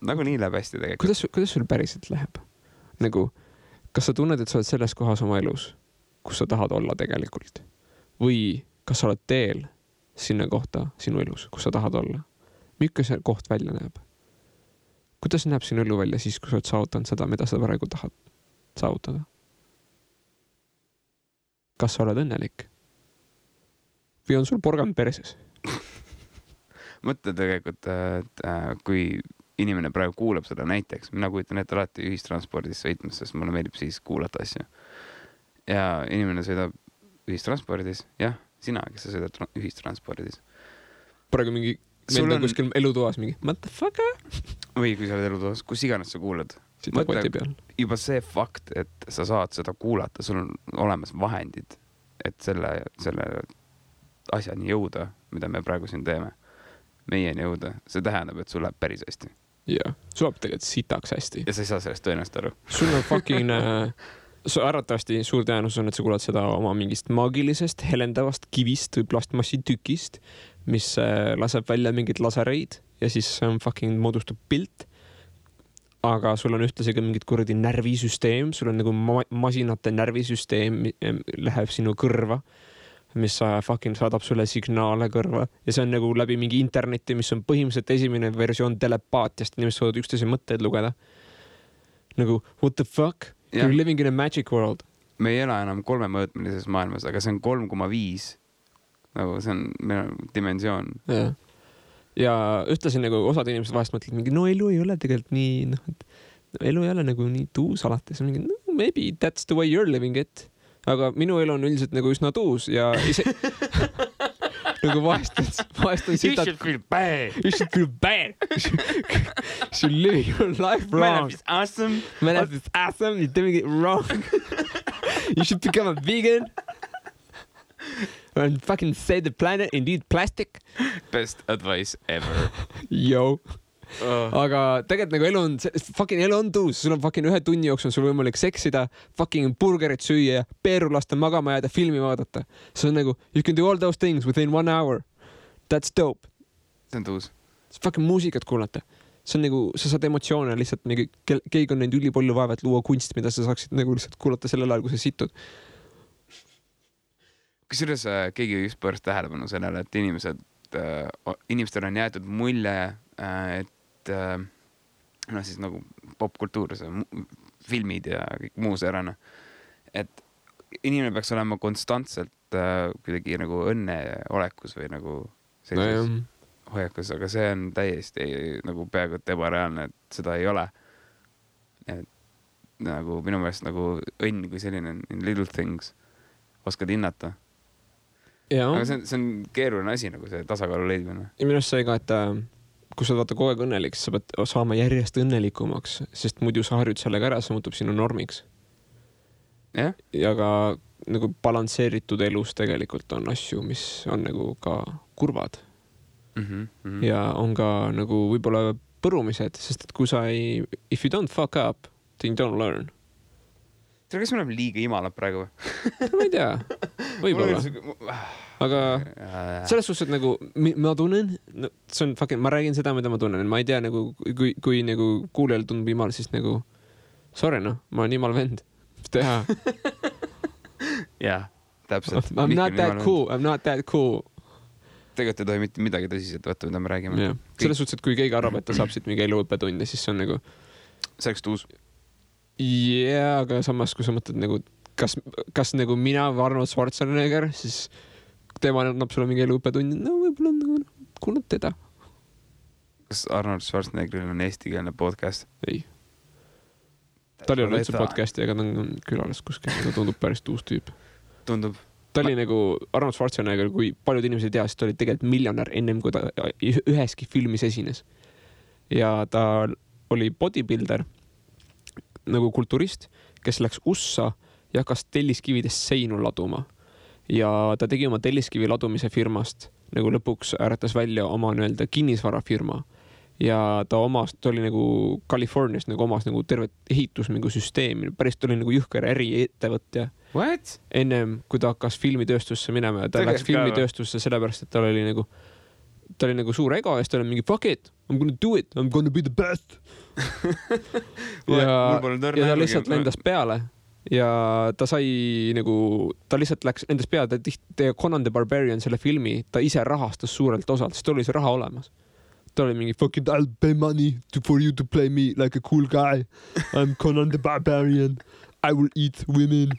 Nagu nii läheb hästi tegelikult. Kuidas sul päriselt läheb? Nagu, kas sa tunned, et sa oled selles kohas oma elus, kus sa tahad olla tegelikult? Või kas sa oled teel sinna kohta sinu elus, kus sa tahad olla? Milline see koht välja näeb? Kuidas näeb sinu elu välja siis, kui sa oled saavutanud seda, mida sa praegu tahad saavutada? Kas sa oled õnnelik? Või on sul porgand perses? Mõtle tegelikult, et kui inimene praegu kuulab seda näiteks, mina kujutan ette alati ühistranspordis sõitmas, sest mulle meeldib siis kuulata asju. Ja inimene sõidab ühistranspordis, jah, sina, kes sa sõidad ühistranspordis. Praegu mingi menda kuskil elutoas mingi motherfucker. Või kui sa oled elutoas, kus iganes sa kuulad. Mõtle, juba see fakt, et sa saad seda kuulata, sul on olemas vahendid, et selle asjani jõuda, mida me praegu siin teeme, meieni jõuda. See tähendab, et sul läheb päris hästi. Jah, sul läheb tegelikult sitaks hästi. Ja sa ei saa sellest tõenäoliselt aru. Sul on fucking... Arvatavasti suur tõenäosus on, et sa kuulad seda oma mingist maagilisest, helendavast kivist või plastmassi tükist, mis laseb välja mingid lasereid ja siis fucking moodustub pilt. Aga sul on ühtlasi ka mingid kuradi närvisüsteem, sul on nagu masinate närvisüsteem läheb sinu kõrva, mis fucking saadab sulle signaale kõrva ja see on nagu läbi mingi interneti, mis on põhimõtteliselt esimene versioon telepaatiast, inimesed saavad üksteise mõtteid lugeda. Nagu, what the fuck? You're living in a magic world. Me ei ela enam 3-mõõtmelises maailmas, aga see on 3,5. Nagu see on meil dimensioon. Ja ühtlasin nagu osad inimesed vahest mõtlevad mingi, no elu ei ole tegelikult nii, elu ei ole nagu nii tuus alati. See on mingi, no maybe that's the way you're living it. Aga minu elu on üldiselt nagu üsna tuus ja ise... nagu vahest on sitad... You should feel bad. You should feel bad. You should live your life wrong. My life is awesome. My life is awesome. You're doing it wrong. You should become a vegan. And fucking save the planet and eat plastic. Best advice ever. Yo. Aga tegelikult nagu elu on tuus, sul on fucking 1 tunni jooksul sul võimalik seksida, fucking burgerit süüa, peeru lasta magama jääda, filmi vaadata. See on nagu, you can do all those things within 1 hour. That's dope. See on tuus. Fucking muusikat kuulata. See on nagu, sa saad emotsioone lihtsalt, keegi on neid ülipalju vaeva, et luua kunst, mida sa saaksid nagu lihtsalt kuulata sellel ajal, kui sa situd. Kusjuures keegi just pööras tähelepanu sellele, et inimestel on jäetud mulje, et siis nagu popkultuur, filmid ja kõik muu seerane, et inimene peaks olema konstantselt kuidagi nagu õnneolekus või nagu sellises hoiakus, aga see on täiesti nagu peaaegu et ebareaalne, et seda ei ole. Et nagu minu meelest nagu õnn kui selline little things oskad hinnata. Aga see on keeruline asi, nagu see tasakaalu leidmine. Ja minu arust see ka, et kui sa vaata kogu aeg õnnelik, sa pead saama järjest õnnelikumaks, sest muidu sa harjud sellega ära, see muutub sinu normiks. Ja ka nagu balansseeritud elus tegelikult on asju, mis on nagu ka kurvad. Ja on ka nagu võib-olla põrumised, sest et kui sa if you don't fuck up, then you don't learn. Kas me oleme liiga imalad praegu? Ma ei tea, võib-olla. Aga selles suhtes, et nagu ma tunnen, see on fucking, ma räägin seda, mida ma tunnen, ma ei tea nagu, kui nagu kuulejal tundub imal, siis nagu sorry ma olen imal vend, mis teha? Jah, täpselt. I'm not that cool. Tegelikult ei tohi mitte midagi tõsiselt võtta, mida me räägime. Selles suhtes, et kui keegi arvab, et ta saab siit mingi eluõppetunde, siis see on nagu see oleks tuus. Aga samas, kui sa mõtled nagu kas nagu mina või Arnold Schwarzenegger, siis tema annab sulle mingi eluõppetunni, no võib-olla nagu kuulad teda. Kas Arnold Schwarzeneggeril on eestikeelne podcast? Ei. ta oli üldse podcasti, aga ta on külalas kuskil, ta tundub päris uus tüüp. Tundub. Ta oli nagu Arnold Schwarzenegger, kui paljud inimesed ei tea, siis ta oli tegelikult miljonär ennem, kui ta üheski filmis esines. Ja ta oli bodybuilder, nagu kulturist, kes läks USA ja hakkas telliskividest seinu laduma. Ja ta tegi oma telliskivi ladumise firmast, nagu lõpuks äratas välja oma nii-öelda kinnisvarafirma. Ja ta oli nagu Californias nagu omas nagu tervet ehitussüsteemi, päris ta oli nagu jõhker äriettevõtja. What? Ennem, kui ta hakkas filmitööstusse minema ja ta läks filmitööstusse sellepärast, et ta oli nagu suur ego ja siis ta oli mingi fuck it, I'm gonna do it, I'm gonna be the best. ja ta lihtsalt lendas peale ja ta sai nagu, ta lihtsalt lendas peale, ta Conan the Barbarian selle filmi, ta ise rahastas suurelt osalt, sest ta oli see raha olemas. Ta oli mingi fuck it, I'll pay money for you to play me like a cool guy. I'm Conan the Barbarian. I will eat women.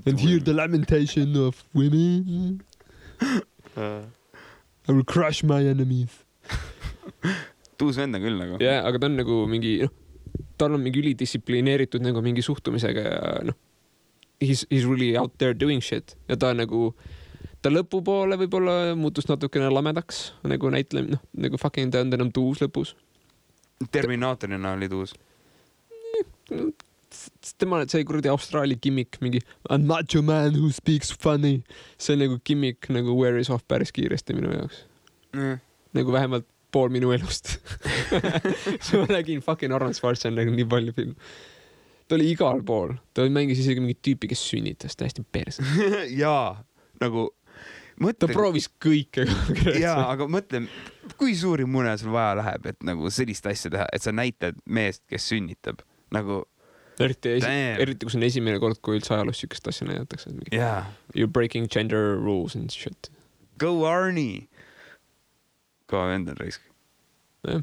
And hear the lamentation of women. I will crush my enemies. Tuus vend on küll nagu. Jah, aga ta on nagu mingi, tal on mingi ülidistsiplineeritud nagu mingi suhtumisega ja he's really out there doing shit. Ja ta nagu, ta lõpupoole võib-olla muutus natukene lamedaks, nagu näitlem, nagu fucking ta on enam tuus lõpus. Terminaatorina oli tuus. Tema see kuradi Austraalia gimmick, mingi I'm macho man who speaks funny. See nagu gimmick nagu wears off päris kiiresti minu jaoks. Nagu vähemalt pool minu elust. Ma nägin fucking Arnold Schwarzenegger nii palju film. Ta oli igal pool. Ta mängis isegi mingi tüüpi, kes sünnitas täiesti perse. Jaa, nagu ta proovis kõike. Jaa, aga mõtle, kui suuri mune sul vaja läheb, et nagu sellist asja teha, et sa näitad meest, kes sünnitab. Nagu eriti kui see on esimene kord, kui üldse ajalus sükest asja näidatakse. Yeah. You're breaking gender rules and shit. Go Arnie! Kõva vend on raisk. Ja.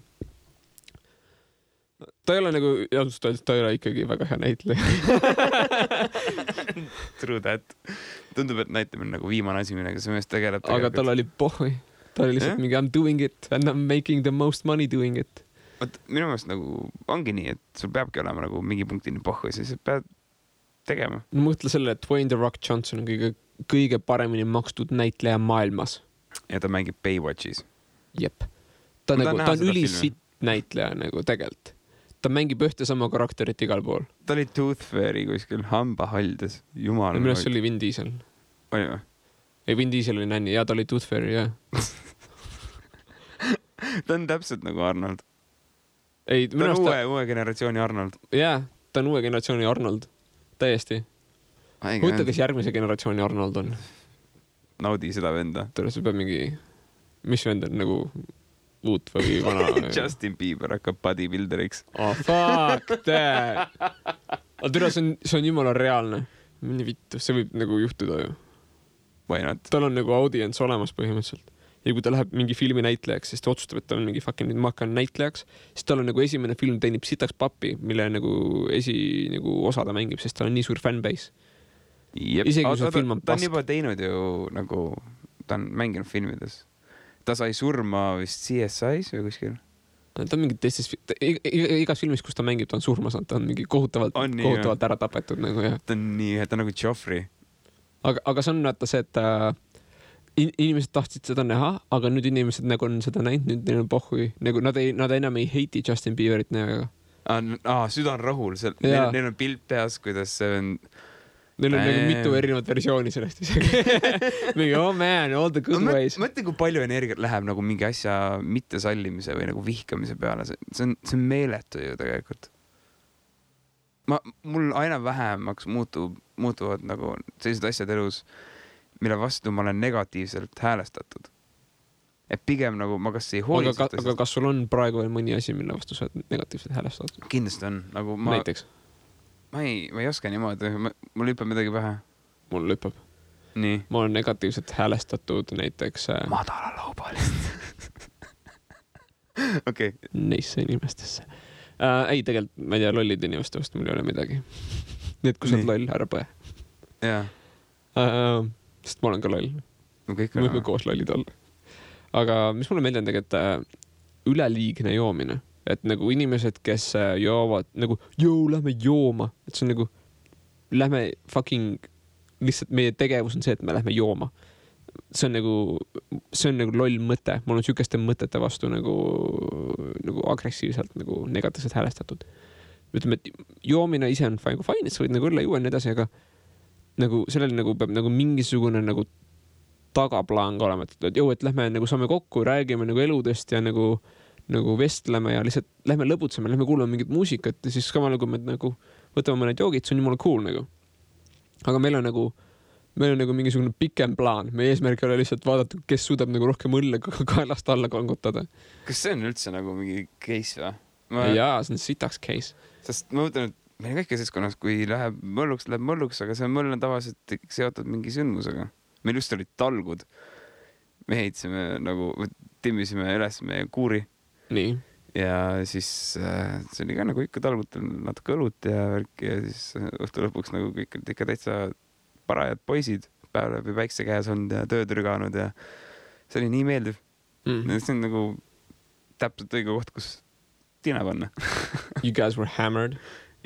Ta ei ole nagu, ta ei ole ikkagi väga hea näitleja. True that. Tundub, et näitamine nagu viimane asi, millega see mees tegeleb. Aga tal oli pohhui. Ta oli lihtsalt mingi I'm doing it and I'm making the most money doing it. Minu meelest nagu ongi nii, et sul peabki olema nagu mingi punktini pohhu ja siis pead tegema. Mõtle selle, et Dwayne The Rock Johnson on kõige paremini makstud näitleja maailmas. Ja ta mängib Baywatchis. Jep. Ta on ülisitt näitleja nagu tegelt. Ta mängib ühte sama karakterit igal pool. Ta oli Tooth Fairy kuskil hambahaldes. Jumal. Minu arust see oli Vin Diesel. Oli või? Ei, Vin Diesel oli nänni. Ja ta oli Tooth Fairy, jah. Ta on täpselt nagu Arnold. Ei, ta on uue generatsiooni Arnold. Jaa, ta on uue generatsiooni Arnold. Täiesti. Mõtle, kes järgmise generatsiooni Arnold on. Naudi seda venda. Tõle, see peab mingi... Mis vend on nagu uut või vana? Justin Bieber hakkab bodybuilderiks. Oh, fuck that! Aga tõle, see on jumala reaalne. Mini vittu, see võib nagu juhtuda ju. Why not? Tal on nagu audience olemas põhimõtteliselt. Ja kui ta läheb mingi filmi näitlejaks, siis ta otsustab, et ta on mingi fucking ma hakkan näitlejaks, siis tal on nagu esimene film teenib sitaks pappi, mille nagu nagu osa ta mängib, sest tal on nii suur fanbase. Isegi kui see film on pask. Ta on juba teinud ju nagu, ta on mänginud filmides. Ta sai surma vist CSI's või kuskil? Ta on mingi teistes, igas filmis, kus ta mängib, ta on surma saanud, ta on mingi kohutavalt ära tapetud nagu, jah. Ta on nii, ta on nagu Joffrey. Aga see on vaata see, et inimesed tahtsid seda näha, aga nüüd inimesed nagu on seda näinud, nüüd neil on pohhui. Nagu nad enam ei heiti Justin Bieberit näoga. Süda on rahul. Neil on pilt peas, kuidas see on... Neil on nagu mitu erinevat versiooni sellest isegi. Mingi, oh man, all the good ways. Mõtle, kui palju energiat läheb nagu mingi asja mittesallimise või nagu vihkamise peale. See on meeletu ju tegelikult. Mul aina vähemaks muutuvad nagu sellised asjad elus, mille vastu ma olen negatiivselt häälestatud. Et pigem nagu ma kas ei hoolitseta. Aga kas sul on praegu veel mõni asi, mille vastu sa oled negatiivselt häälestatud? Kindlasti on. Nagu näiteks? Ma ei oska niimoodi. Mul lüppab midagi pähe. Mul lüppab. Nii. Ma olen negatiivselt häälestatud näiteks... Madala laubalist. Okei. Neisse inimestesse. Ei, tegelikult, ma ei tea, lollid inimeste vastu mul ei ole midagi. Nii, et kui sa oled loll, ära põe. Jaa. Sest ma olen ka loll. Me võime koos lollid olla. Aga mis mulle meeldi on tegelikult üleliigne joomine. et nagu inimesed, kes joovad nagu, lähme jooma, et see on nagu, lähme fucking, lihtsalt meie tegevus on see, et me lähme jooma. See on nagu loll mõte. Mul on sükeste mõtete vastu nagu agressiivselt nagu negatiivselt häälestatud. Ütleme, et joomine ise on fine, et sa võid nagu õlle juua nii edasi, aga nagu sellel nagu peab nagu mingisugune nagu tagaplaan ka olema, et lähme nagu saame kokku, räägime nagu eludest ja nagu vestleme ja lihtsalt lähme lõbutseme, lähme kuulame mingit muusikat ja siis samal nagu me nagu võtame mõned joogid, see on jumala cool nagu. Aga meil on nagu mingisugune pikem plaan. Meie eesmärk ei ole lihtsalt vaadata, kes suudab nagu rohkem õlle kaelast alla kangutada. Kas see on üldse nagu mingi case või? Jaa, see on sitaks case. Sest ma mõtlen, et meil kõik keskonnas, kui läheb mölluks, aga see möll on tavaliselt seotud mingi sündmusega. Meil just olid talgud. Me heidsime nagu, timmisime üles meie kuuri. Nii. Ja siis see oli ka nagu ikka talgutel natuke õlut ja värk ja siis õhtu lõpuks nagu kõik olid ikka täitsa parajad poisid, päev läbi päikse käes olnud ja tööd rüganud ja see oli nii meeldiv. See on nagu täpselt õige koht, kus tina panna. You guys were hammered?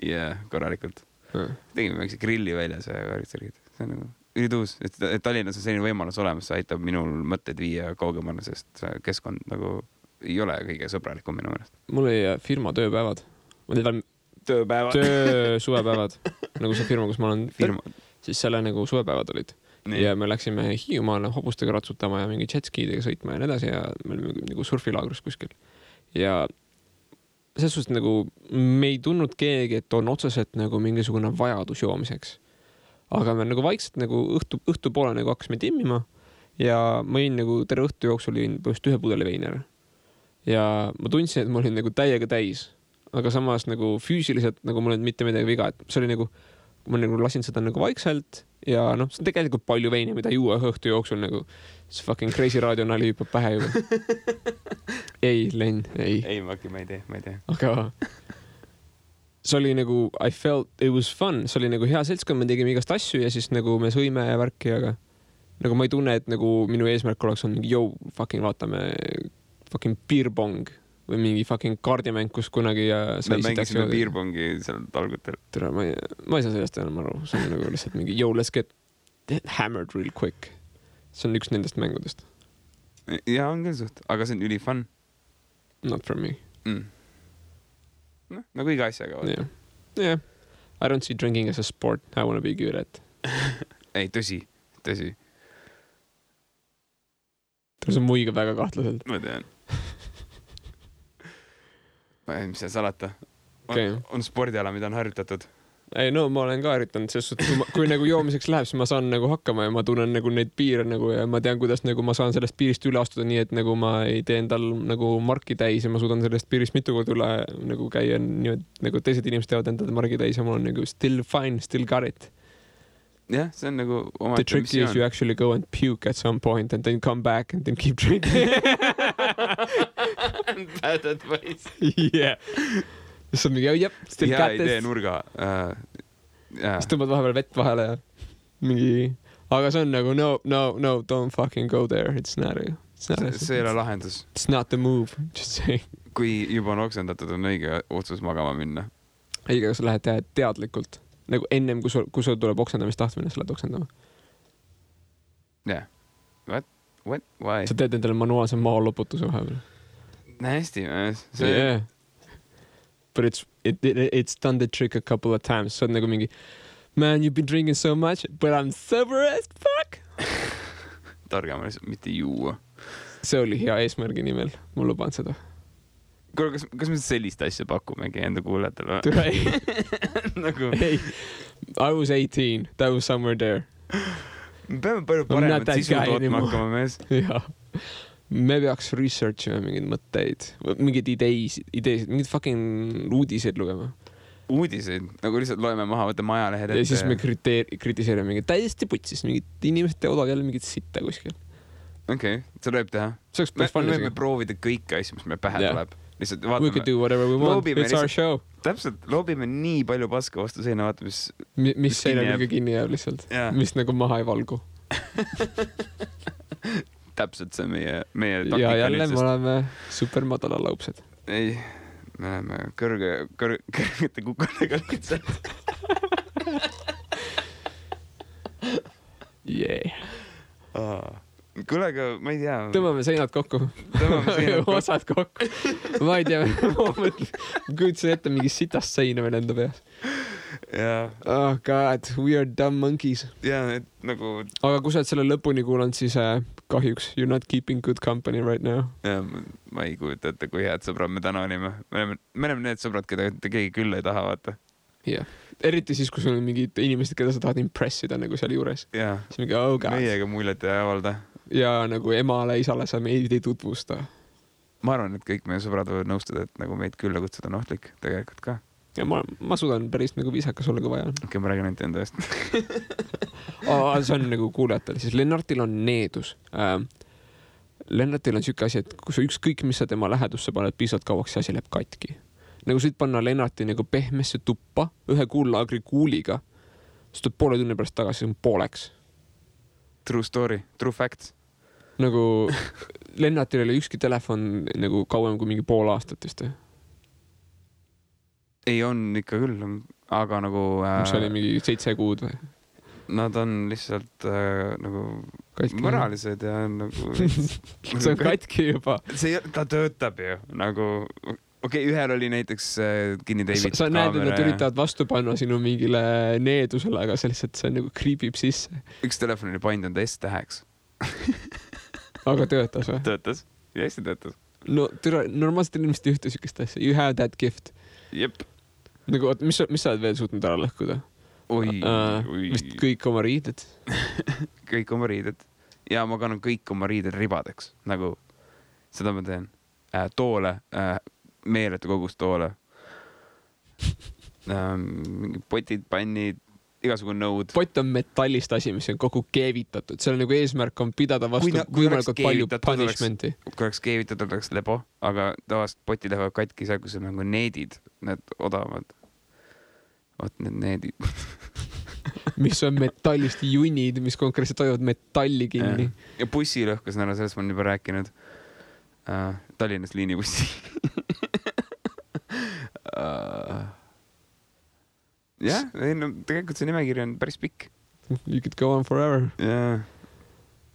Yeah, korralikult. Tegime väikse grilli väljas ja värksärgid. See on nagu ülituus, et Tallinnas on selline võimalus olemas, see aitab minul mõtted viia kaugemale, sest keskkond nagu ei ole kõige sõbralikum minu mõelest. Mul oli firma tööpäevad. Suvepäevad. Nagu see firma, kus ma olen siis selle nagu suvepäevad olid. Nii. Ja me läksime Hiiumaale hobustega ratsutama ja mingi jetskiidega sõitma ja nii edasi ja me olime nagu surfilaagrus kuskil. Ja selles suhtes nagu me ei tundnud keegi, et on otseselt nagu mingisugune vajadus joomiseks. Aga me nagu vaikselt nagu õhtu poole nagu hakkasime timmima ja ma olin nagu terve õhtu jooksul olin põhjust 1 pudeli veini ära. Ja ma tundsin, et ma olin nagu täiega täis, aga samas nagu füüsiliselt nagu mul ei mitte midagi viga, et see oli nagu, ma nagu lasin seda nagu vaikselt ja noh, see on tegelikult palju veini, mida juua õhtu jooksul nagu see fucking crazy radio nali hüppab pähe juba. Ei, Len, ei. Ei, ma ei tee. Aga see oli nagu, I felt it was fun, see oli nagu hea seltskond, me tegime igast asju ja siis nagu me sõime ja värki, aga nagu ma ei tunne, et nagu minu eesmärk oleks on mingi, fucking vaatame fucking beerbong või mingi fucking kaardimäng, kus kunagi me mängisime beerbongi seal talgutel. Tere, ma ei saa sellest enam aru. See on nagu lihtsalt mingi, let's get hammered real quick. See on üks nendest mängudest. Ja, on küll suht, aga see on üli fun. Not for me. No, nagu iga asjaga. Yeah. I don't see drinking as a sport. I want to be good at. Ei, tõsi. See on muiga väga kahtlaselt. Ma tean. Mis see salata? On spordiala, mida on harjutatud? Ei, no ma olen ka harjutanud, sest kui nagu joomiseks läheb, siis ma saan nagu hakkama ja ma tunnen nagu neid piire nagu ja ma tean, kuidas nagu ma saan sellest piirist üle astuda nii, et nagu ma ei tee endal nagu marki täis ja ma suudan sellest piirist mitu korda üle nagu käia nii, et nagu teised inimesed teevad endale marki täis ja mul on nagu still fine, still got it. Jah, see on nagu oma The trick is you actually go and puke at some point and then come back and then keep drinking. Bad advice. Yeah. See on mingi, still got this. Hea idee nurga. Siis tõmbad vahepeal vett vahele ja mingi... Aga see on nagu, no, don't fucking go there. It's not see ei ole lahendus. It's not the move, just say. Kui juba on oksendatud, on õige otsus magama minna. Õige, kas sa lähed teha teadlikult? Nagu ennem, kui sul tuleb oksendamist tahtmine, sa lähed oksendama. Yeah. What? Why? Sa teed endale manuaalse maaloputuse vahepeal. Hästi. Yeah. But it's done the trick a couple of times. Sa oled nagu mingi, man, you've been drinking so much, but I'm sober as fuck. Targem on lihtsalt mitte juua. See oli hea eesmärgi nimel. Ma luban seda. Kuule, kas me sellist asja pakumegi enda kuulajatele? Nagu... Hey, I was 18. That was somewhere there. Me peame palju paremat sisu tootma hakkama mees. Ja. Me peaks researchima mingeid mõtteid, mingeid ideesid, mingid fucking uudiseid lugema. Uudiseid? Nagu lihtsalt loeme maha, võtame ajalehed ette. Ja siis me kritiseerime mingid täiesti putsis, mingid inimesed teevad jälle mingid sitta kuskil. Okei, seda võib teha. Me võime proovida kõike asju, mis meil pähe tuleb. Lihtsalt vaatame. We could do whatever we want. It's our show. Täpselt, loobime nii palju paska vastu seina, vaata, mis seina kõige kinni jääb lihtsalt. Mis nagu maha ei valgu. Täpselt see meie taktika. Ja jälle me oleme super madala laupsed. Ei, me oleme kõrgete kukadega lihtsalt. Kuule, aga ma ei tea. Tõmbame seinad kokku. Osad kokku. Ma ei tea, ma kujutasin ette mingi sitast seina veel enda peas. Oh god, we are dumb monkeys. Et nagu... Aga kui sa oled selle lõpuni kuulanud, siis kahjuks you're not keeping good company right now. Ma ei kujuta ette, kui head sõbrad me täna olime. Me oleme need sõbrad, keda keegi küll ei taha, vaata. Eriti siis, kui sul on mingid inimesed, keda sa tahad impressida nagu seal juures. Siis mingi, oh god. Meiega muljet ei avalda. Ja nagu emale, isale sa meid ei tutvusta. Ma arvan, et kõik meie sõbrad võivad nõustuda, et nagu meid külla kutsuda on ohtlik tegelikult ka. Ja ma suudan päris nagu viisakas olla, kui vaja on. Okei, ma räägin ainult enda eest. See on nagu kuulejatel. Siis Lennartil on needus. Lennartil on siuke asi, et kui sa ükskõik, mis sa tema lähedusse paned piisavalt kauaks, see asi läheb katki. Nagu sa võid panna Lennarti nagu pehmesse tuppa ühe kuullaagri kuuliga, siis tuleb poole tunni pärast tagasi, see on pooleks. True story, true facts. Nagu Lennartil oli ükski telefon nagu kauem kui mingi pool aastat vist. Ei on ikka küll, aga nagu... See oli mingi 7 kuud või? Nad on lihtsalt nagu katki. Moralised ja nagu... see on katki juba. Ta töötab ju nagu... Okei, ühel oli näiteks kinni teibitud sa näed, et nad üritavad vastu panna sinu mingile needusele, aga see lihtsalt see nagu kriibib sisse. Üks telefon oli painud enda S-täheks. Aga töötas või? Töötas. Ja hästi töötas. No normaalselt inimesed ei ühte sükest asja. You have that gift. Jep. Nagu, mis sa oled veel suutnud ära lõhkuda? Vist kõik oma riided. Kõik oma riided. Ja ma kannan kõik oma riided ribadeks. Nagu seda ma teen. Toole... meeletu kogus toole. Mingi potid, pannid, igasugune nõud. Pott on metallist asi, mis on kogu keevitatud. Seal nagu eesmärk on pidada vastu võimalikult palju punishmenti. Kui oleks keevitatud, oleks lebo, aga tavaliselt poti lähevad katki seal, kus on nagu needid, need odavad. Vaat need needid. Mis on metallist junid, mis konkreetselt hoiavad metalli kinni. Ja bussi lõhkus nära, sellest ma olen juba rääkinud. Tallinnas liinibussi. Jah, tegelikult see nimekiri on päris pikk. You could go on forever.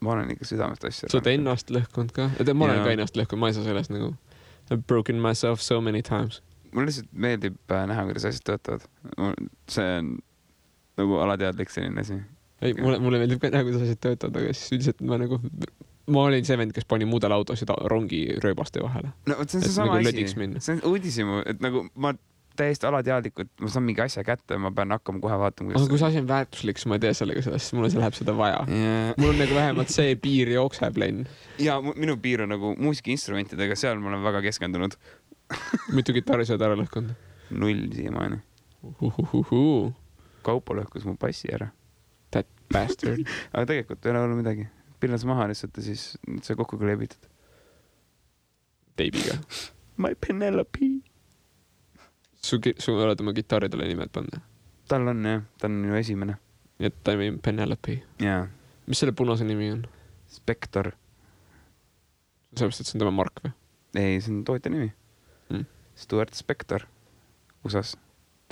Ma olen ikka südamest asja. Sa oled ennast lõhkunud ka? Ma olen ka ennast lõhkunud, ma ei saa sellest nagu I've broken myself so many times. Mulle lihtsalt meeldib näha, kuidas asjad töötavad. See on nagu alateadlik selline asi. Ei, mulle meeldib ka näha, kuidas asjad töötavad, aga siis üldiselt ma olin see vend, kes pani muudel autosid rongi rööbaste vahele. No, see on see sama asi. See on uudisimu, et nagu ma täiesti alateadlikult, ma saan mingi asja kätte, ma pean hakkama kohe vaatama. Aga kui see asi on väärtuslik, siis ma ei tea sellega sellest, siis mulle läheb seda vaja. Mul on nagu vähemalt see piir jookseb lenn. Ja minu piir on nagu muusikainstrumentidega, seal ma olen väga keskendunud. Mitu kitarri sa oled ära lõhkunud? 0 siiamaani. Kaupo lõhkus mu passi ära. That bastard. Aga tegelikult ei ole olnud midagi. Pillas maha lihtsalt ja siis see kokku kleebitud. Teibiga. My Penelope. Su oled oma kitarridele nimed panna? Tal on jah, ta on minu esimene. Ja ta on Penelope. Jaa. Mis selle punase nimi on? Spector. Sellepärast, et see on tema mark või? Ei, see on tootja nimi. Stuart Spector. Usas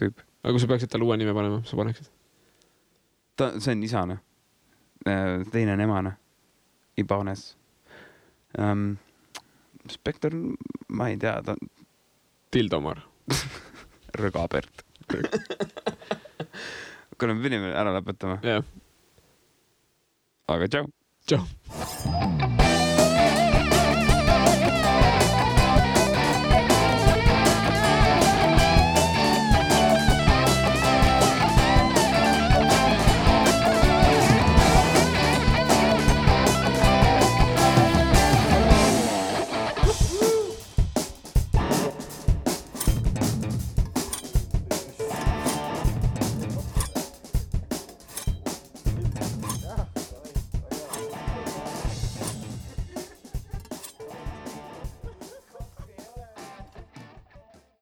tüüp. Aga kui sa peaksid talle uue nime panema, sa paneksid? See on isane. Teine on emane. Ibanes. Spector, ma ei tea, ta on... Tildomar. Rõgabert. Kui me pidime ära lõpetama. Jah. Aga tšau. Tšau.